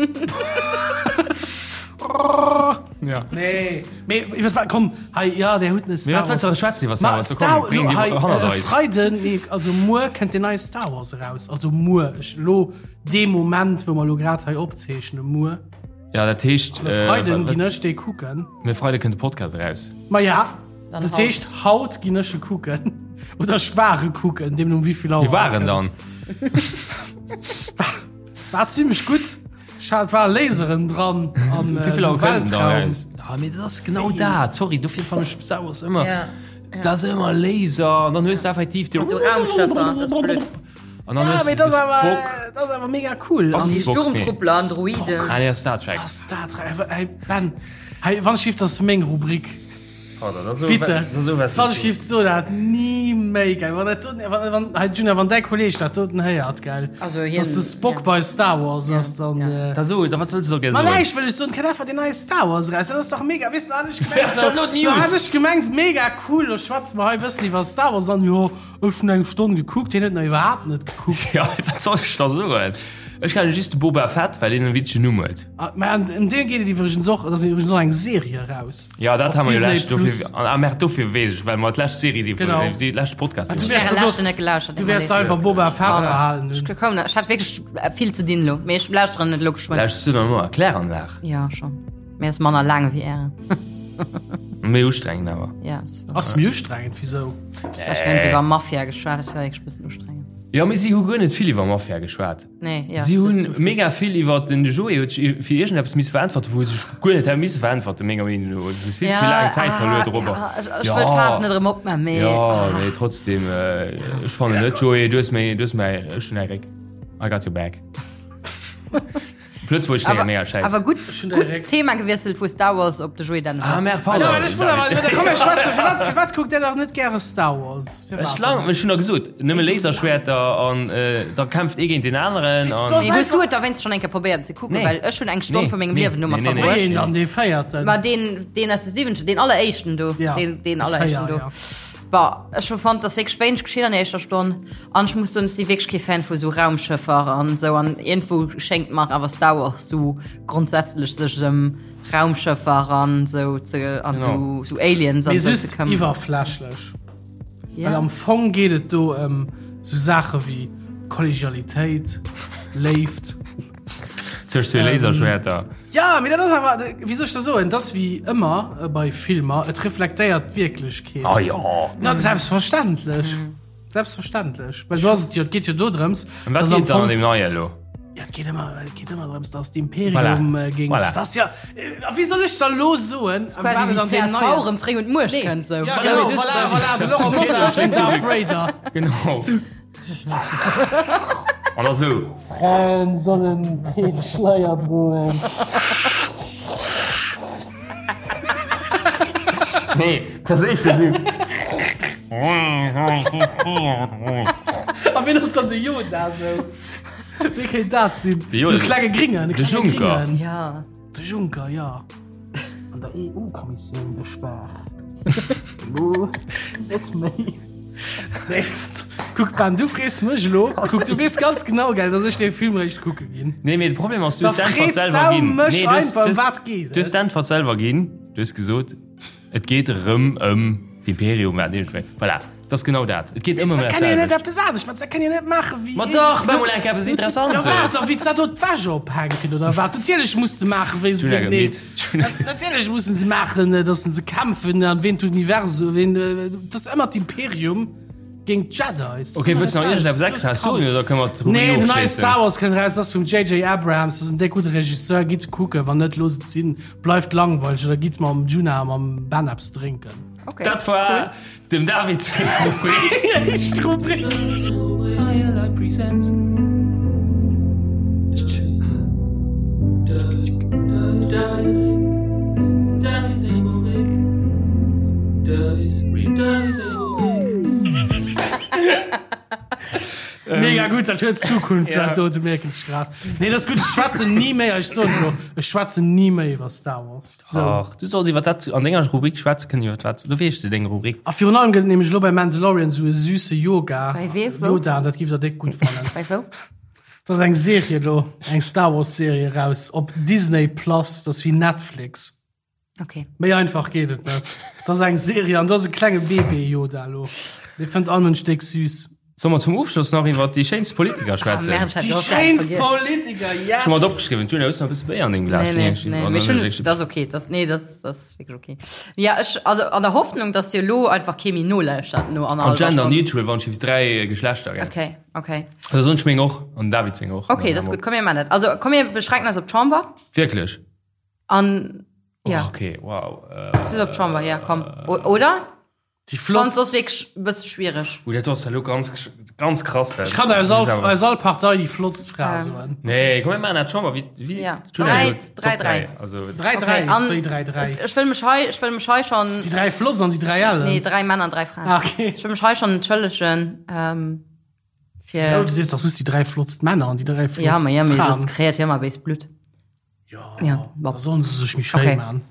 Ja. Nee, mee iwwer wat, komm, hei, ja, där hutt net Mee Star wat wëlls Wars. du schwätzen iwwer Star Ma Wars? Komm, Star, bréng lo, déi hei, hannert äh, eis. Freiden, nee, also muer kënnt den neie Star Wars eraus. Also muer, ech lo dee Moment, wou mer lo grad hei opzeechnen, muer. Ja, dat heescht, An e äh, Freiden wat- ginn ech dee kucken. Mee Freide kënnt de Podcast eraus. Ma ja, Dann dat haut. heescht, haut ginn ech e kucken. Oder ech war e kucken, deemno um wéi vill Auer Wie war e en dann? kënnt. War zimmlech gutt. Ech hat war Laseren dran an Wéi vill esou Auer kënnt en dann Weltraum. eraus? Ah, mee dat ass genau dat. Sorry, dofir fannen ech Star Wars ëmmer. Ja. Dat ass ëmmer Laser an dann hues du effektiv Sou Raumschëffer, dat ass blöd. An dann Ja, hues mee du dat ass awer, Spock. dat ass awer mega cool. Ass An Déi Spock, nee. Sturmtruppler an Droiden. Ah, nee, ass Star Trek. dat ass Star Trek. Hey, Ben, hey, wann ech giff, dat ass meng Rubrik. Bitte, wann ech giff soen, dat ni méi, gell. Wann dat doten, wann, wann, hey, Juna, wann däi Kolleg dat doten héiert, gell, Also hien, dass de Spock ja. bei Star Wars ass, dann. ja. Äh, Da so, da wat wëlls du da gär Ma soen? näischt wëll ech soen, kënnt einfach deen neie Star Wars eraus. Dat ass dach mega, weess du, hat ech gemengt, Ass dat not do News? hat ech gemengt, mega cool, lo schwätze mer hei e bëssen iwwer Star Wars, dann, jo, Ech hun eng Stonn gekuckt, hien huet nach iwwerhaapt net gekuckt. Ja, wat soll ech da soen? Ech kenne just de Boba Fett, well deen en witzegen Numm huet. Ah, mä an ëm dee geet et iwwregens och, et ass iwwregens och eng Serie eraus. Ja, dat Op ha mer jo Disney lescht, dofir, Plus. ah merde, dofir weess ech, well mer d'lescht Serie, déi, Genau. déi lescht Podcast. Ah, du iwwer- wärst Äre do- leschten net gelauschtert. Du wäers einfach Boba Fett verhalen Ech hunn. koum net, ech hat wierklech vill ze dinn elo, mee ech lauschteren et elo geschwënn. Lauschters du dann elo Kläranlag? Ja, schon. Mee ass manner laang wéi ären. Méi ustrengend awer. Ja, das war. Ass méi ustrengend, wisou? Vläicht hunn se iwwer Mafia geschwat, dat war wierklech e bëssen ustrengend. Jo, mee si hu guer net vill iwwer Mafia geschwat. Nee, ja. Si just hunn zum Schluss. mega vill iwwer den Joé huet sech fir iergendeppes misse veräntwerten, wou e sech guer net hätt misse veräntwerten, menger Meenung no. Et ass vill ze vill laang Zäit verluer dorobber. Ja, ech, ech wëll d'Faass net erëm opmaachen, mee. Jo, mee trotzdem, ech fannen net, Joé, du hues meng, du hues mäi, ech hunn däi Réck. I got your back. Op Lëtzebuergesch kléngt mega schäiss. Awer gutt, gutt Thema gewiesselt vu Star Wars op de Joé Dennewald. Ah merde, pardon. Ja, ech wëll awer, komm mir schwätzen, firwat, firwat kuckt Dir nach net gäre Star Wars? Firwat? Ech lang, ech hunn der gesot, nëmme Laserschwerter an da kämpft ee géint deen aneren an. Mee hues du et da wéinst schonn eng Kéier probéiert ze kucken? Nee. Well ech hunn eng Stonn Nee. vu mengem Nee. Liewen domat Nee, nee, nee. verbruecht. Wéi een dann, dee véierten? Ma deen, deen aus de siwenzeg, deen alleréischten do. Ja, Deen, deen de alleréischten Véier, do. ja. Bon, ech hu fonnt, dass wierklech wéineg geschitt an der éischter Stonn. An ech muss soen, ech si wierklech kee Fan vu sou Raumschëffer an sou. An iergendwou schéngt mer awer Star Wars sou grondsätzlech sech ëm Raumschëffer an sou ze an sou sou Aliens an Mee sou ze just këmmeren. iwwerflächlech. Ja. Well am Fong geet et do ëm sou Saache wéi Kollegialitéit, Léift. Zwëscht zwee Laserschwerter. Ja, mee dat ass awer, wéi soll ech dat soen, dat ass wéi ëmmer bei Filmer, et reflektéiert d'Wierklechkeet. Ah jo. Na, selbstverständlech. Selbstverständlech. Well do ass et jo, et geet jo do drëms, Ëm wat dass am geet dann Fong, an deem neie elo? ja, et geet ëmmer, et geet ëmmer drëms, dass d'Imperium Voilà. géint, Voilà. dat ass ja, a wéi soll ech da lo soen, ëm Quasi wat et wéi an deem csv neien. erëm zréck un d'Muecht kënnt, sou. Ja, genau, voilà, voilà, de Laurent Mosar ass den Darth Vader. Genau. An da sou. Fraen sollen keen Schleier droen. Nee, perséinlech sou. A wien ass dann de Yoda sou? Wee kéint dat sinn? De Yoda. Sou e klenge Gringen, e De klenge Juncker. Gringen. Ja. De Juncker, ja. An der EU-Kommissioun gespaart. Elo net méi. Nee, kuck Ben, du frees mech elo. Kuck, du weess ganz genau, gell, dass ech dee Film réischt kucke ginn. Nee, mee de Problem ass, du Da hues d'Äntwert freet selwer Sau ginn. mech Nee, du hues- einfach, du hues- ëm wat geet Du hues et? d'Äntwert selwer ginn. Du hues gesot, et geet erëm ëm d'Imperium, wat iergendwéi. Voilà. Dat ass genau dat. Et geet ëmmer ëm Dat dat kann jo net selwecht. eppes anescht maachen. Dat kann jo net maachen wéi. Ma dach, mach mol eng Kéier eppes Interessantes. Ja wat da, wéi se dat do d'Wäsch ophänken oder wat? Natierlech muss se maachen, wéi se Julia géintenee. gëtt midd. Natierlech mussen se maachen, datt se kämpfen an ween d'Universum, ween, dat ass ëmmer d'Imperium géint d'Jedis. Okay, wëlls du nach iergendeppes extraes soen oder kënne mer d'Rubrik Nee, den neie ofschléissen? Star Wars kënnt eraus, ass vum JJ Abrams, dat ass en déck gudde Regisseur. Gitt kucken, wann net, loosst et sinn, bleift langweileg oder gitt mam Djuna a mam Ben eppes drénken. Okay. Dat war Dem David seng Rubrik. Éischt Rubrik. Mega. Mega gutt, dat huet Zukunft, dat do, du mierken ech grad. Nee, dat ass gutt, ech schwätzen ni méi, ech soen elo, ech schwätzen ni méi iwwer Star Wars. So. Ach, du solls iwwer dat an denger Rubrik schwätze kënnen, iwwer wat, du weess de deng Rubrik. A virun allem gëtt et nämlech elo bei Mandalorian esou e süsse Yoga, Bei wee, wou? Yoda, an dat giff der déck gutt fannen. Bei wou? Dat ass eng Serie elo, eng Star Wars Serie eraus op Disney Plus, dat ass wéi Netflix. Okay. Méi einfach geet et net. Dat ass eng Serie an do ass e klenge Bébé Yoda elo. Dee fënnt all Mënsch déck süß. Solle mer zum Ofschloss nach iwwer déi schéinst Politiker schwätzen? Ah, merde, Déi schéinst Politiker, yes! Ech hu mer et opgeschriwwen. D'Julia, hues du nach e bësse Béier an dengem Glas? Nee, nee, nee, mee ech hunn es, dat ass okay. Dat, nee, dat, dat ass wierklech okay. Ja, ech, also an der Hoffnung, dass dir elo einfach kee méi nolauschtert no An annerhallwer gender Stonn. neutral, wann ech 3 Geschlechter, gell? Okay, okay. Also soen ech meng och an David seng och. Okay, dat ass gutt. Komm, mir maachen dat. Also komm, mir beschränken eis op d'Chamber. Wierklech? An, ja. Oh, okay, wow. Äh, Just op d'Chamber, ja, komm. O oder? Déi flott. Fand soss wierklech e bësse schwiereg. Ui, dat ass elo ganz, ganz krass. Ech kann aus all, aus all Partei déi flottst Fra ähm. soen. Nee, komm, mir maachen dat Chamber, wéi, wéi, ja. 3, 3, 3. Also, 3, 3, okay, an, wéi 3, 3. Ech wëll mech hei, ech wëll mech hei schon. Déi 3 flotts an déi 3 ellens. Nee, 3 Männer an 3 Fraen. Ah, okay. Ech wëll mech hei schon entschëllegen, ähm, fir. So, du sees dach just déi 3 flottst Männer an déi 3 flottst Ja, ma ja, mee Fraen. so kreéiert hie mar béis Blutt. Ja, ja da sollen se sech méi schéi okay. man.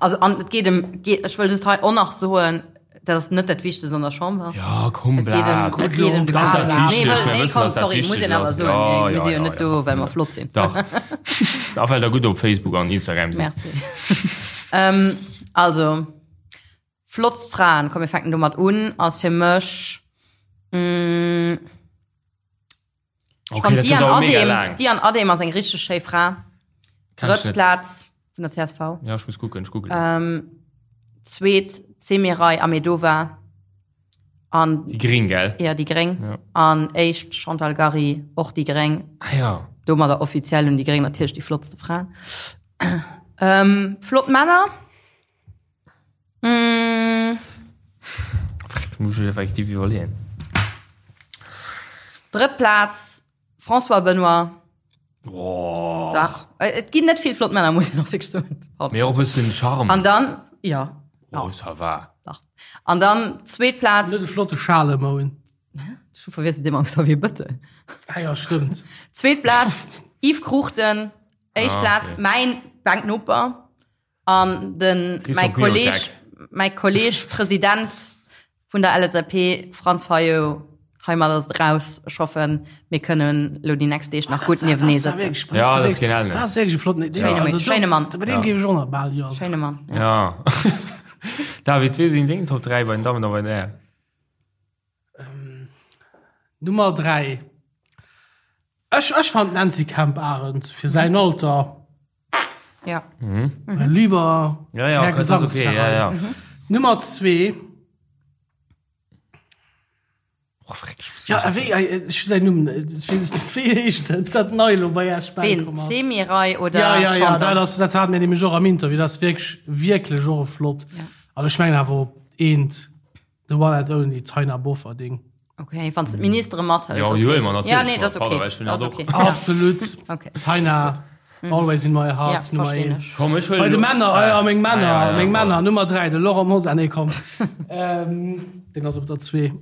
Also an et geet em geet, ech wëll just hei och nach soen, dat ass net dat Wichtegst an der Chamber. Ja, komm, Et geet em, et geet em de Das Kader. dat Nee, Wichtegst, wëll, mir nee, wëssen, komm, dass dat sorry, muss wichteg een awer ass. soen. Ja, Mir ja, si jo ja, net ja. do, well mer flott sinn. Dach. A well der gutt op Facebook an Instagram sinn. Merci. ähm, also, flottst Fraen, komm, mir fänken domat un, ass fir mech, mm, Okay, Fand dat Diane gëtt awer mega Adehm, laang. Diane Adehm ass eng richteg schéi Fra. Kenn ech Drëtt net. Plaz vun der CSV. Ja, ech muss kucken, ech googeln. Ähm, zweet Semiray Ahmedova an Déi Gréng, gell? ja, déi Gréng. Ja. An éischt Chantal Gary, och déi Gréng. Ah ja. Domadder offiziell hunn déi Gréng natierlech déi flottste Fraen. Ähm, flott Männer. Mm. Freck, muss ich effektiv iwwerleeën. Drëtt Plaz, François Benoy. Oh. Dach. Äh, Et ginn net vill flott Männer, muss ich nach fix soen. Mee och e bëssen Charme. An dann, ja. Oh, ça va. Dach. An dann zweet Plaz. Net e flotte Schalemoun. Ech hu verwiesselt dee mam Xavier Bëttel. Ah ja, stëmmt. Zweet Plaz, Yves Cruchten. Éischt Ah, Plaz, okay. mäin Banknoper. An den mäi Kolleg, mäi Kolleg President vun der LSAP, Franz Fayot, heimat ass et raus. Ech hoffen, mir kënnen elo déi nächst Deeg nach gutt niewtenee sëtzen. Ja, dat ass keen Ellen. Dat ass wierklech e flotten. Schéine Also, Schéine Mann. Bei deem géif ech och nach bal jo. Schéine Mann. Ja. David, wee sinn deng Top 3 bei den Dammen a bei den Hären? Nummer 3. Ech, ech fand d'Nancy Kemp-Arendt fir säin Alter. Ja. Mhm. Mein lieber Ja, ja, Herr okay, das ist okay, ja, ja. Gesangsverein. Nummer 2. Oh, freck, ich muss- Ja, wéi, äh, ech hu säin Numm, äh, ech weess net, wéi heescht dat, dat nei elo bei Esch Ween? bäikomm ass. Semiray oder Ja, ja, ja, Chantal? dat ass, dat hat mir nämlech och am Interview, dat ass wierklech, wierklech och e flott. Ja. An ech mengen awer op eent, the one and only Taina Bofferding. Okay, wann du d'Ministere mathëls. Ja, okay. déi huele mer natierlech Ja, nee, mat, dat ass pardon, okay. ech hunn Dat ass dat och. okay. Ja. Absolut. Okay. Taina, always in my heart, Ja, Nummer verstehen eent. ech. Komm, ech huelen Bei de elo- Männer, ah ja, meng Männer, Ah, ja, ja, meng pardon. Männer, Nummer 3, de Laurent Mosar, nee, komm. ähm, den ass op der 2.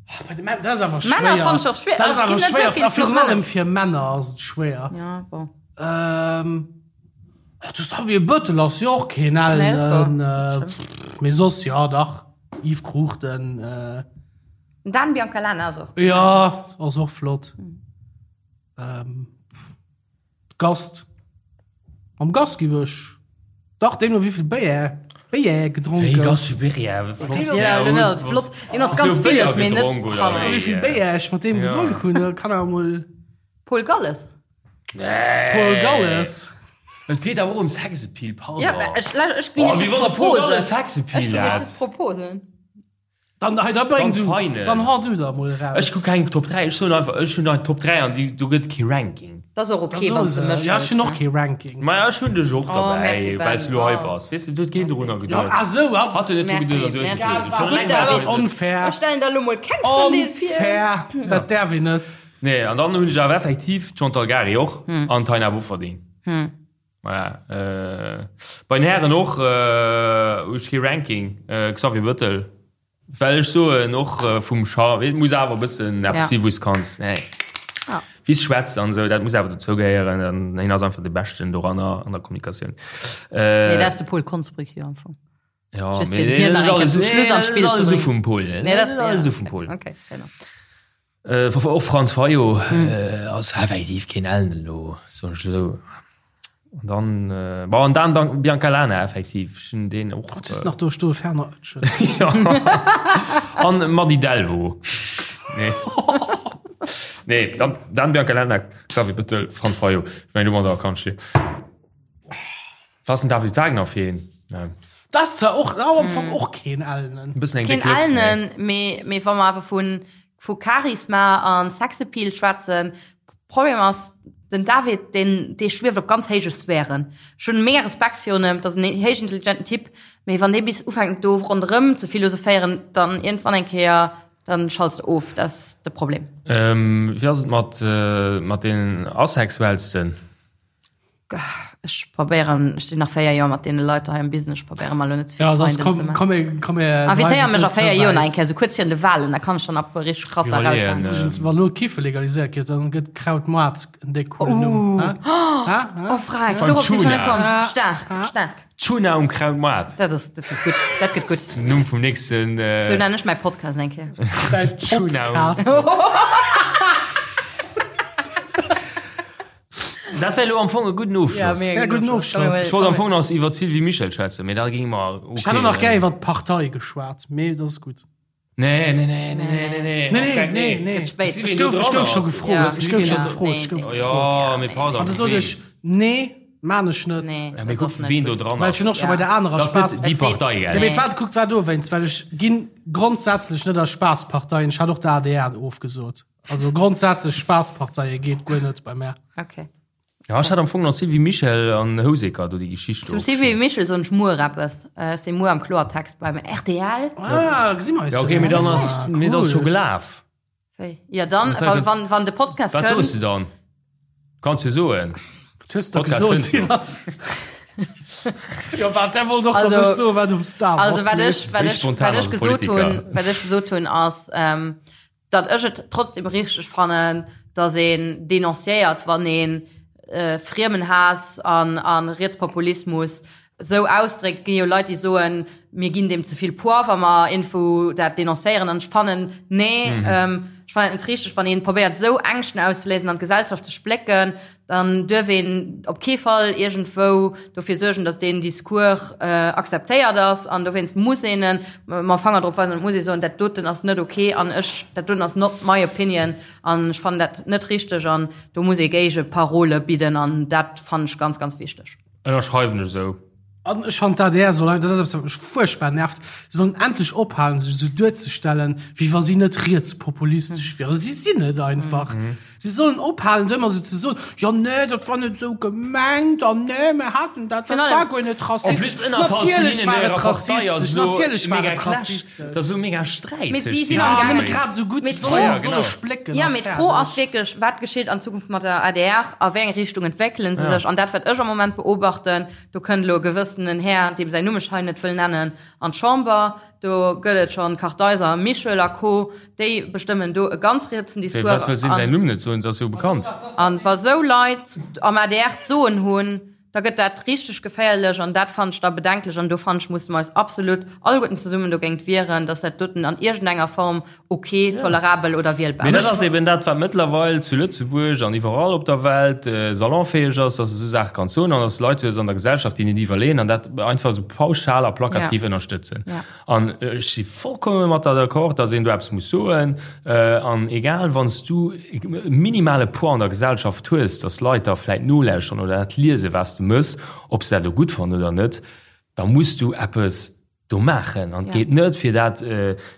Ah, Bei de Männer, dat ass awer schwéier. Männer fand ich och schwéier. Dat ass Also, awer es ginn net schwéier, so vill a virun flott allem Männer. fir Männer ass et schwéier. Ja, bon. Ähm, ach, de Xavier Bëttel ass jo och keen Nee, dat ass ellen, wahr. äh, pff, mee soss, ja, dach, Yves Cruchten, äh, Dan Biancalana ass och. Ja, ass och flott. Ähm, Gast. Am Gast giff ech dach deemno wéivill Béier Béier gedronk Wéi gouf. Gast fir Béier? Flott. Ja, genau, flott. Deen ass ganz villes, mee net Wéi vill Béier ech mat deem gedronk hunn, da kann awer mol. Paul Galles. Nee. Paul Galles. Et geet awer och ëm Sexappeal, pardon. Ja, ech, ech ginn Oh, iech wéi just wann der Paul Proposen. Galles Sexappeal Ech ginn iech hat. just Proposen. Dann, hei, da bréng Ganz du, feinen. dann hau du da mol raus. Ech kuck keng Top 3, ech soen einfach, ech hunn hei Top 3 an déi, do gëtt kee Ranking. Dat ass och Da okay, soe wann s de se. mech Ja, ech hunn hëls, och ne? kee Ranking. Maja, ech hunn dech och Oh, derbäi, merci, Ben. well s du elo hei Oh. bass. Weess de, do huet keen dorunner Ja, geduet. ah sou, hat. Hat huet net dru Merci, geduet an du hues merci. et geduet. Schon Gutt, eleng, David. Dat well ass du- onfair. Ech stellen der elo mol keng Frëndin vir. Onfair. Dat däerf een net. Nee, an dann hunn ech awer effektiv d'Chantal Gary och an d'Taina Bofferding. Voilà. Äh, bei den Hären och, äh, hu ech kee Ranking. Äh, Xavier Bëttel. Well ech soen och vum Charme, et muss awer e bëssen eppes si wou s kanns, nee, wéi s schwätz an esou, dat muss awer dozou gehéieren. An hien ass einfach de Beschten doranner an der Kommunikatioun. Nee, dat ass de Paul Konsbrück jo am Fong. Ja, Just fir hien nach eng Kéier zum Schluss an d'Spill ze bréngen. Vum Paul, Nee, dat ass alles esou vum Paul. Okay, fair enough. Och Franz Fayot ass effektiv keen Ellen elo, soen ech esou. An dann, bon, an dann dann Bianca Lana effektiv, ech hunn deen och. Wat hues de nach do stoen? Ferner Oetschel. Jo. An Mady Delvaux. Nee. Nee, dann, dann Bianca Lana, Xavier Bettel, Franz Fayot. Ech mengen, domadder kann ech liewen. Was ass den David Wagner fir een? Dat ass zwar och am Fong och keen Ellenen. E bëssen eng Keen déck Lips, nee. Ellenen, mee, mee wa mer awer vun, vu Charisma an Sexappeal schwätzen, Problem ass, den David, deen, dee schwieft op ganz héije Sphären. Ech hunn mega Respekt virun em, dat ass en héichintelligenten Typ, mee wann dee bis ufänkt do ronderëm ze philosophéieren, dann iergendwann eng Kéier, dann schalts de of, dat ass de Problem. Wéi ass et mat, mat deenen Asexuellsten? Ech probéieren, ech sinn nach 4 Joer mat deene Leit hei am Business, ech probéiere mal lo net ze vill Ja, soss Feinden komm, ze maachen. komm, mir- komm, mir Invitéier mech a dreiwen 4 et Joer ze nach eng wäit. Kéier, sou kuerz virun de Wahlen, da kann ech dann ab richteg krass Iwwerleeën, eraushauen. äh, Übrigens, wa lo Kiffe legaliséiert gëtt, dann gëtt Krautmoart en déck coolen Numm. Hä? Hä? Hä? Oh Freck, Beim dorop sinn ech schon net Tuna. komm. Staark, staark. Tuna um Krautmoart. Dat ass, dat gëtt gutt, dat gëtt gutt. Numm vum nächsten. Äh, Sou nennen ech mäi Podcast eng Kéier. Däin Tuna. Podcast. Dat wär elo am Fong e gudden Ofschloss. mega Wär gudden Ofschloss. Ech wollt am Fong nach iwwer d'Sylvie Mischel schwätzen, mee da géinge mer. Okay, Ech hätt och nach gär iwwer d'Partei geschwat, mee dat ass gutt. Nee, nee, nee, nee, nee, nee, nee. Nee, nee, nee, nee. Gëtt spéit. Ech gouf, ech gouf scho gefrot. Ja. Ech gouf scho Ja. gefrot. Ech gouf Nee, gefrot. Jo, mee pardon. An da sot ech, nee, maan ech net. Nee, Ja, mee dat kuck, ass net wien do gutt. dran Well ass. ech hunn och scho Ja. bei der anerer Dat ass net Spaass. déi Et seet- Partei, Ja, gell? mee wat, kuck, war dowéinst, well ech ginn grondsätzlech net a Spaassparteien. Ech hat och der adr ofgesot. Also grondsätzlech Spaassparteie geet guer net bei mär. Okay. Ja, ech hat am Fong nach Sylvie Mischel an Houseker do déi Geschicht Zum Sylvie Mischel soen ech muer eppes. Ech si muer am Kloertext beim rtl. Ah, gesi mer eis. Ja, okay, mee dann ass, mee dat ass scho gelaf. Wéi? Ja, dann, wann, wann, wann de Podcast Wat soos kënnt. de dann? Kanns jo soen. Wat hues de Podcast gesot? kënnt jo. Jo, wat, der wollt och, dass Also- ech soen, wat um Star Wars Also wat ech, leeft. wat Wéi ech, spontan wat ech ass e gesot Politiker? hunn, wat ech gesot hunn ass, ähm, datt ech et trotzdem richteg fannen, datt een denonciéiert, wann een Friemenhaass an a Rietspopulismus esou ausdréckt. Et ginn jo Leit, déi soen, mir ginn deem ze vill Poids, wa mer iergendwou dat denoncéieren. An ech fannen, nee, ech fannen et net richteg, wann ee probéiert, esou Ängschten auszeléisen an d'Gesellschaft ze splécken, dann duerf een op kee Fall iergendwou dofir suergen, datt deen Discours akzeptéiert ass. An dowéinst muss een e mam Fanger drop weisen an et muss ee soen, dat doten ass net ok an ech, dat doten ass not my opinion an ech fannen dat net richteg an do muss ee Géigeparole bidden an dat fannen ech ganz, ganz wichteg. Ënnerschreiwen ech esou. An ech fannen d'ADR soll, dat ass eppes wat mech fuerchtbar nervt, se sollen endlech ophalen sech esou duerzestellen, wéi wa si net rietspopulistesch wieren. Si sinn et einfach. Si sollen ophalen do ëmmer esou ze soen, jo nee, dat war net esou gemengt an nee, mir haten dat, dat war guer net rassistesch. Natierlech war et rassistesch, natierlech war et rassistesch. Dat ass elo mega Sträit. Mee si sinn Ja, amgaangen. nëmme grad esou gutt, Mee se d'Fro- sollen solle splécken Ja, a mee d'Fro ass fäerdeg. wierklech, wat geschitt an Zukunft mat der adr, a wéi eng Richtung entwéckelen se sech? An dat, wat ech am Moment beobachten, Do kënnt elo e gewëssenen Här, deem säin Numm ech hei net wëll nennen, an d'Chamber. Do gëtt et schonn Kartheiser, Michel a Co. Déi bestëmmen do e ganz rietsen Discours. Firwat wëlls de säin Numm net soen? Et ass jo bekannt. An wa sou Leit am adr d'Soen hunn, da gëtt dat richteg geféierlech an dat fannen ech da bedenklech. An do fannen ech, musse mer eis absolut alleguerten zesummen dogéint wieren, dass dat doten an iergendenger Form ok, tolerabel oder wielbar. Mee dat ass eben dat, wat mëttlerweil zu Lëtzebuerg an iwwerall op der Welt salonfäeg ass, dass de esou Saache kanns soen an dass Leit hues an der Gesellschaft, déi net iwwerleeën an dat einfach esou pauschal a plakativ ënnerstëtzen. An ech si vollkomme mat der d'accord, dass een do eppes muss soen. An egal, wann s du e minimale Poids an der Gesellschaft hues, dass Leit der vläit nolauschteren oder dat liesen, wat s de mëss, ob se dat elo gutt fannen oder net, da muss du eppes do maachen an et geet net fir dat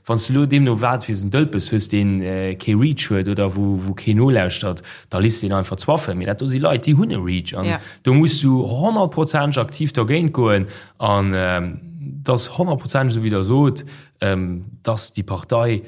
wann s de elo deemno wat fir en Dëlpes hues deen kee Reach huet oder wou wou keen nolauschtert, da liss deen einfach zwaffen. Mee dat do si Leit déi hunn e Reach an do muss du honnertprozenteg aktiv dergéint goen an et ass honnertprozenteg esou wéi der sot, dass déi Partei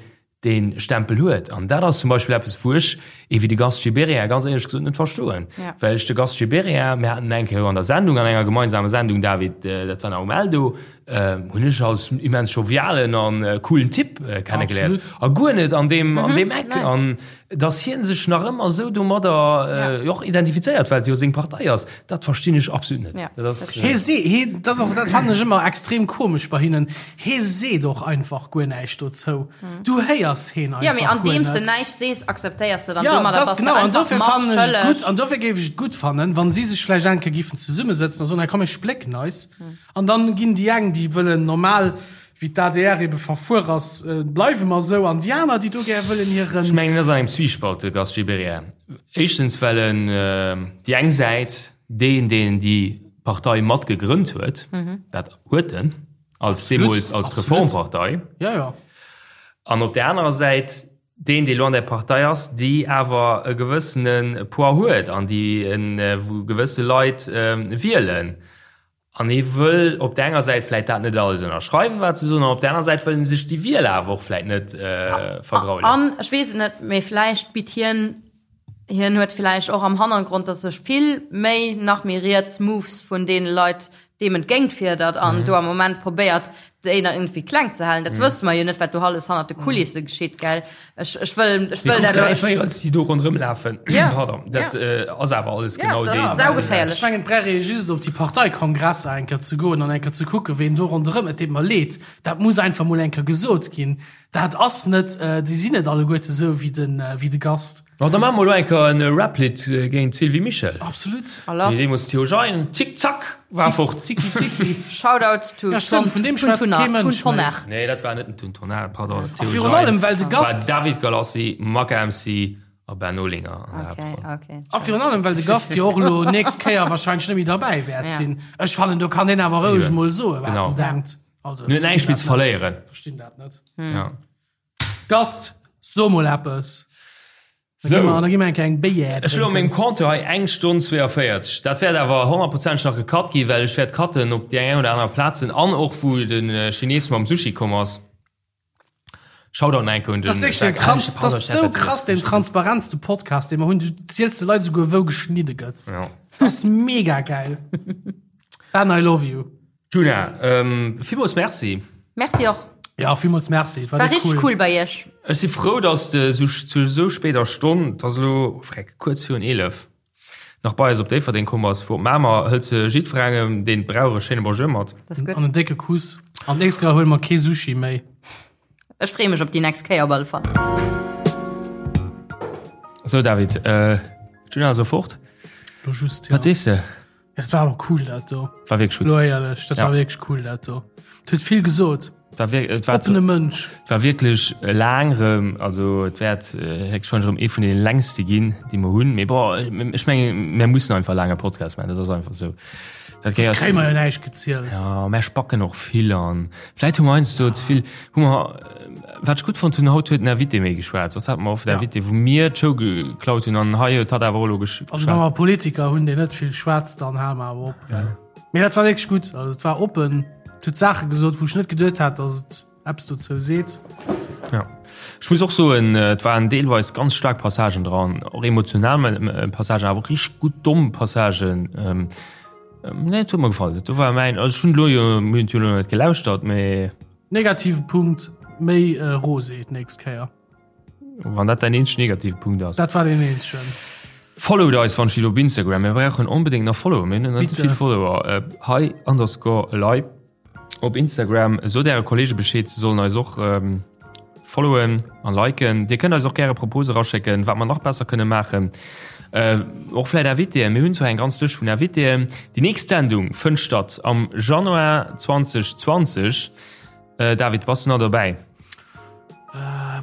dee Stempel huet. An dat ass zum Beispill eppes, wou ech ee wéi de Gast Gibéryen ganz éierlech gesot net verstoen. Well ech de Gast Gibéryen, mir haten en eng Kéier an der Sendung, an enger gemeinsamer Sendung, David, dat war nach um Eldo, hunn ech als immens jovialen an coolen Typ kennegeléiert. A guer net an deem, an deem Eck. An dass hien sech nach ëmmer esou domadder och identifizéiert, well et jo seng Partei ass, dat verstinn ech absolut net. Dat ass. Hie see, hie, dat ass och, dat fannen ech ëmmer extrem komesch bei hinnen, hie seet och einfach guer näischt dozou. Du héiers hien einfach guer net. Jo, mee andeems de näischt sees, akzeptéiers de dann Jo, domadder, dat ass bass de genau. An einfach dofir fannen ech et matschëlleg. gutt, an dofir géif ech et gutt fannen, wa si sech vläicht eng Kéier géifen zesummesëtzen a soen, hei komm mir splécken eis. An dann ginn déi eng, déi wëllen normal, wéi d'ADR ebe verfuer ass, bleiwe mer esou, an déi aner, déi do gär wëllen hiren. Ech mengen, en ass an engem Zwiespalt, de Gast Gibéryen. Éischtens, well en déi eng Säit, deen, deen déi Partei mat gegrënnt huet, dat huet en, als deemools als Reformpartei. Jo, jo. An op där anerer Säit deen, dee lo an där Partei ass, déi awer e gewëssene Poids huet an déi, wou gewësse Leit wielen. An hie wëll op der enger Säit vläit dat net alles ënnerschreiwen, wat se soen, an op der aner Säit wëll en sech déi Wieler awer och vläit net vergraulen. An ech weess et net, mee vläicht bitt hien, hien huet vläicht och am Hannergrond, datt sech vill méi, nach méi riets Moves vun deene Leit deem entgéint fierdert an do am Moment probéiert, déi nach irgendwie kleng ze halen. Dat wësse mer jo net, wat do alles hannert de Kulisse geschitt, gell? Ech, ech wëll, ech wëll dat Déi Véierels, déi do ronderëm lafen, Ja. pardon, dat ass awer alles Ja, genau dat deen. ass saugeféierlech. Ech mengen, et brauch ee just op déi Parteikongresser eng Kéier ze goen an eng Kéier ze kucken, ween do ronderëm, et deet mer leed, dat muss einfach mol eng Kéier gesot ginn, dat ass net, déi sinn net alleguerte sou wéi de, wéi de Gast. Bon, da maache mer elo eng Kéier en Rap-Lidd géint d'Sylvie Mischel. Absolut. A lass. Wéi deemools Theo Jein, Zick Zack, war fort. Zicki Zicki. Shoutout to Ja, stimmt, vun deem schwätzt kee Mënsch Tun méi. Tonnar. Nee, dat war net den Tun Tonnar, pardon. A virun allem, well de Gast. War David Galassi, Maka MC a Ben Olinger an der Okay, Haaptroll. okay. A virun allem, well de Gast jo och elo nächst Kéier wahrscheinlech net méi derbäi wäert Ja. sinn. Ech fannen, do kann deen awer roueg mol soen, wat Genau. en denkt. Also, En huet näischt méi ze verléieren. Verstinn dat net. Ja. Gast, so mol eppes. Da Sou. gi mer, da gi mer eng kleng Béier Ech hunn op drénken. mengem Compteur hei eng Stonn 42. Dat wäert awer honnertprozenteg nach gecut ginn, well ech wäert cutten op déi eng oder aner Plazen an och wou de Chines mam Sushi komm ass. Shoutout nach eng Kéier un den Das ist wirklich den Jacques. Trans Ah, das ist so pardon, krass, den transparentste Podcast, den wir hunn. Du zielst de Leit souguer, wou geschnidde gëtt. Ja. Das ist mega geil. Ben, I love you. Djuna, villmools Merci. Merci och. Ja, villmools Merci. Et War richteg cool bei iech. Ech si frou, dass de zu esou spéider Stonn, et ass elo, freck, kuerz virun 11, nach bei eis op Déifferdeng komm bass. Vu op Mamer hëls de jiddwerengem, deen et brauch, e schéine Bonjour mat. Dat ass gutt. An en décke Kuss. An d'nächst Kéier huele mer kee Sushi méi. Ech freeë mech op déi nächst Kéier op alle Fall. Sou, David, d'Djuna ass elo fort. Lo just, ja. Wat sees de? Ja, dat war awer cool dat do. War wierklech gutt. Lo éierlech, dat Ja. war wierklech cool dat do. Et huet vill gesot. War wir, et war, Oppene Mënsch. et war wierklech laang rëm, also et wäert äh, héchstwahrscheinlech rëm ee vun den längste ginn, déi mer hunn. Mee bon, ech mengen, mir mussen einfach laange Podcast maachen, dat ass einfach esou. Dat gehéiert. Kréie mer jo näischt gezielt. Ja, mär spacken och vill an vläit hu mer heiansdo ze vill, hu mer, wat ech gutt fonnt hunn, haut huet den Invité méi geschwat, soss hate mer oft Invité, wou mir d'Show geklaut hunn an hei huet hatt awer och elo geschwat. Also wa mer Politiker hunn, deen net vill schwätzt, dann hale mer awer op. Mee dat war wierklech gutt, also et war oppen, et huet Saache gesot, wou ech net geduet hat, datt et eppes dozou seet. Ja. Ech muss och soen, et waren deelweis ganz staark Passagen dran, och emotional Passagen, awer och richteg gutt domm Passagen. Nee, et huet mer gefall. Do war mäin, also ech hunn elo jo, mir hunn et jo elo net gelauschtert, mee. Negative Punkt, méi Rosé d'nächst Kéier. Wann dat däin eenzegen negative Punkt ass. Dat war deen eenzegen. Followt eis wann steet op Instagram. Mir brauchen onbedéngt nach Follower. Mir hunn net vill Follower. Hei underscore elei. Op Instagram. Sot äre Kollege Bescheed, se sollen eis och followen an liken. Dir kënnt eis och gäre Propose raschécken, wat mer nach besser kënne maachen. Och vläit Invitéen. Mir hunn zwar eng ganz Lëscht vun Invitéen. Déi nächst Sendung fënnt statt am Januar 2020. David, bass du nach dobäi?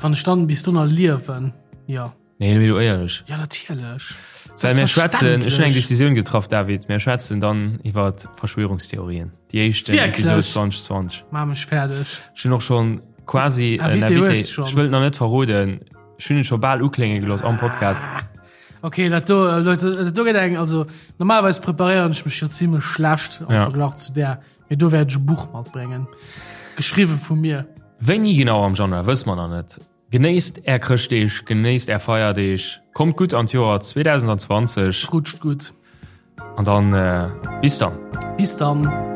Wann ech dann bis do nach liewen, jo. Nee, mee lo éierlech. Ja, natierlech. Well mir schwätzen, ech hunn eng Decisioun getraff, David, mir schwätzen dann iwwer Verschwörungstheorien. Déi éischt Episode 2020. Maach mech fäerdeg. Ech hunn och schonn quasi en Invité Invité. hues schonn. Ech wëll et nach net verroden. Ech hunn et scho bal uklénge gelooss am Podcast. Okay, dat do, äh, Leute, dat do gëtt eng, also normalerweis preparéieren ech mech jo zimmlech schlecht am Ja. Verglach zu där, mee do wäert ech e Buch matbréngen. Geschriwwe vu mir. Wéini genau am Januar, wësse mer nach net. Genéisst är Chrëschtdeeg, genéisst är Feierdeeg, kommt gutt an d'Joer 2020. Rutscht gutt. An dann bis dann. Bis dann.